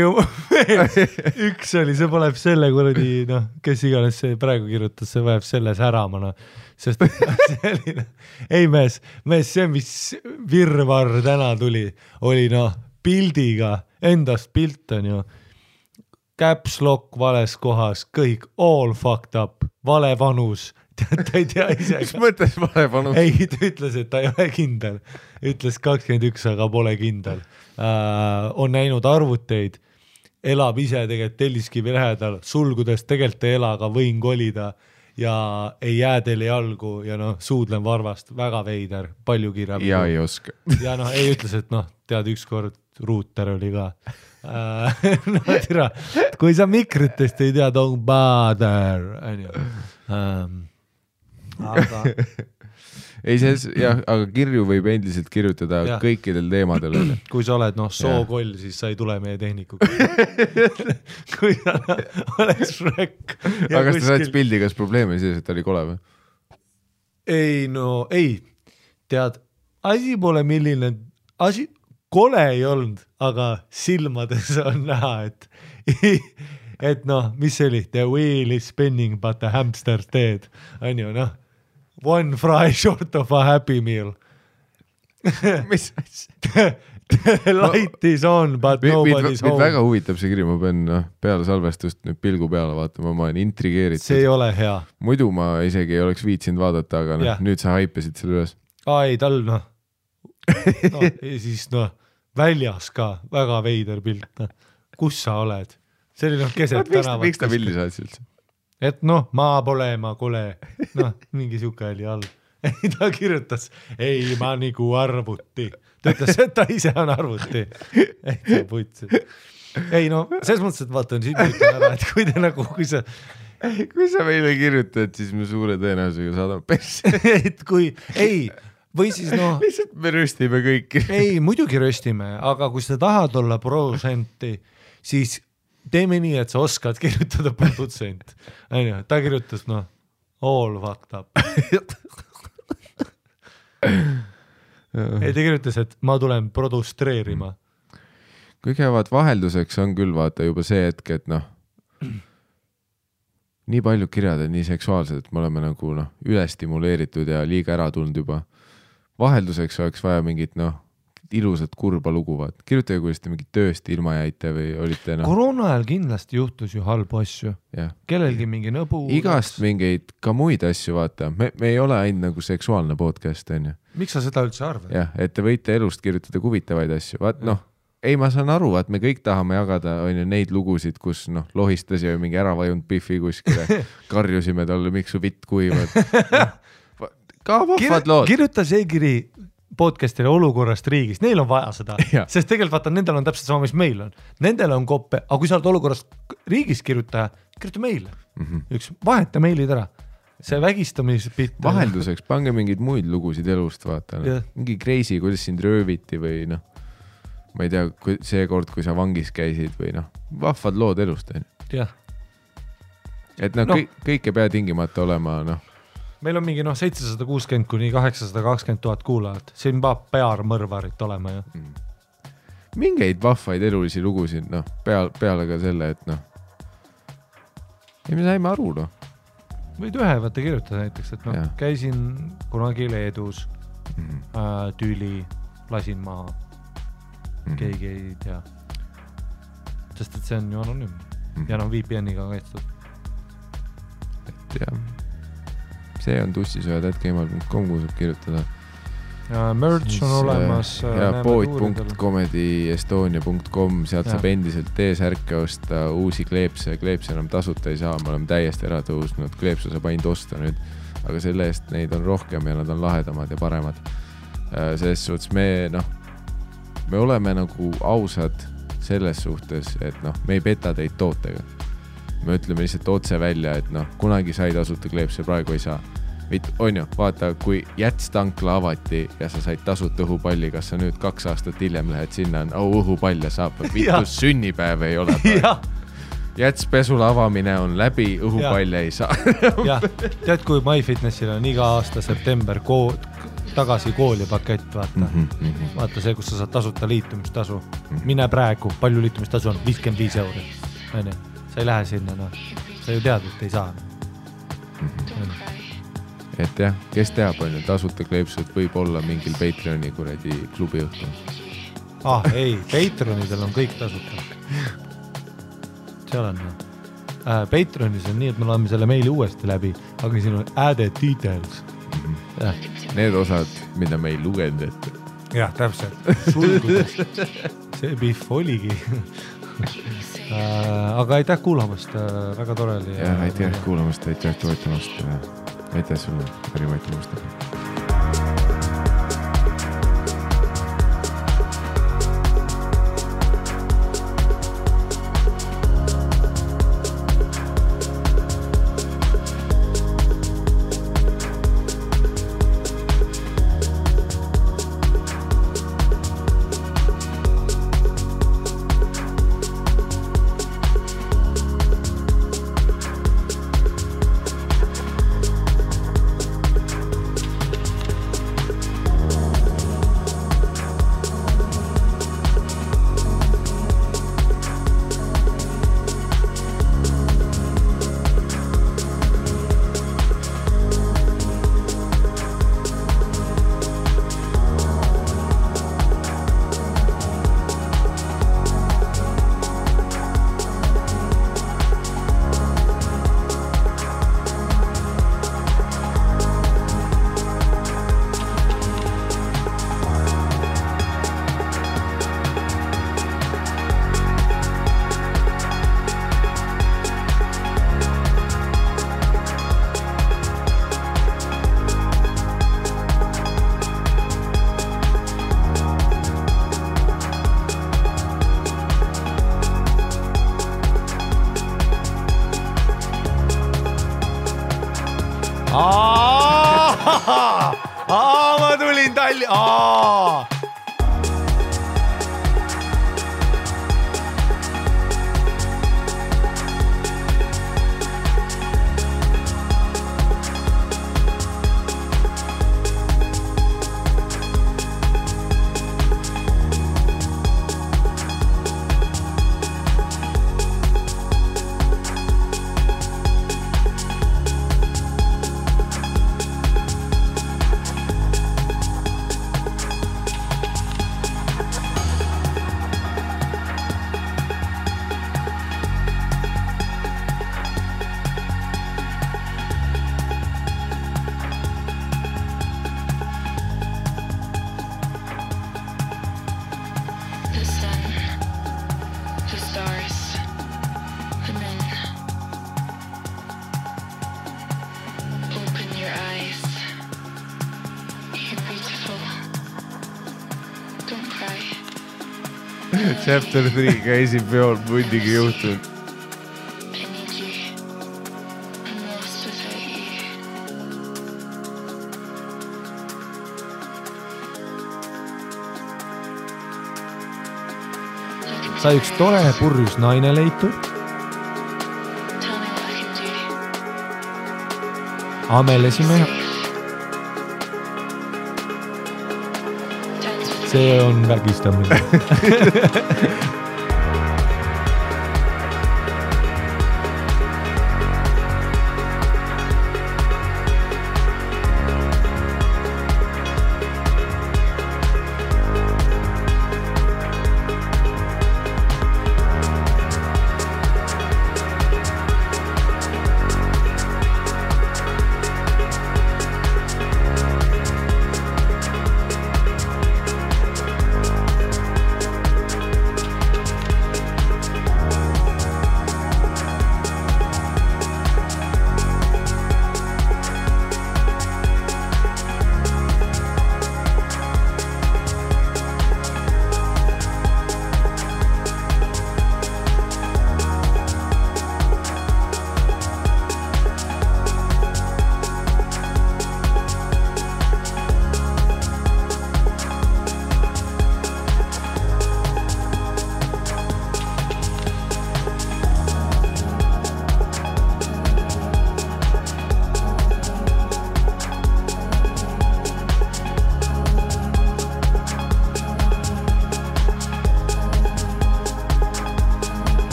üks oli, see paneb selle kuradi, kes iganes see praegu kirjutas, see vajab selle säramana. Sest selline, ei mees, see mis virvar täna tuli, oli pildiga, endast pilt on ju, caps lock vales kohas, kõik all fucked up, vale vanus, ta ei tea ise. Mis mõttes vale vanus? Ei, ta ütles, et ta ei ole kindel. Ütles 21, aga pole kindel. On näinud arvuteid, elab ise tegelikult Telliskivi lähedal, sulgudes tegelikult ei ela, aga võin kolida ja ei jää teile jalgu ja suudlen varvast, väga veider, palju kirjab. Ja ei oska. Ja ei ütles, et tead ükskord ruuter oli ka. Tira, kui sa mikritest ei tea, don't bother. Aga ei, jah, aga kirju võib endiselt kirjutada kõikidel teemadel. Kui sa oled sookoll, siis sa ei tule meie tehnikuga. Kui sa oleks Shrek. Aga kas ta saad pildi, kas probleem oli sees, et ta oli kole või? Ei, tead, asi pole milline, kole ei olnud, aga silmades on näha, et mis see oli, the wheel is spinning but the hamster dead, on ju, one fry short of a happy meal. Mis asja? The light is on but nobody's home. Väga huvitab see kiri, ma pean peale salvestust nüüd pilgu peale vaatama, ma olen intrigeeritud. See ei ole hea. Muidu ma isegi ei oleks viitsinud vaadata, aga nüüd sa haipesid selle üles. Ei, tal siis väljas ka väga veider pilt. Kus sa oled? See oli keset tänavat. Miks ta pildi saad üldse? Et ma pole, ma kole. Mingi siuke oli all. Ta kirjutas, ei, ma nagu arvuti. Ta ütles, et ta ise on arvuti. Ei, ta putsi. Ei, selles mõttes, et vaatan, siin ütlen ära, et kui te kui sa meile kirjutad, siis me suure tõenäosusega saadame persse. Et kui, ei, või siis lihtsalt me röstime kõiki. Ei, muidugi röstime, aga kui sa tahad olla protsenti, siis teeme nii, et sa oskad kirjutada produtsent. Ta kirjutas, all fucked up. Ei, ta kirjutas, et ma tulen produstreerima. Kui käivad vahelduseks on küll vaata juba see hetk, et nii palju kirjad on nii seksuaalsed, et me oleme nagu ülestimuleeritud ja liiga ära tulnud juba. Vahelduseks oleks vaja mingit ilusat kurba lugu, vaat. Kirjutage, kuidas te mingit tööst ilma jäite või olite Koroona ajal kindlasti juhtus ju halbu asju. Kellelgi mingi nõbu. Igast mingeid ka muid asju, vaata. Me ei ole ainult nagu seksuaalne podcast, on ju. Miks sa seda üldse arvad? Jah, et te võite elust kirjutada huvitavaid asju. Vaat ei, ma saan aru, vaat me kõik tahame jagada on ju neid lugusid, kus lohistas ja mingi ära vajunud Biffi kuskile. Karjusime talle, miks su vitt kuivad. Ka vahvad lood. Kirjuta see kiri podcastile olukorrast riigis, neil on vaja seda, sest tegelikult vaata, nendel on täpselt sama, mis meil on. Nendel on koppe, aga kui sa oled olukorrast riigis kirjuta meile. Üks vaheta meilid ära. See vägistamispitt. Vahelduseks pange mingeid muid lugusid elust, vaata. Mingi crazy, kuidas sind rööviti või ma ei tea, see kord, kui sa vangis käisid või vahvad lood elust. Et kõik ei pea tingimata olema Meil on mingi 760 kuni 820 000 kuulajat. Siin peab pearmõrvarit olema. Mingeid vahvaid elulisi lugusid, peale ka selle, et ei me saime aru, Võid ühe võtta kirjutada näiteks, et käisin kunagi Leedus, tüli, lasin maha. Keegi ei tea. Sest et see on ju anonüümne. Ja VPN-iga kaitstud. Et jah. See on tussisööd.gmail.com, kui saab kirjutada. Merch on olemas. Ja pood.comedyestonia.com, sealt saab endiselt T-särke osta, uusi kleepse enam tasuta ei saa, me oleme täiesti ära tõusnud, kleepse saab ainult osta nüüd, aga selle eest neid on rohkem ja nad on lahedamad ja paremad. Selles suhtes me oleme nagu ausad selles suhtes, et me ei peta teid tootega. Me ütleme lihtsalt otse välja, et kunagi sai tasuta kleepse, praegu ei saa. On ju, vaata, kui jätstankla avati ja sa said tasuta õhupalli, kas sa nüüd 2 aastat hiljem lähed sinna, õhupall ja saab, vitus sünnipäev ei ole. Jätspesula avamine on läbi, õhupalle ei saa. Tead, kui MyFitnessil on iga aasta september tagasi kooli pakett, vaata. Vaata see, kus sa saad tasuta liitumistasu. Mine praegu, palju liitumistasu on? 55 €. Sa ei lähe sinna, sa ju tead, et ei saa. Et jah, kes teab, on ju, tasuta kleepsud võib olla mingil Patreoni kuradi klubi õhtul. Ei, Patreonidel on kõik tasuta. Seal on. Patreonis on nii, et me loeme selle meili uuesti läbi, aga siin on added details. Need osad, mida me ei lugenud ette. Jah, täpselt. Sulgudes. See Biff oligi. Aga aitäh kuulamast, väga tore oli. Ja aitäh kuulamast, aitäh toetamast. Aitäh sulle, Harri-Mati. Chapter 3 käisin peol mundigi juhtunud. Sai üks tore purjus naine leitud. Amelesime. See on vägistamine.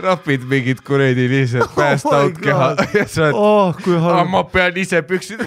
rapid mingid kuredi lihtsalt passed out keha ja sa ma pean ise püksid